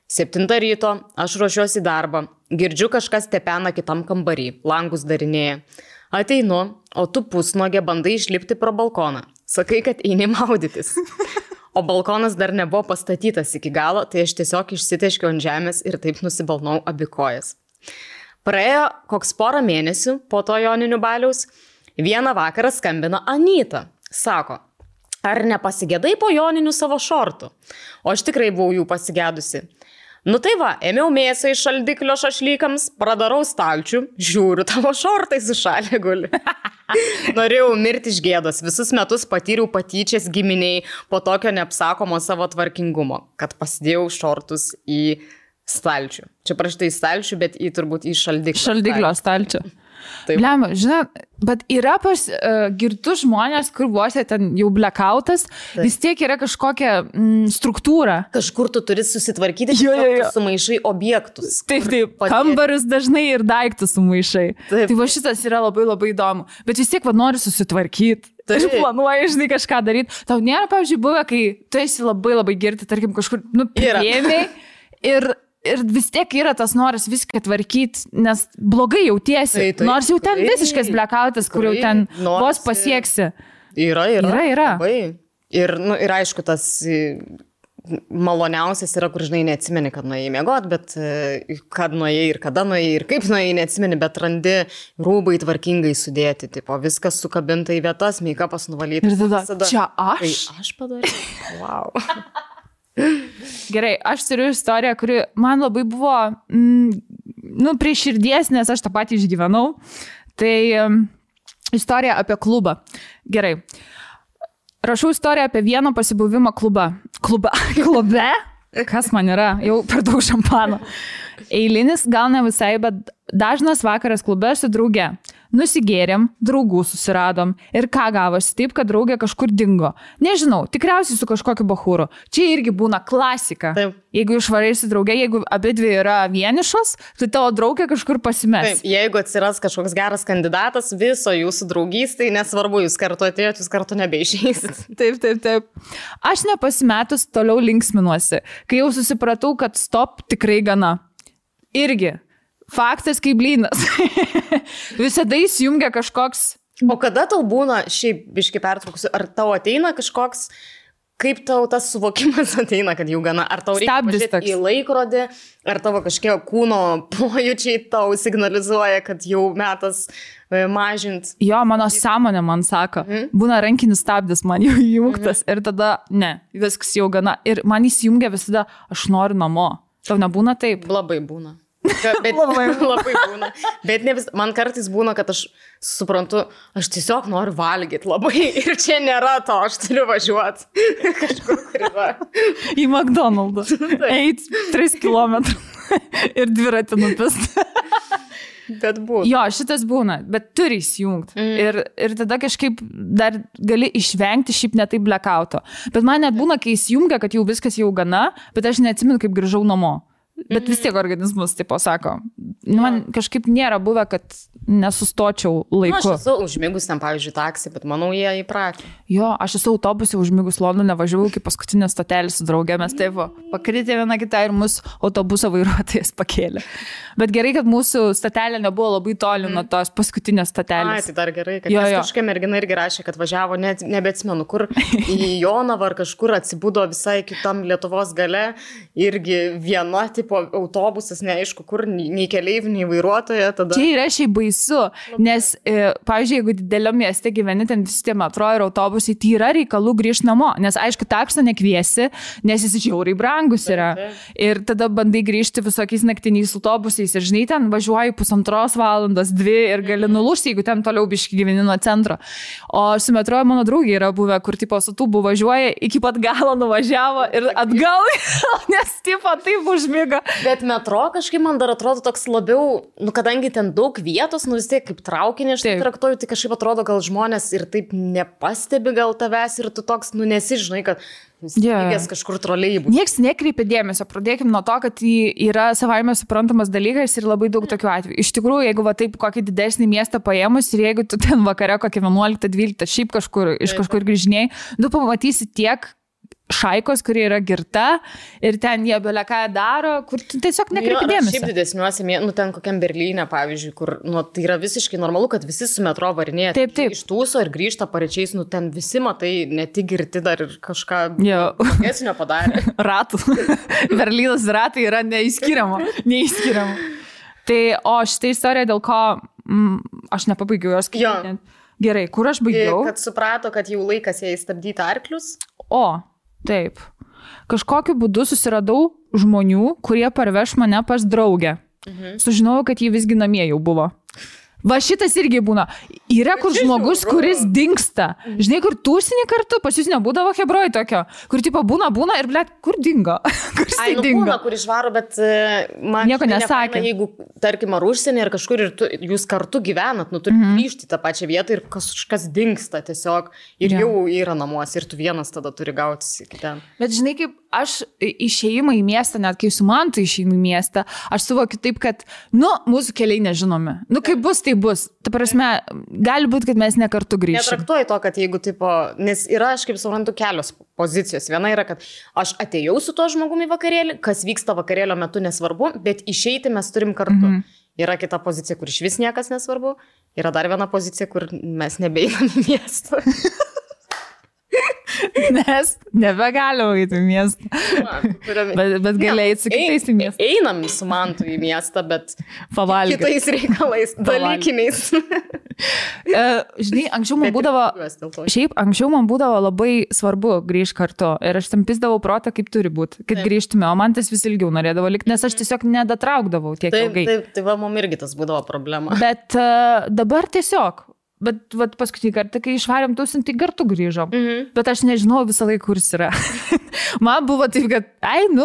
7 ryto, aš ruošiuosi į darbą, girdžiu kažkas tepena kitam kambarį, langus darinėja. Ateinu, o tu pusnuogė bandai išlipti pro balkoną. Sakai, kad eini maudytis. O balkonas dar nebuvo pastatytas iki galo, tai aš tiesiog išsiteškiau ant žemės ir taip nusibalnau abi kojas. Praėjo koks porą mėnesių po to joninių baliaus, vieną vakarą skambina Anyta. Sako, ar nepasigėdai po joninių savo šortų? O aš tikrai buvau jų pasigėdusi. Nu tai va, ėmiau mėsą iš šaldiklio šašlykams, pradarau stalčių, žiūriu, tavo šortai sušalė guli. Norėjau mirti iš gėdos, visus metus patyriau patyčias giminiai po tokio neapsakomo savo tvarkingumo, kad pasidėjau šortus į stalčių. Čia praštai į stalčių, bet turbūt į šaldiklio. Šaldiklio stalčių. Blema, žinai, bet yra pas girtus žmonės, kur vos ten jau blackoutas, vis tiek yra kažkokia struktūra. Kažkur tu turi susitvarkyti, sumaišai objektus. Taip, kambarius dažnai ir daiktus sumaišai. Taip. Tai va šitas yra labai labai įdomu. Bet vis tiek nori susitvarkyti. Tai planuoji, žinai, kažką daryti. Tau nėra, pavyzdžiui, buvę, kai tu esi labai labai girti, tarkim, kažkur, priėmei ir vis tiek yra tas noras viską tvarkyti, nes blogai jautiesi. Nors jau ten visiškas blackoutas, kur jau ten vos pasieksi. Yra. Ir aišku, tas maloniausias yra, kur, žinai, neatsimeni, kad nuėjai miegot, bet kad nuėjai ir kada nuėjai ir kaip nuėjai, neatsimeni, bet randi rūbai tvarkingai sudėti, tipo, viskas sukabinta į vietas, meikapas nuvalytas. Ir tada, čia aš? Tai aš padariau. Wow. Gerai, aš turiu istoriją, kuri man labai buvo prie širdies, nes aš tą patį išgyvenau. Tai istorija apie klubą. Gerai. Rašau istoriją apie vieną pasibuvimą klube. Kas man yra? Jau per daug šampano. Eilinis, gal ne visai, bet dažnas vakaras klube su drauge. Nusigėrėm, draugų susiradom ir ką gavosi taip, kad draugė kažkur dingo. Nežinau, tikriausiai su kažkokiu bachūru. Čia irgi būna klasika. Taip. Jeigu išvarai su draugė, jeigu abidvi yra vienišos, tai tavo draugė kažkur pasimes. Taip, jeigu atsiras kažkoks geras kandidatas, viso jūsų draugystai, nesvarbu, jūs kartu atėjot, jūs kartu nebeišeisit. Taip. Aš nepasimetus toliau linksminuosi, kai jau susipratau, kad stop tikrai gana. Irgi. Faktas kaip blynas. Visada įsijungia kažkoks... O kada tau būna, šiaip biškai pertraukusiu, ar tau ateina kažkoks, kaip tau tas suvokimas ateina, kad jau gana, ar tau reikia pažiūrėti į laikrodį, ar tavo kažkiek kūno pojūčiai tau signalizuoja, kad jau metas mažint? Jo, mano sąmonė man sako, būna rankinis stabdis man jau įjungtas ir tada, ne, viskas jau gana. Ir man įsijungia visada, aš noriu namo. Tau nebūna taip? Labai būna. Bet labai būna. Bet ne vis, man kartais būna, kad aš suprantu, aš tiesiog noriu valgyti labai ir čia nėra to, aš turiu važiuoti kažkur, kur yra. Į McDonald's. Eit 3 kilometrų ir dviratį nupist. Bet būna. Jo, šitas būna, bet turi įsijungti. Ir tada kažkaip dar gali išvengti šiaip netai blackouto. Bet man net būna, kai įsijungia, kad jau viskas jau gana, bet aš neatsimenu, kaip grįžau namo. Bet vis tiek organizmas taip pasako. Man kažkaip nėra buvę, kad nesustočiau laiku. Aš esu užmigus ten, pavyzdžiui, taksi, bet manau, jie įpratę. Jo, aš esu autobuse užmigus Londone, važiavau iki paskutinės stotelės su draugė, mes taip pakritė viena kitą ir mūsų autobuso vairuotojas pakėlė. Bet gerai, kad mūsų stotelė nebuvo labai toli nuo tos paskutinės stotelės. Tai dar gerai, kad kažkokia mergina irgi rašė, kad važiavo, nebeatsimenu, kur į Jonavą ar kažkur atsibudo visai kitam Lietuvos gale, irgi viena tipo autobusas, neaišku, kur, nei keleivių, nei vairuotoja. Tada... Čia yra šiaip baisu, nes, pavyzdžiui, jeigu didelio mieste gyveni, ten visi tie metro ir autobusai, tai yra reikalų grįžti namo, nes aišku, takso nekviesi, nes jis žiauriai brangus yra. Ir tada bandai grįžti visokiais naktiniais autobusais ir žinai, ten važiuoji 1,5 valandos, 2 ir gali nulūžti, jeigu ten toliau biški gyveni nuo centro. O su metro mano draugė yra buvę, kur tipo su tūbu važiuoja, iki pat galo nuvažiavo ir atgal, nes tipo taip užmigo sako. Bet metro kažkaip man dar atrodo toks labiau, kadangi ten daug vietos, vis tiek kaip traukinį aš traktuoju, tai kažkaip atrodo, gal žmonės ir taip nepastebi gal tavęs ir tu toks, nesižinai, kad lygės kažkur troleibų. Niekas nekreipia dėmesio, pradėkim nuo to, kad yra savaime suprantamas dalykas ir labai daug tokių atvejų. Iš tikrųjų, jeigu taip kokį didesnį miestą paėmus ir jeigu tu ten vakare kokį 11-12 šiaip iš kažkur grįžinėjai, tu pamatysi tiek šaikos, kurie yra girta ir ten jie beleką daro, kur tu tiesiog nekreipi dėmesio. Šiaip didesniuose, ten kokiam Berlyne, pavyzdžiui, kur tai yra visiškai normalu, kad visi su metro varinėja. Taip. Iš tūso ir grįžta pareičiais, ten visi matai, ne tik girti dar ir kažką esnio padarė. Ratų. Berlynas ratai yra neįskiriama. Tai, o šitą istoriją, dėl ko aš nepabaigiau jos skaityti. Gerai, kur aš baigiau? Kad suprato, kad jau laikas jai stabdyti arklius. Taip. Kažkokiu būdu susiradau žmonių, kurie parveš mane pas draugę. Sužinojau, kad jį visgi namie jau buvo. Va šitas irgi būna. Yra kur žmogus, kuris dingsta. Žinai, kur tūsinį kartu, pas jūs nebūdavo hebroj tokio, kur tipo būna ir blėt, kur dingo? Kur jisai dingo? Būna, kur išvaro, bet man nieko nesakė. Jeigu, tarkim, ar užsienį, ar kažkur ir jūs kartu gyvenat, turite grįžti tą pačią vietą ir kažkas dingsta tiesiog ir jau yra namuose ir tu vienas tada turi gautis iki ten. Bet žinai, kaip aš išėjimą į miestą, net kai su Mantu išeinu į miestą, aš suvokiu taip, kad, mūsų keliai nežinomi. Kaip bus, tai bus. Ta prasme, gali būti, kad mes ne kartu grįžime. Netraktuoju to, kad jeigu, nes yra, aš kaip suprantu, kelios pozicijos. Viena yra, kad aš atėjau su tuo žmogumi į vakarėlį, kas vyksta vakarėlio metu nesvarbu, bet išeiti mes turim kartu. Yra kita pozicija, kur iš vis niekas nesvarbu. Yra dar viena pozicija, kur mes nebeinam į miestą. Nes nebegalim eiti į miestą. Bet gali eiti su kitais į miestą. Einam su Mantu į miestą, bet pavalgyti. Kitais reikalais, dalykiniais. Žinai, anksčiau man būdavo labai svarbu grįžti kartu. Ir aš tam pisdavau protą, kaip turi būti, kad grįžtume. O man tas vis ilgiau norėdavo likti, nes aš tiesiog nedatraukdavau tiek ilgai. Tai va, mum irgi tas būdavo problema. Bet dabar tiesiog. Bet paskutinį kartą, kai išvarėm tūsinti, tai kartu grįžom. Bet aš nežinau visą laiką, kur jis yra. Man buvo taip, kad,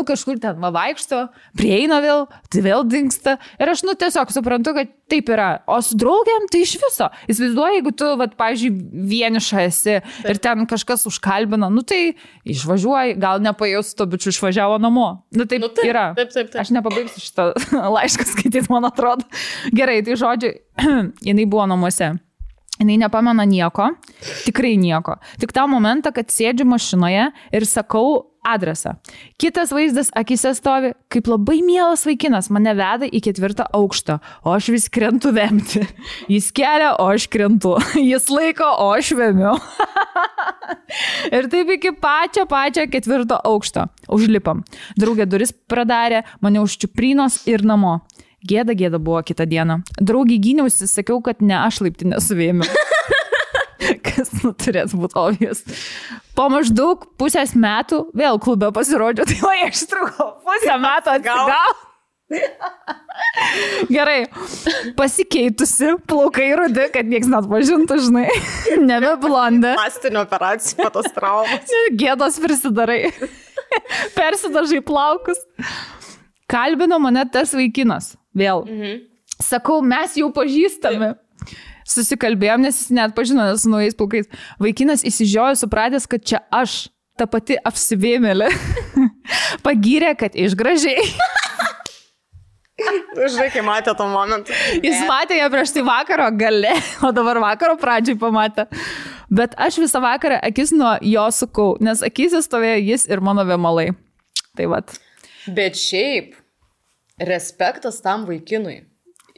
kažkur ten vaikšto, prieina vėl, tai vėl dingsta. Ir aš, tiesiog suprantu, kad taip yra. O su draugiam, tai iš viso. Įsivaizduoju, jeigu tu, pavyzdžiui, vieniša esi ir ten kažkas užkalbina, tai išvažiuoji, gal nepajus to bičiu išvažiavo namo. Taip yra. Taip. Aš nepabaigsiu šitą laišką skaityti, man atrodo. Gerai, tai žodžiu, jinai buvo namuose. Jinai nepamena nieko, tikrai nieko. Tik tą momentą, kad sėdžiu mašinoje ir sakau adresą. Kitas vaizdas akise stovi, kaip labai mielas vaikinas mane veda į 4. aukštą, o aš vis krentu vemti. Jis kelia, o aš krentu. Jis laiko, o aš vemiu. Ir taip iki pačio 4. aukšto. Užlipam. Draugė duris pradarė, mane užčiuprinos ir namo. Gėda buvo kitą dieną. Draugį gyniausi, sakiau, kad ne aš laiptinę suvėmiau. Kas turės būti obvious. Po maždaug pusės metų vėl klube pasirodžiau, tai va, aš trukau pusę metų atgal. Gerai, pasikeitusi, plaukai rudi, kad nieks net pažintų, žinai. Nebe blonde. Plastinio operacijų, patos traumas. Gėdos prisidarai. Persidažai plaukus. Kalbino mane tas vaikinas. Vėl. Sakau, mes jau pažįstami. Susikalbėjom, nes jis net pažino, nes su naujais plaukais. Vaikinas įsižiojo, supratęs, kad čia aš, ta pati apsivėmėlė. Pagyrė, kad išgražiai. Žinai, kai matė to momentą. Jis matė ją prieš tai vakaro gale, o dabar vakaro pradžiai pamatė. Bet aš visą vakarą akis nuo jo sukau, nes akise stovėjo jis ir mano vėmalai. Tai vat. Bet šiaip, respektas tam vaikinui.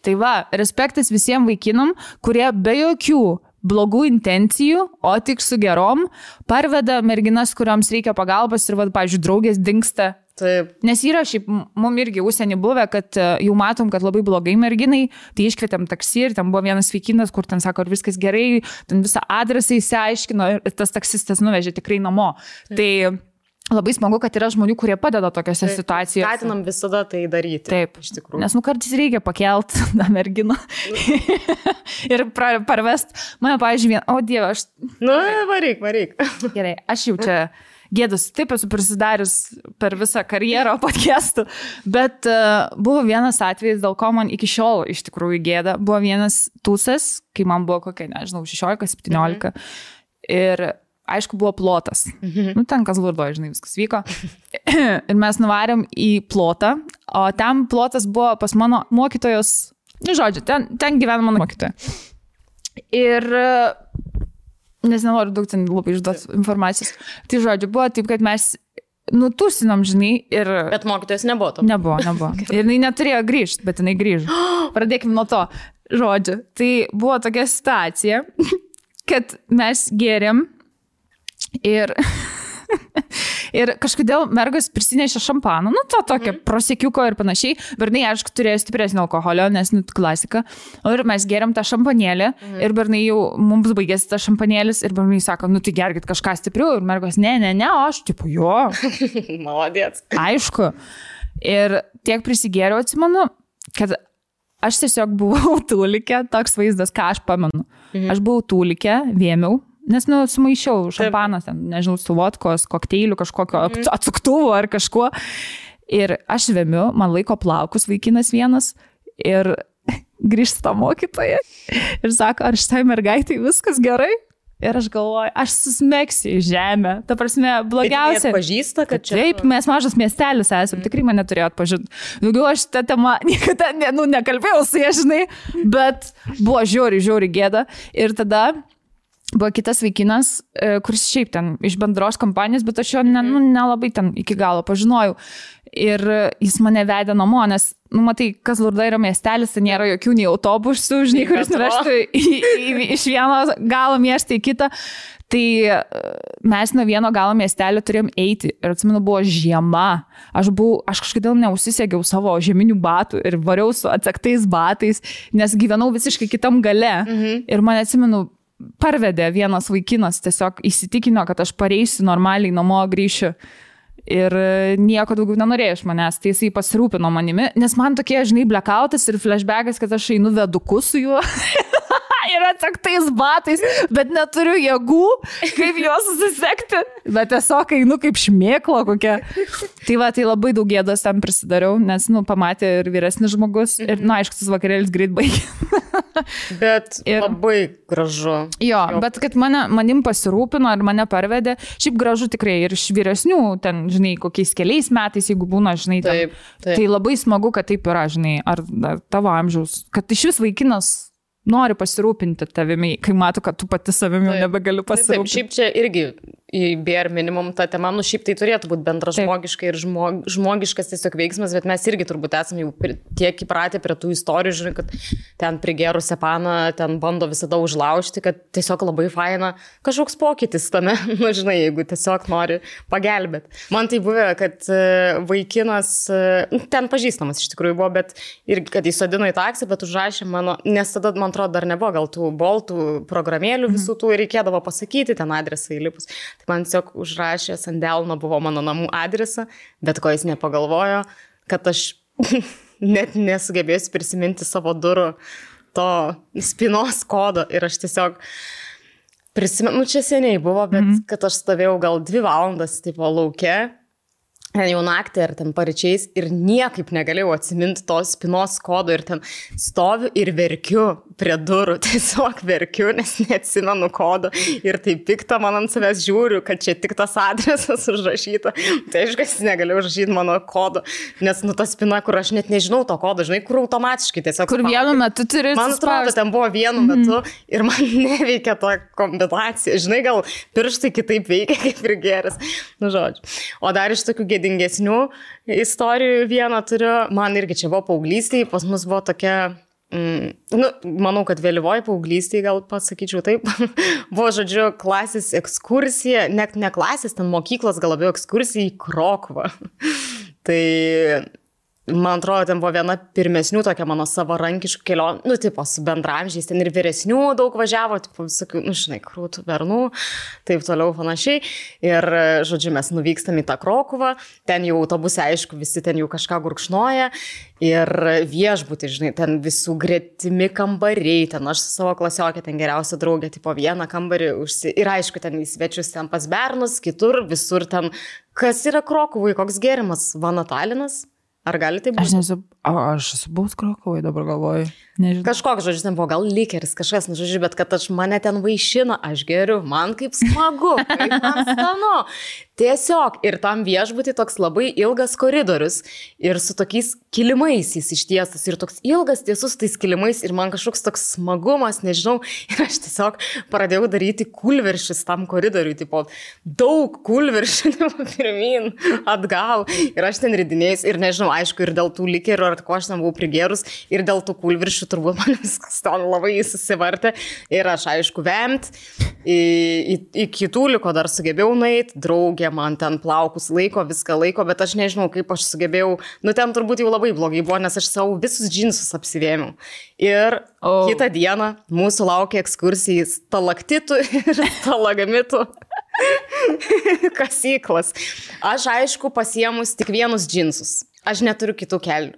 Tai va, respektas visiems vaikinam, kurie be jokių blogų intencijų, o tik su gerom, parveda merginas, kuriams reikia pagalbos ir, pavyzdžiui, draugės dingsta. Taip. Nes yra šiaip, mum irgi užsienį buvę, kad jau matom, kad labai blogai merginai, tai iškvietėm taksi ir ten buvo vienas vaikinas, kur ten sako, ar viskas gerai, ten visą adresą įsiaiškino ir tas taksistas nuvežė tikrai namo. Taip. Tai labai smagu, kad yra žmonių, kurie padeda tokiose situacijose. Skatinam visada tai daryti. Taip, iš tikrųjų. Nes kartais reikia pakelt tą merginą ir parvest. Mane, pavyzdžiui, o Dieve, aš... Varyk. Gerai, aš jau čia gėdas, taip esu prisidarius per visą karjerą podcastų, bet buvo vienas atvejis, dėl ko man iki šiol iš tikrųjų gėda. Buvo vienas tūsas, kai man buvo kokia, nežinau, 16-17 ir aišku, buvo plotas. Ten Kazlurdoje, žinai, viskas vyko. Ir mes nuvarėm į plotą, o ten plotas buvo pas mano mokytojos, žodžiu, ten gyvena mano mokytoja. Ir, nes nenoriu daug ten labai išduoti informacijos, tai žodžiu, buvo taip, kad mes nutusinom, žinai, ir... Bet mokytojas nebuvo to. Nebuvo. Ir jinai neturėjo grįžti, bet jinai grįžo. Pradėkime nuo to, žodžiu. Tai buvo tokia situacija, kad mes gėrėm ir kažkodėl mergas prisinešė šampaną, to tokio prosiekiuko ir panašiai, bernai, aišku, turėjo stipresnį alkoholio, nes klasika, ir mes geriam tą šampanėlį ir bernai jau mums baigėsi tas šampanėlis ir bernai sako, tai gerkit kažką stipriau ir mergas, ne, o aš, tipo, jo. Maladėts. Aišku. Ir tiek prisigėriau, atsimenu, kad aš tiesiog buvau tūlikė, toks vaizdas, ką aš pamenu. Aš buvau tūlikė, vėmiau, nes, sumaišiau šampanas, nežinau, su vodkos, kokteilių, kažkokio atsuktuvo ar kažkuo. Ir aš vėmiu, man laiko plaukus vaikinas vienas ir grįžta mokytoja ir sako, ar šitai mergaitai viskas gerai? Ir aš galvoju, aš susmegsiu į žemę. Ta prasme, blogiausia. Bet pažįsta, kad čia... Taip, mes mažas miestelis esam, tikrai mane turėjo atpažinti. Daugiau aš tą temą niekada nekalbėjau su jie, žinai, bet buvo žiauri gėda. Ir tada buvo kitas vaikinas, kuris šiaip ten iš bendros kompanijos, bet aš jo nelabai ten iki galo pažinojau. Ir jis mane vedė namo, nes, matai, Kazlurda yra miestelis, tai nėra jokių nei autobusų, žinai, kuris nuvežtų iš vieno galo miestą į kitą. Tai mes nuo vieno galo miestelio turėjom eiti. Ir atsimenu, buvo žiema. Aš kažkodėl neužsisegiau savo žieminių batų ir variau su atsaktais batais, nes gyvenau visiškai kitam gale. Ir man, atsimenu, parvedė vienas vaikinas, tiesiog įsitikino, kad aš pareisiu normaliai namo, grįšiu ir nieko daugiau nenorėjo iš manęs, tai jisai pasirūpino manimi, nes man tokie, žinai, blackoutas ir flashbackas, kad aš einu veduku su juo ir atsaktais batais, bet neturiu jėgų, kaip juos susisekti, bet tiesiog einu kaip šmėklo kokia. Tai tai labai daug gėdos tam prisidariau, nes, pamatė ir vyresnis žmogus ir, aišku, tas vakarėlis greit baigė. Bet labai gražu. Jo, bet kad manim pasirūpino ir mane parvedė, šiaip gražu tikrai ir iš vyresnių, ten, žinai, kokiais keliais metais, jeigu būna, žinai, taip. Tai labai smagu, kad taip yra, žinai, ar tavo amžiaus, kad iš vis vaikinas nori pasirūpinti tavimi, kai mato, kad tu pati savimi jau nebegaliu pasirūpinti. Taip, šiaip čia irgi į bare minimum tą temą, šiaip tai turėtų būti bendražmogiška ir žmogiškas tiesiog veiksmas, bet mes irgi turbūt esame jau tiek įpratę prie tų istorijų, žinai, kad ten prigerus sepaną, ten bando visada užlaužti, kad tiesiog labai faina kažkoks pokytis tame, žinai, jeigu tiesiog nori pagelbėti. Man tai buvo, kad vaikinas, ten pažįstamas iš tikrųjų buvo, bet ir kad įsodino į taksį, bet užrašė mano, nes tada, man atrodo, dar nebuvo gal tų boltų programėlių visų tų ir reikėdavo pasakyti ten adresą įlipus. Tai man tiesiog užrašė ant delno buvo mano namų adresą, bet ko jis nepagalvojo, kad aš net nesugebėsiu prisiminti savo durų to spynos kodo ir aš tiesiog prisimenu, čia seniai buvo, bet kad aš stovėjau gal 2 valandas tipo lauke, ten jau naktį ar ten paryčiais ir niekaip negalėjau atsiminti to spynos kodo ir ten stoviu ir verkiu prie durų, tiesiog verkiu, nes neatsimenu kodo ir tai pikta man ant savęs žiūriu, kad čia tik tas adresas užrašyta. Tai aišku, negalėjau užrašyti mano kodo, nes ta spyna, kur aš net nežinau to kodo, žinai, kur automatiškai tiesiog. Kur vienu metu turi. Man atrodo, ten buvo vienu metu ir man neveikia ta kombinacija. Žinai, gal pirštai kitaip veikia kaip ir geras. Žodžiu. O dar iš tokių gėdingesnių istorijų vieną turiu. Man irgi čia buvo paauglystėje, pas mus buvo tokia... manau, kad vėlyvoji paauglystėje, gal pasakyčiau taip, buvo, žodžiu, klasės ekskursija, net ne klasės, ten mokyklos gal labiau ekskursija į Krokuvą. Tai man atrodo, ten buvo viena pirmesnių tokia mano savarankiškų kelionių, nu, tipo, su bendramžiais, ten ir vyresnių daug važiavo, tipo, visokių, nu, žinai, krūtų bernų, taip toliau panašiai. Ir, žodžiu, mes nuvykstam į tą Krokuvą, ten jau autobuse, aišku, visi ten jau kažką gurkšnoja. Ir viešbutį, žinai, ten visų gretimi kambariai, ten aš su savo klasiokė, ten geriausia draugė, tipo, vieną kambarį ir aišku, ten į svečius ten pas bernus, kitur, visur ten, kas yra Krokuvai, koks gėrimas, Vanatalinas? Ar gali tai būti? Aš esu buvus Krokuvai, dabar galvoju. Nežinau. Kažkoks, žodžiu, ten buvo gal likeris, kažkas, nu, žodžiu, bet kad mane ten vaišina, aš geriu, man kaip smagu, kaip man skanu. Tiesiog, ir tam viešbutį toks labai ilgas koridorius ir su tokiais kilimais jis ištiestas ir toks ilgas tiesus tais kilimais ir man kažkoks toks smagumas, nežinau, ir aš tiesiog pradėjau daryti kulveršis tam koridoriui, tipo, daug kulveršių, pirmin, atgal ir aš ten ridinėjus ir nežinau, aišku, ir dėl tų likerių, ar ko aš ten buvau prigėrus ir dėl tų kulveršių turbūt man viskas ten labai susivartė ir aš, aišku, vemt, į kitų liko dar sugebėjau nueiti, draugė man ten plaukus laiko, viską laiko, bet aš nežinau, kaip aš sugebėjau, nu ten turbūt jau labai blogai buvo, nes aš savo visus džinsus apsivėmiau. Ir kitą dieną mūsų laukia ekskursija į stalaktitų ir stalagmitų kasyklas. Aš, aišku, pasiemus tik vienus džinsus. Aš neturiu kitų kelnių.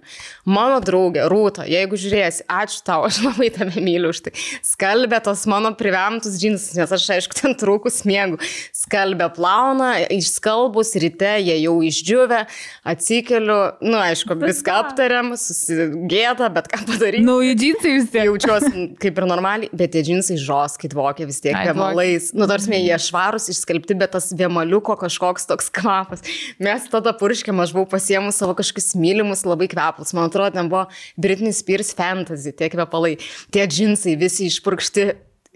Mano draugė, Rūta, jeigu žiūrėsi, ačiū tau, aš labai tave myliu už tai. Skalbė tos mano privemtus džinsus, nes aš, aišku, ten trūkus miegu. Skalbė plauna, išskalbus, ryte jie jau išdžiuvę, atsikeliu, nu, aišku, viską aptariam, susigėda, bet ką padaryti. Nauji džinsai vis tiek. Jaučiuosi kaip ir normaliai, bet tie džinsai žoskit vokia vis tiek vėmalais. Nu, tarsime, jie švarus, išskalbti, bet tas vėmaliuko kažkoks toks kvapas. Mes tada purškėm, aš buvau pasiemus savo kažkokius mylimus labai kvepalus. Man atrodo, ten buvo Britney Spears Fantasy, tie kvepalai, tie džinsai visi išpurkšti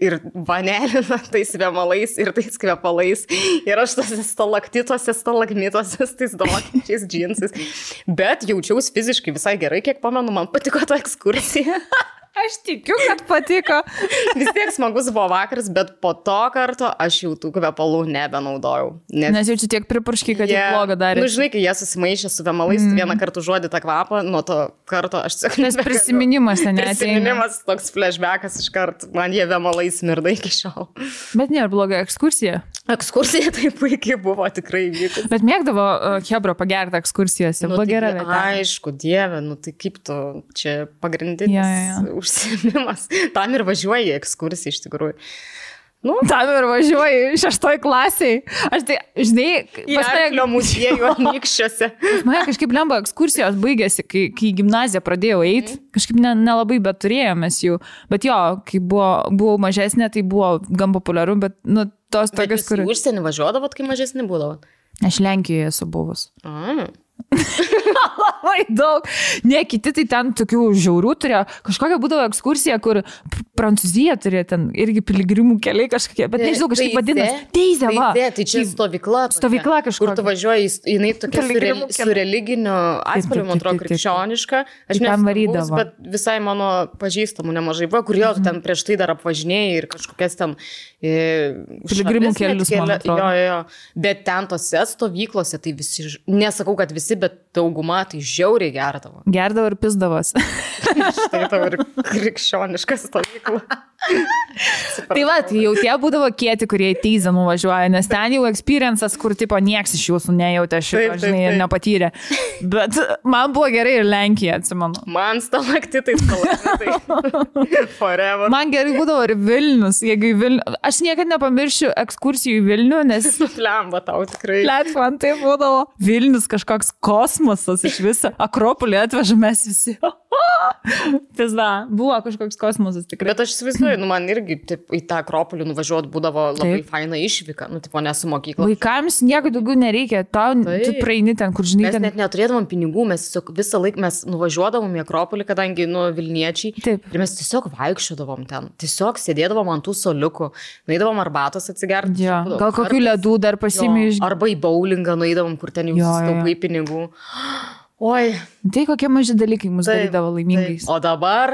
ir vanelina tais vėmalais ir tais kvepalais. Ir aš tose stalaktituose, stalagmituose, tais dolokinčiais džinsais. Bet jaučiausi fiziškai visai gerai, kiek pamenu, man patiko ta ekskursija. Aš tikiu, kad patiko. Vis tiek smagus buvo vakaras, bet po to karto aš jau tų kvepalų nebenaudojau. Nes jau čia tiek pripurškiai, kad jau blogą darė. Nu, žinai, kai jie susimaišė su vėmalais, vieną kartą užuodė tą kvapą, nuo to karto aš tiesiog... Nes prisiminimas ten neateina. Prisiminimas, toks flashbackas iš karto, man jie vėmalais mirda iki šiol. Bet nėra bloga ekskursija. Ekskursija tai puikiai buvo, tikrai vykus. Bet mėgdavo Hebro pagerti ekskursijose, buvo gera vieta. Aišku, dieve, nu tai kaip tu, čia pagrindinis užsiėmimas. Tam ir važiuoji į ekskursiją iš tikrųjų. Nu, tam ir važiuoji 6 klasiai. Aš tai, žinai, į Arklio muziejų Anykščiuose. Mane kažkaip lemba ekskursijos baigėsi, kai į gimnaziją pradėjau eiti. Kažkaip nelabai bet turėjomės jų. Bet jo, kai buvau mažesnė, tai buvo gan populiaru, bet, nu, tos tokios, kur... Bet jūs užsienį važiuodavot, kai mažesnė būdavot? Aš Lenkijoje esu buvus. Labai daug. Ne, kiti tai ten tokių žiaurių turėjo. Kažkokia būdavo ekskursija, kur Prancūzija turėjo ten irgi piligrimų keliai kažkokie, bet nežinau, kažkaip vadinasi. Teizė, va. Tai čia stovykla. Stovykla kažkur. Kur tu važiuoji, jinai tokia su religiniu atspalviu, man atrodo, krikščioniška. Aš nesu, bet visai mano pažįstamų nemažai buvo, kur jau ten prieš tai dar apvažinėjai ir kažkokias ten piligrimų kelius, man atrodo. Jo. Bet ten tose stovyklose, tai visi, nesakau, kad visi, bet dauguma tai žiauriai gerdavo. Gerdavo ir pisdavos. Štai tavo ir krikščioniška stovykla. Tai va, tai jau tie būdavo kieti, kurie į Teizę nuvažiuoja, nes ten jau experiences, kur tipo nieks iš jūsų nejautė šito, žinai, ir nepatyrė. Bet man buvo gerai ir Lenkija, atsimenu. Man stalaktitai. Forever. Man gerai būdavo ir Vilnius, jeigu į Vilnių. Aš niekada nepamiršiu ekskursijų į Vilnių, nes... Lemba tau tikrai. Man tai būdavo Vilnius kažkoks kosmosas iš viso. Akropolį atvežamės visi. Pizda, buvo kažkoks kosmosas tikrai. Bet aš įsivaizduoju, nu man irgi taip, į tą Akropolį nuvažiuot būdavo labai faina išvyka, nu tipo nesu mokykla. Vaikams nieko daugiau nereikia, tu praeini ten, kur žinai. Mes net neturėdavom pinigų, mes visą laiką mes nuvažiuodavom į Akropolį, kadangi nu Vilniečiai. Taip. Ir mes tiesiog vaikščiodavom ten, tiesiog sėdėdavom ant tų soliukų, nueidavom arbatos atsigerti. Ja. Gal kokių ledų dar pasiėmė iš... Arba į bowlingą nueidavom, kur ten jau sustaupai pinigų. Oi. Tai kokie maži dalykai mus darydavo laimingais. O dabar,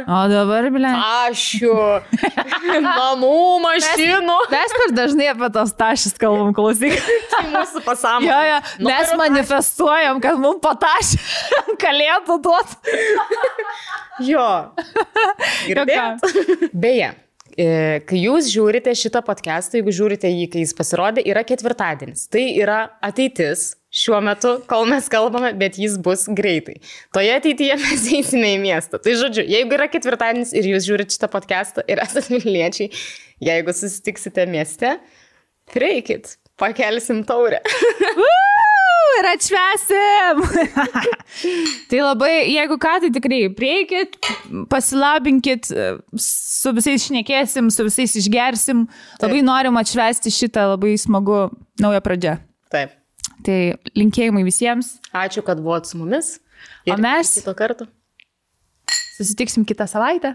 bile. Ašių, namų, mašinų. Mes per dažnai apie tos tašis kalbam, klausyk. Tai mūsų pasąmonė. Jo, mes manifestuojam, kad mums patašį kalėtų duoti. Jo. Beje, kai jūs žiūrite šitą podcastą, jeigu žiūrite jį, kai jis pasirodė, yra ketvirtadienis. Tai yra ateitis šiuo metu, kol mes kalbame, bet jis bus greitai. Toje ateityje mes eisime į miestą. Tai žodžiu, jeigu yra ketvirtadienis ir jūs žiūrite šitą podcastą ir esate Vilniečiai, jeigu susitiksite mieste, prieikit, pakelsim taurę. Ir atšvesim. Tai labai, jeigu ką, tai tikrai prieikit, pasilabinkit, su visais šnekėsim, su visais išgersim. Labai norim atšvesti šitą labai smagu naują pradžią. Taip. Tai linkėjimai visiems. Ačiū, kad buvot su mumis. O mes kito karto susitiksim kitą savaitę.